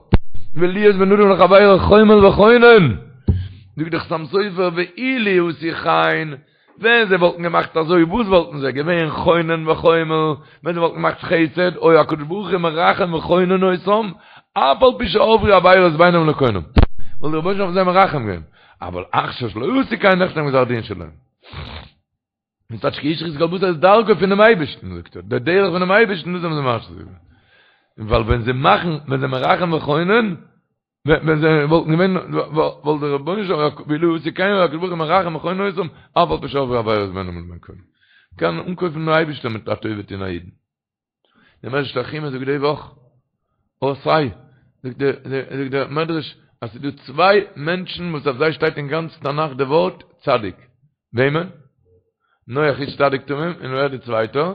ולהיות בין אדם לחבירו חומל וחונן, זאגט דער חתם סופר ואילו עשו כן, ווען זיי וואלטן געמאכט אזוי וואס וואלטן זיי געווען חונן וחומל, ווען זיי וואלטן געמאכט חסד, היה הקדוש ברוך הוא מרחם וחונן אותם, אף על פי שעברו עבירות בינם לקונם, וואלט דער רבונו של עולם אויף זיי מרחם געווען, אבל עכשיו שלא עשו כן נחתם גזר דין שלהם. און ס'טייטש כי השחית כל בשר את דרכו פונעם אייבערשטן, זאגט ער, דער דרך פונעם אייבערשטן, דאס האבן זיי משחית געווען. ווייל ווען זיי מאכן, ווען זיי מרחם וחונן, ווען זיי וואלטן געווען, וואלט דער רבונו של עולם, ואילו עשו כן היה הקדוש ברוך הוא מרחם וחונן אותם, אף על פי שעברו עבירות בינם לבין קונם. קען אנקויפן דעם אייבערשטען מיט א טובה טון א אידן. דער מדרש תנחומא זאגט די וואך, אות ה', זאגט דער, זאגט דער מדרש, אז ס'איז דא צוויי מענטשן וואס אויף זיי שטייט אין גאנץ תנך די ווארט צדיק. וועמען? נח איש צדיק תמים, און ווער די צווייטער?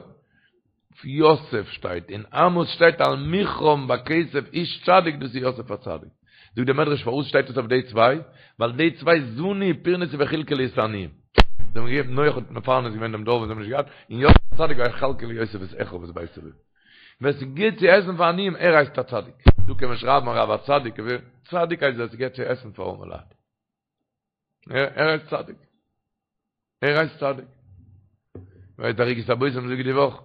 יוסף שטייט, אין עמוס שטייט על מכרם בכסף איש צדיק, דאס איז יוסף הצדיק. זאגט דער מדרש פארוואס שטייט עס אויף די צוויי? ווייל די צוויי זנו ופרנסו וחלקו את העניים. זיי האבן געגעבן, נח האט מפרנס געווען דעם דור וואס זיי האבן נישט געהאט, און יוסף הצדיק ויכלכל יוסף את אחיו ואת בית אביו. ווער ס'גיט צו עסן פאר עניים, ער הייסט א צדיק. דא קען מען שרייבן הרב הצדיק, צדיק הייסט ווער ס'גיט צו עסן פאר ארעמע לייט. ער הייסט צדיק. ער הייסט צדיק. ווייסט דער ערוגת הבושם זאגט די וואך,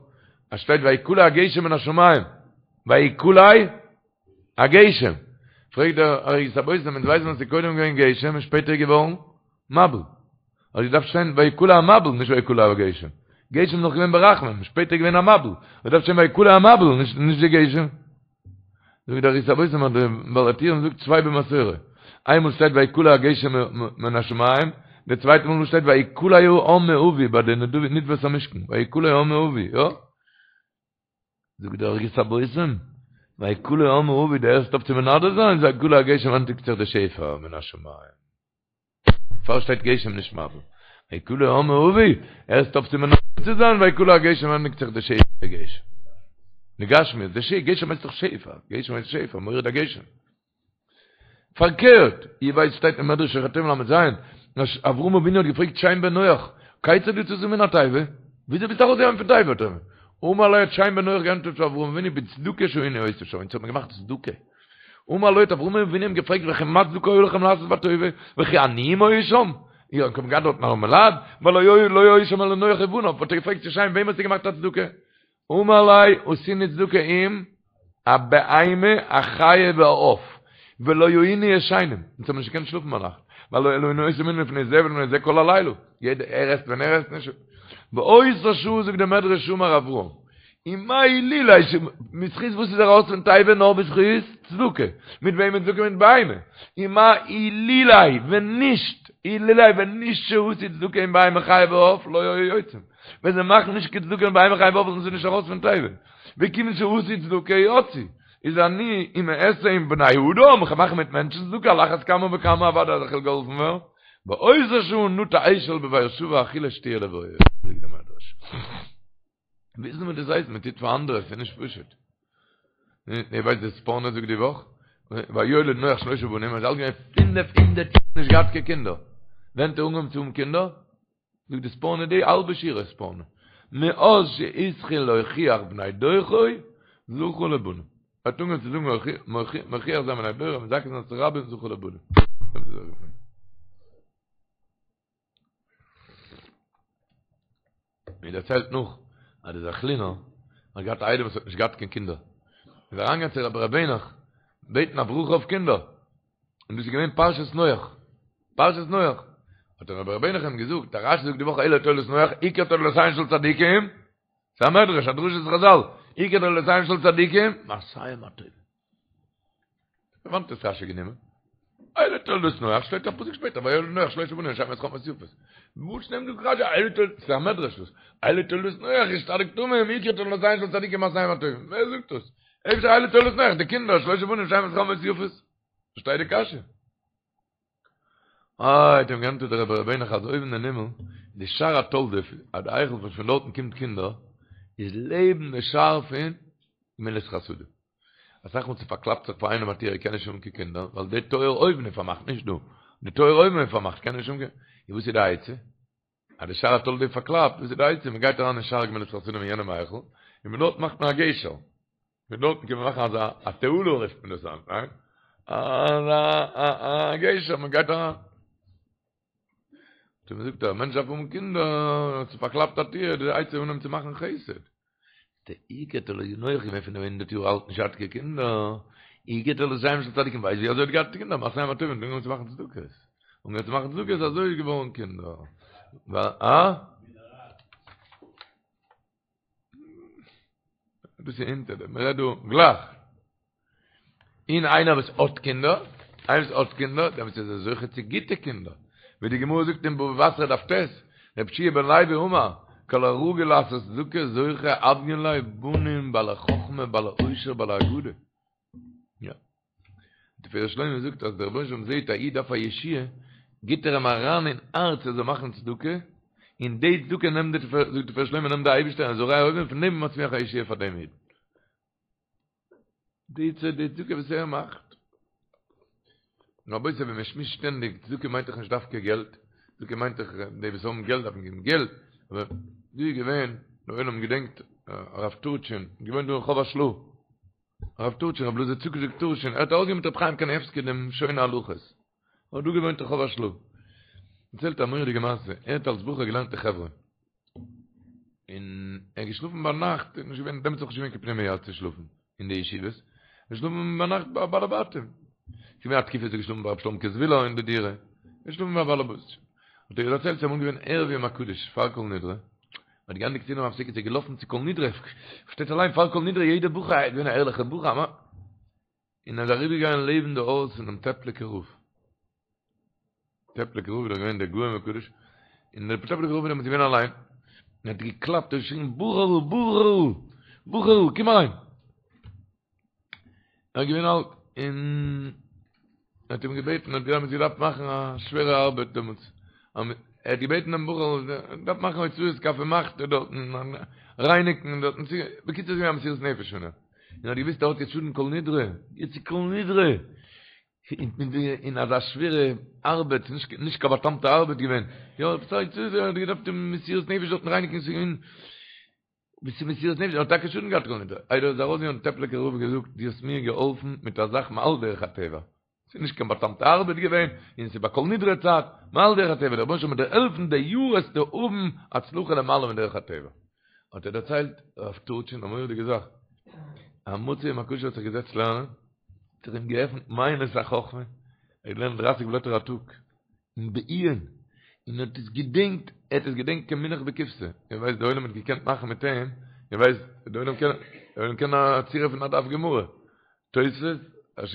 אז שטייט ויקלע הגשם מן השמים. ויקלע הגשם. פרעגט דער ערוגת הבושם, אונז ווייסן אז ס'איז קודם געווען גשם און שפעטער געווארן מבול. האט געדארפט שטיין ויקלע המבול, נישט ויקלע הגשם. גשם איז נאך געווען ברחמים, שפעטער געווען א מבול. האט געדארפט שטיין ויקלע המבול, נישט די גשם. זאגט דער ערוגת הבושם אז דער בעל הטורים זאגט צוויי במסורה. איינמאל שטייט ויקלע הגשם מן השמים, די צווייטע מאל שטייט ויקלע העם מאבי ביי די נדבת המשכן, ויקלע העם מאבי, יא? זאגט דער ערוגת הבושם, ויקלע העם מאבי, דו הערסט אויף צו מנדב זיין, ויקלע הגשם ענדיגט זיך די שפע מן השמים. פאר שטייט גשם נישט מבול. ויקלע העם מאבי, הערסט אויף צו מנדב צו זיין, ויקלע הגשם ענדיגט זיך די שפע גשם. די גשמיות, די שפע, גשם הייסט דאך שפע, גשם הייסט שפע, מוריד הגשם. פארקערט, איר ווייסט שטייט אין מדרש שוחר טוב ל"ז, אז אברהם אבינו האט געפרעגט שם בן נח, כיצד יצאת מן התיבה? וויאזוי ביסטו ארויסגעגאנגען פון תיבה? האט ער אמר לו האט שם בן נח געענטפערט צו אברהם אבינו בצדקה שהיינו עושים שם, אונז האט מען געמאכט צדקה. אמר לו האט אברהם אבינו אים געפרעגט וכי מה צדקה היה לכם לעשות בתיבה, וכי עניים היו שם? איר האט געהאט דארטן ארעמעלייט? והלא לא היו שם אלא נח ובניו, האט ער געפרעגט צו שם וועם האסטו געמאכט א צדקה? אמר ליה עשינו צדקה עם הבהמה החיה והעוף ולא היינו ישנים, אונז האבן נישט געקענט שלאפן ביינאכט, והלא היינו עושים מנין לפני זה ולפני זה כל הלילה, יעדער ער עסט ווען ער עסט נישט, באותה שעה זאגט דער מדרש אמר אברהם, ומה אילולא בזכות וואס איז ער ארויס פון תיבה נאר בזכות צדקה, מיט וועמען צדקה מיט בהמה, ומה אילולא ווען נישט, אילולא ווען נישט שעשו צדקה עם בהמה חיה ועוף לא היו יוצאים. ווען זיי מאכן נישט קיין צדקה מיט בהמה חיה ועוף זענען זיי נישט ארויס פון תיבה. וכיוון שעשו צדקה יצאו. איז אני אם אעשה עם בני אדם, איך מאך מיט מענטשן צדקה על אחת כמה וכמה אוודאי אז איך וועל געהאלפן ווערן. באותה שעה נטע אשל בבאר שבע אכילה שתיה לויה. זאגט דער מדרש. וויסן וואס דאס הייסט מען טוט פאר אנדערע, ס'איז נישט פשוט. איר ווייסט די ספורנו זאגט די וואך? ויולד נח שלושה בנים, ער איז אלט געווען פינף הונדערט יאר נישט געהאט קיין קינדער. ווען האט ער אנגעהויבן צו האבן קינדער? זאגט די ספורנו די האלבע שורה ספורנו, מאז שהתחיל להוכיח בני דורו זכה לבנים, ער האט אנגעהויבן צו זאגן מוכיח זיין בני דורו מזכה זיין את הרבים זכה לבנים. מען דערציילט נאך אז דער זעכלינער האט געהאט א איידעם וואס האט נישט געהאט קיין קינדער, איז אריינגעגאנגען צו רבי ר' העניך בעטן א ברכה אויף קינדער, און דאס איז געווען פרשת נח, פרשת נח, האט דער רבי ר' העניך אים געזאגט, דער רשי זאגט די וואך אלה תולדות נח, עיקר תולדותיהן של צדיקים, ס'איז א מדרש, א דרשת חזל, עיקר תולדותיהן של צדיקים, מעשיהם הטובים. פון וואנעט האט רשי גענומען? אלה תולדות נח, שטייט א פסוק שפעטער, ויולד נח שלושה בנים שם וחם ואת יפת. וואס נעמט דא רשי אלה תולדות, ס'איז א מדרש דאס, אלה תולדות נח איש צדיק תמים, עיקר תולדותיהן של צדיקים מעשיהם הטובים. ווער זאגט דאס? אפשר אלה תולדות נח, די קינדער, שלושה בנים שם וחם ואת יפת. פארשטיי די קשיא. איי, האט אים געענטפערט דער רבי ר' העניך אז אויבן אין הימל, די שער התולדות, אז די היכל וואס פון דארטן קומט קינדער, איז לעבן די שער פון גמילות חסדים. אסאך מאל ס'פארקלאפט זיך פאר איינעם א טיר ער קען נישט האבן קיין קינדער, ווייל די טויער אויבן איז פארמאכט, נישט דא, די טויער אויבן איז פארמאכט, קען נישט האבן קיין, און וואס איז די עצה? אז די שער התולדות איז פארקלאפט, וואס איז די עצה? מען גייט אריין אין שער גמילות חסדים אין יענעם היכל, און פון דארט מאכט מען א גשר. פון דארטן קען מען מאכן אזא א תעלה רופט מען דאס היינט, ניין? אזא א גשר, מען גייט אריין. האט ער געזאגט, א מענטש דארף האבן קינדער, ס'איז פארקלאפט א טיר, די עצה איז אנהייבן צו מאכן חסד. דער עיקר תולדות נח געווען פינף הונדערט יאר אלט נישט געהאט קיין קינדער, עיקר תולדותיהם של צדיקים ווייסט ווי אזוי האט געהאט קינדער, מעשיהם הטובים, אנגעהויבן צו מאכן צדקות, אנגעהויבן צו מאכן צדקות אזוי איז געווארן קינדער. אה? דאס איז אונטער דעם, מ'רעדט דא גלייך. און איינער וואס האט קינדער, איינער וואס האט קינדער, דעמאלטס איז ער זוכה צו גוטע קינדער. ווי די גמרא זאגט אין בבא בתרא דף ט', רבי יהושע בן לוי אמר, כל הרגיל לעשות צדקה זוכה הויין ליה בנים בעלי חכמה בעלי עושר בעלי אגדה. יא. דער תפארת שלמה זאגט אז דער רבונו של עולם זעט א איד דארף א ישועה, גיט ער אים אריין אין הארץ ער זאל מאכן צדקה, און די צדקה נעמט די, זאגט דער תפארת שלמה נעמט דער אייבערשטער און זורע אויבן פון דעם מצמיח א ישועה פאר דעם איד. די צדקה וואס ער מאכט. רבותי ווען מען שמועסט שטענדיג, צדקה מיינט דאך נישט דווקא געלט, צדקה מיינט דאך די וואס האבן געלט דארפן געבן געלט, אבער דא איז געווען, דער עולם געדענקט הרב טורטשין, געוואוינט דא אין רחוב השל"ה, הרב טורטשין, רב אלעזר צדוק טורטשין, ער האט ארויסגעגעבן מיט רב חיים קנייבסקי דעם שונה הלכות, ער האט דא געוואוינט אין רחוב השל"ה. דערציילט א מורא'דיגע מעשה, ער האט אלס בחור געלערנט אין חברון, און ער איז געשלאפן ביינאכט, איז נישט געווען, דעמאלטס איז נאך נישט געווען קיין פנימיה צו שלאפן אין די ישיבות, געשלאפן ביינאכט ביי בעלי בתים. ס'איז געווען א תקופה איז ער געשלאפן ביי רב שלומ'קע זווילער אין די דירה, געשלאפן ביי בעלי בתים. האט ער דערציילט ס'איז אמאל געווען ערב יום הקדוש פאר כל נדרי, מ'האט געענדיגט סעודה המפסקת איז ער געלאפן צו כל נדרי, פארשטייט אליין פאר כל נדרי יעדער בחור איז געווען א ערליכער בחור, און ער איז אריבערגעגאנגען לעבן די הויז פונעם טעפליקער רב. טעפליקער רב איז דאך געווען דער גאון וקדוש, און דער טעפליקער רב איז דעמאלטס געווען אליין, און האט געקלאפט און געשריגן בחור'ל בחור'ל בחור'ל קום אריין! ער איז געווען אלט און ער האט אים געבעטן, ער האט דעמאלטס געדארפט מאכן א שווערע ארבעט דעמאלטס, ער האט געבעטן דעם בחור, ער דארף מאכן הוצאת כף ומחתה דארטן, רייניגן דארטן, בקיצור ס'איז געווען א מסירות נפש פון אים, און ער האט געוואוסט ער האט יעצט שאדן כל נדרי, יעצט איז כל נדרי, אין אזא שווערע ארבעט, נישט קיין בא'טעמ'טע ארבעט געווען, יא, ער האט געדארפט מסירות נפש דארטן רייניגן, ס'איז געווען ביסט מסירות נפש, האט טאקע שאדן געהאט כל נדרי. איידער ער איז ארויסגעגאנגען האט טעפליקער רב געזאגט, דו האסט מיר געהאלפן מיט א זאך מעל דרך הטבע. ס'איז נישט קיין בא'טעמ'טע ארבעט געווען, און ס'איז ביי כל נדרי צייט, מעל דרך הטבע, דער רבונו של עולם וועט דיר העלפן די יאר וועסטו האבן הצלחה למעלה מדרך הטבע. האט ער דערציילט רב טורטשין א מורא'דיגע זאך, א מוצאי יום הקדוש האט זיך געזעצט לערנען, האט זיך אים געעפנט מעיינות החכמה, ער האט געלערנט דרייסיג בלעטער א טאג, און בעיון, און ער האט עס געדענקט, ער האט עס געדענקט כמונח בקופסא, איר ווייסט די עולם האט געקענט מאכן מיט אים, איר ווייסט די עולם קען, די עולם קען א צורה פון א דף גמרא, תוספות,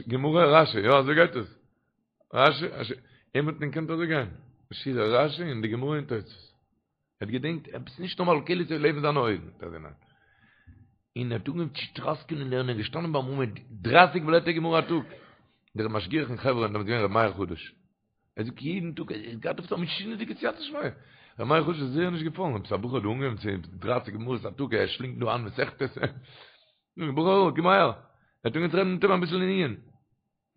גמרא, רשי, יא אזוי גייט עס, רשי, רשי, אים האט מען געקענט אזוי גיין, שורה רשי און די גמרא און תוספות. ער האט געדענקט עפעס נישט נארמאל כאילו ס'איז לעבן זיינע אויגן, האט ער געמיינט. און ער האט אנגעהויבן צו טראסקען און לערנען, געשטאנען ביים עמוד דרייסיג בלעטער גמרא א טאג. דער משגיח אין חברון דעמאלטס געווען ר' מאיר חדש. ער זאגט יעדן טאג, ער האט געהאט עפעס א משונה'דיגע סייעתא דשמיא. ר' מאיר חדש איז זייער נישט געפאלן, עפעס א בחור האט דא אנגעהויבן צו דרייסיג גמרות א טאג, ער שלינגט דא איין מסכתות. בחור, קום אהער. ער האט אנגעהויבן צו רעדן מיט אים אביסל אין עיון.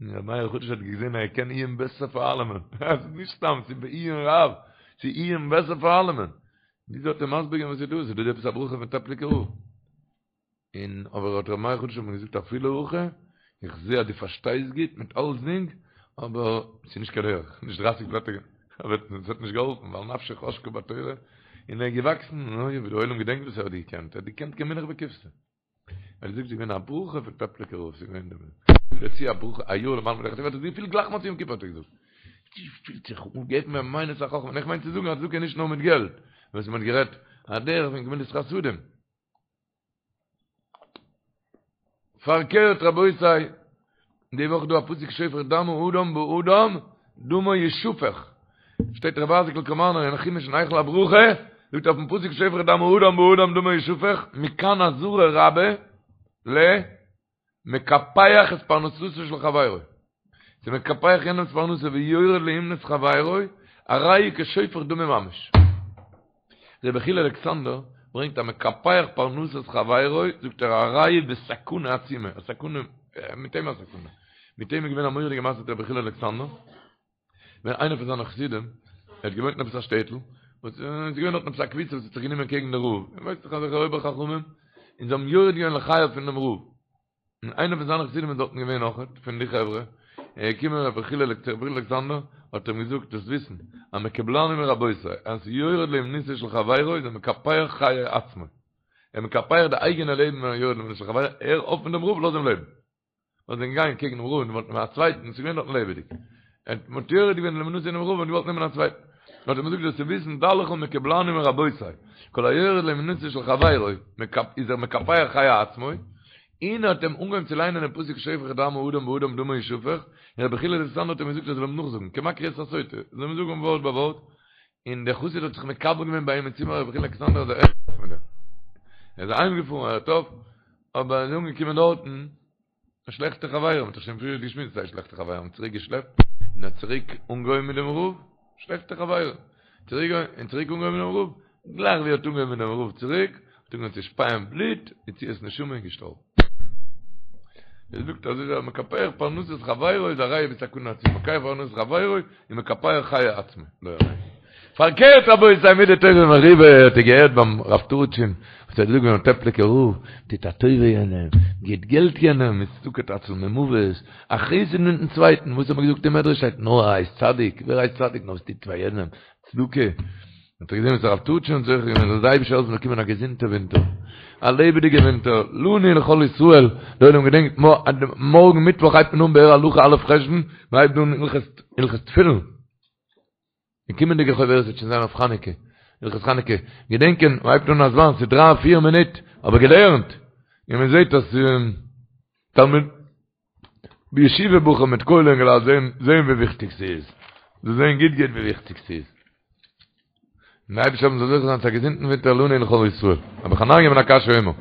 און ר' מאיר חדש האט געזען אז ער קען עיון בעסער פאר אלעמען, עס איז נישט סתם, ס'איז בעיון רב, ס'איז עיון בעסער פאר אלעמען. וויאזוי האט ער מסביר געווען וואס איז דא? ס'איז דא עפעס א ברכה פון טעפליקער רב. און אבער האט ר' מאיר חדש אים געזאגט אפילו הכי, איך זע אז דו פארשטייסט גוט מיט אלסדינג, אבער ס'איז נישט קיין דרך, נישט דרייסיג בלעטער, אבער עס האט נישט געהאלפן, ווייל נפשו חשקה בתורה, און ער איז געוואקסן, אוי ווי די עולם געדענקט וואס ער האט געקענט, ער האט געקענט כמונח בקופסא. ער זאגט ס'איז געווען א ברכה פון טעפליקער רב, ס'איז געווען דערצו א ברכה א יאר למעלה מדרך הטבע, האט ער געפילט גלייך מוצאי יום כיפור האט ער געזאגט, פילט זיך אנגעהויבן מיט מעיינות החכמה, און איך מיין צו זאגן אז צדקה איז נישט נאר מיט געלט, וואס מען האט גערעדט א דרך פון גמילות חסדים. פארקערט רבותי, די וואך דא א פסוק שופך דם האדם באדם דמו ישפך, שטייט רבי אייזיק'ל קאמארנער אין חומש אין היכל הברכה, זאגט אויפן פסוק שופך דם האדם באדם דמו ישפך, מכאן אזהרה רבה למקפח את פרנסתו של חברו, ס'איז מקפח יענעמ'ס פרנסה ויורד לאומנות חברו, הרי הוא כשופך דמים ממש. רבי יחיאל אלכסנדר ברענגט המקפח פרנסת חברו, זאגט ער הרי הוא בסכנה עצומה, א סכנה, מיט אים א סכנה. מיט אים איז געווען א מורא'דיגע מעשה מיט רבי יחיאל אלכסנדר, ווען איינער פון זיינע חסידים, ער האט געוואוינט אין עפעס א שטעטל, און ס'איז געווען דארטן עפעס א קבוצה וואס האט זיך גענומען קעגן די רב, איר ווייסט דאך אזעלכע אויבער חכמים, און זיי האבן יורד געווען לחייו פון דעם רב. און איינער פון זיינע חסידים איז דארטן געווען אויכעט, פון די חברה, ער איז געקומען רבי יחיאל אלכסנדר, האט אים געזאגט, זאלסט וויסן, אז מקובלני מרבותי, אז יורד לאומנותו של חברו איז ער מקפח חיי עצמו. ער מקפח די אייגענע לעבן ווען ער יורד לאומנותו של חברו, הער אויף מיט דעם רב, לאז אים לעבן. ווייל זיי זענען געגאנגען קעגן דעם רב און געוואלט נעמען א צווייטן, ס'איז געווען דארטן לעבעדיג. ער האט יורד געווען לאומנותו פונעם רב און געוואלט נעמען א צווייטן. האט ער אים געזאגט זאלסטו וויסן, דע לך מקובלני מרבותי, כל היורד לאומנותו של חברו, איז ער מקפח חיי עצמו, און ער האט אים אנגעהויבן צו ליינען דעם פסוק שופך דם האדם באדם דמו ישפך, און רבי יחיאל אלכסנדר האט אים געזאגט ער זאל אים נאכזאגן, כמקריא את הסוטה, זאל אים זאגן ווארט ביי ווארט, און דער חסיד האט זיך מקבל געווען ביי אים אין צימער רבי יחיאל אלכסנדר אז ער הערט אויף מיט דעם. ער איז אהיימגעפארן ער הערט אויף, אבער ער איז אנגעקומען דארטן, א שלעכטע חברים, מ'האט דאך שוין פריער געשמועסט זיי שלעכטע חברים האבן צוריק געשלעפט, און האט צוריק אנגעהויבן מיט דעם רב, שלעכטע חברים, צוריק און צוריק אנגעהויבן מיט דעם רב, גלייך ווי ער האט אנגעהויבן מיט דעם רב צוריק, האט אנגעהויבן צו שפייען בלוט, יציאת נשמה און געשטארבן. ער זאגט אז איז מקפח פרנסת חברו איז הרי הוא בסכנה עצומה, מקפח פרנסת חברו איז מקפח חיי עצמו, לא עלינו. פארקערט רבותי מידה טובה מרובה האט איר געהערט ביים רב טורטשין וואס האט געזאגט ביים טעפליקער רב טוט א טובה יענעם גיט געלט יענעם איז צדקה תציל ממוות א חסד מיטן צווייטן וואס האט מען געזאגט אין מדרש שטייט נאר הייסט צדיק ווער הייסט צדיק נאר וואס טוט פאר יענעם צדקה האט ער געזען וואס הרב טורטשין האט זוכה געווען זאל די אייבישטער העלפן באקומען א געזונטע ווינטער א לעבעדיגע ווינטער לנו ולכל ישראל די עולם געדענקט מארגן מיטוואך הייבט מען אן באר הלכה א' חשון מען הייבט אן הלכות תפילין די קומענדיגע חוברת וועט שוין זיין אויף חנוכה, הלכות חנוכה, געדענקען, מען הייבט אן א זמן, ס'איז דריי פיר מינוט, אבער געלערנט, און מען זעט אז תלמיד בישיבה בחור מיט כולל אינגעלייט זעהן זעהן ווי וויכטיג ס'איז. זאלסט זען גוט גוט ווי וויכטיג ס'איז. און די אייבערשטער זאל זוכה זיין צו א געזונטן ווינטער לנו ולכל ישראל. רבי חנניא בן עקשיא אומר.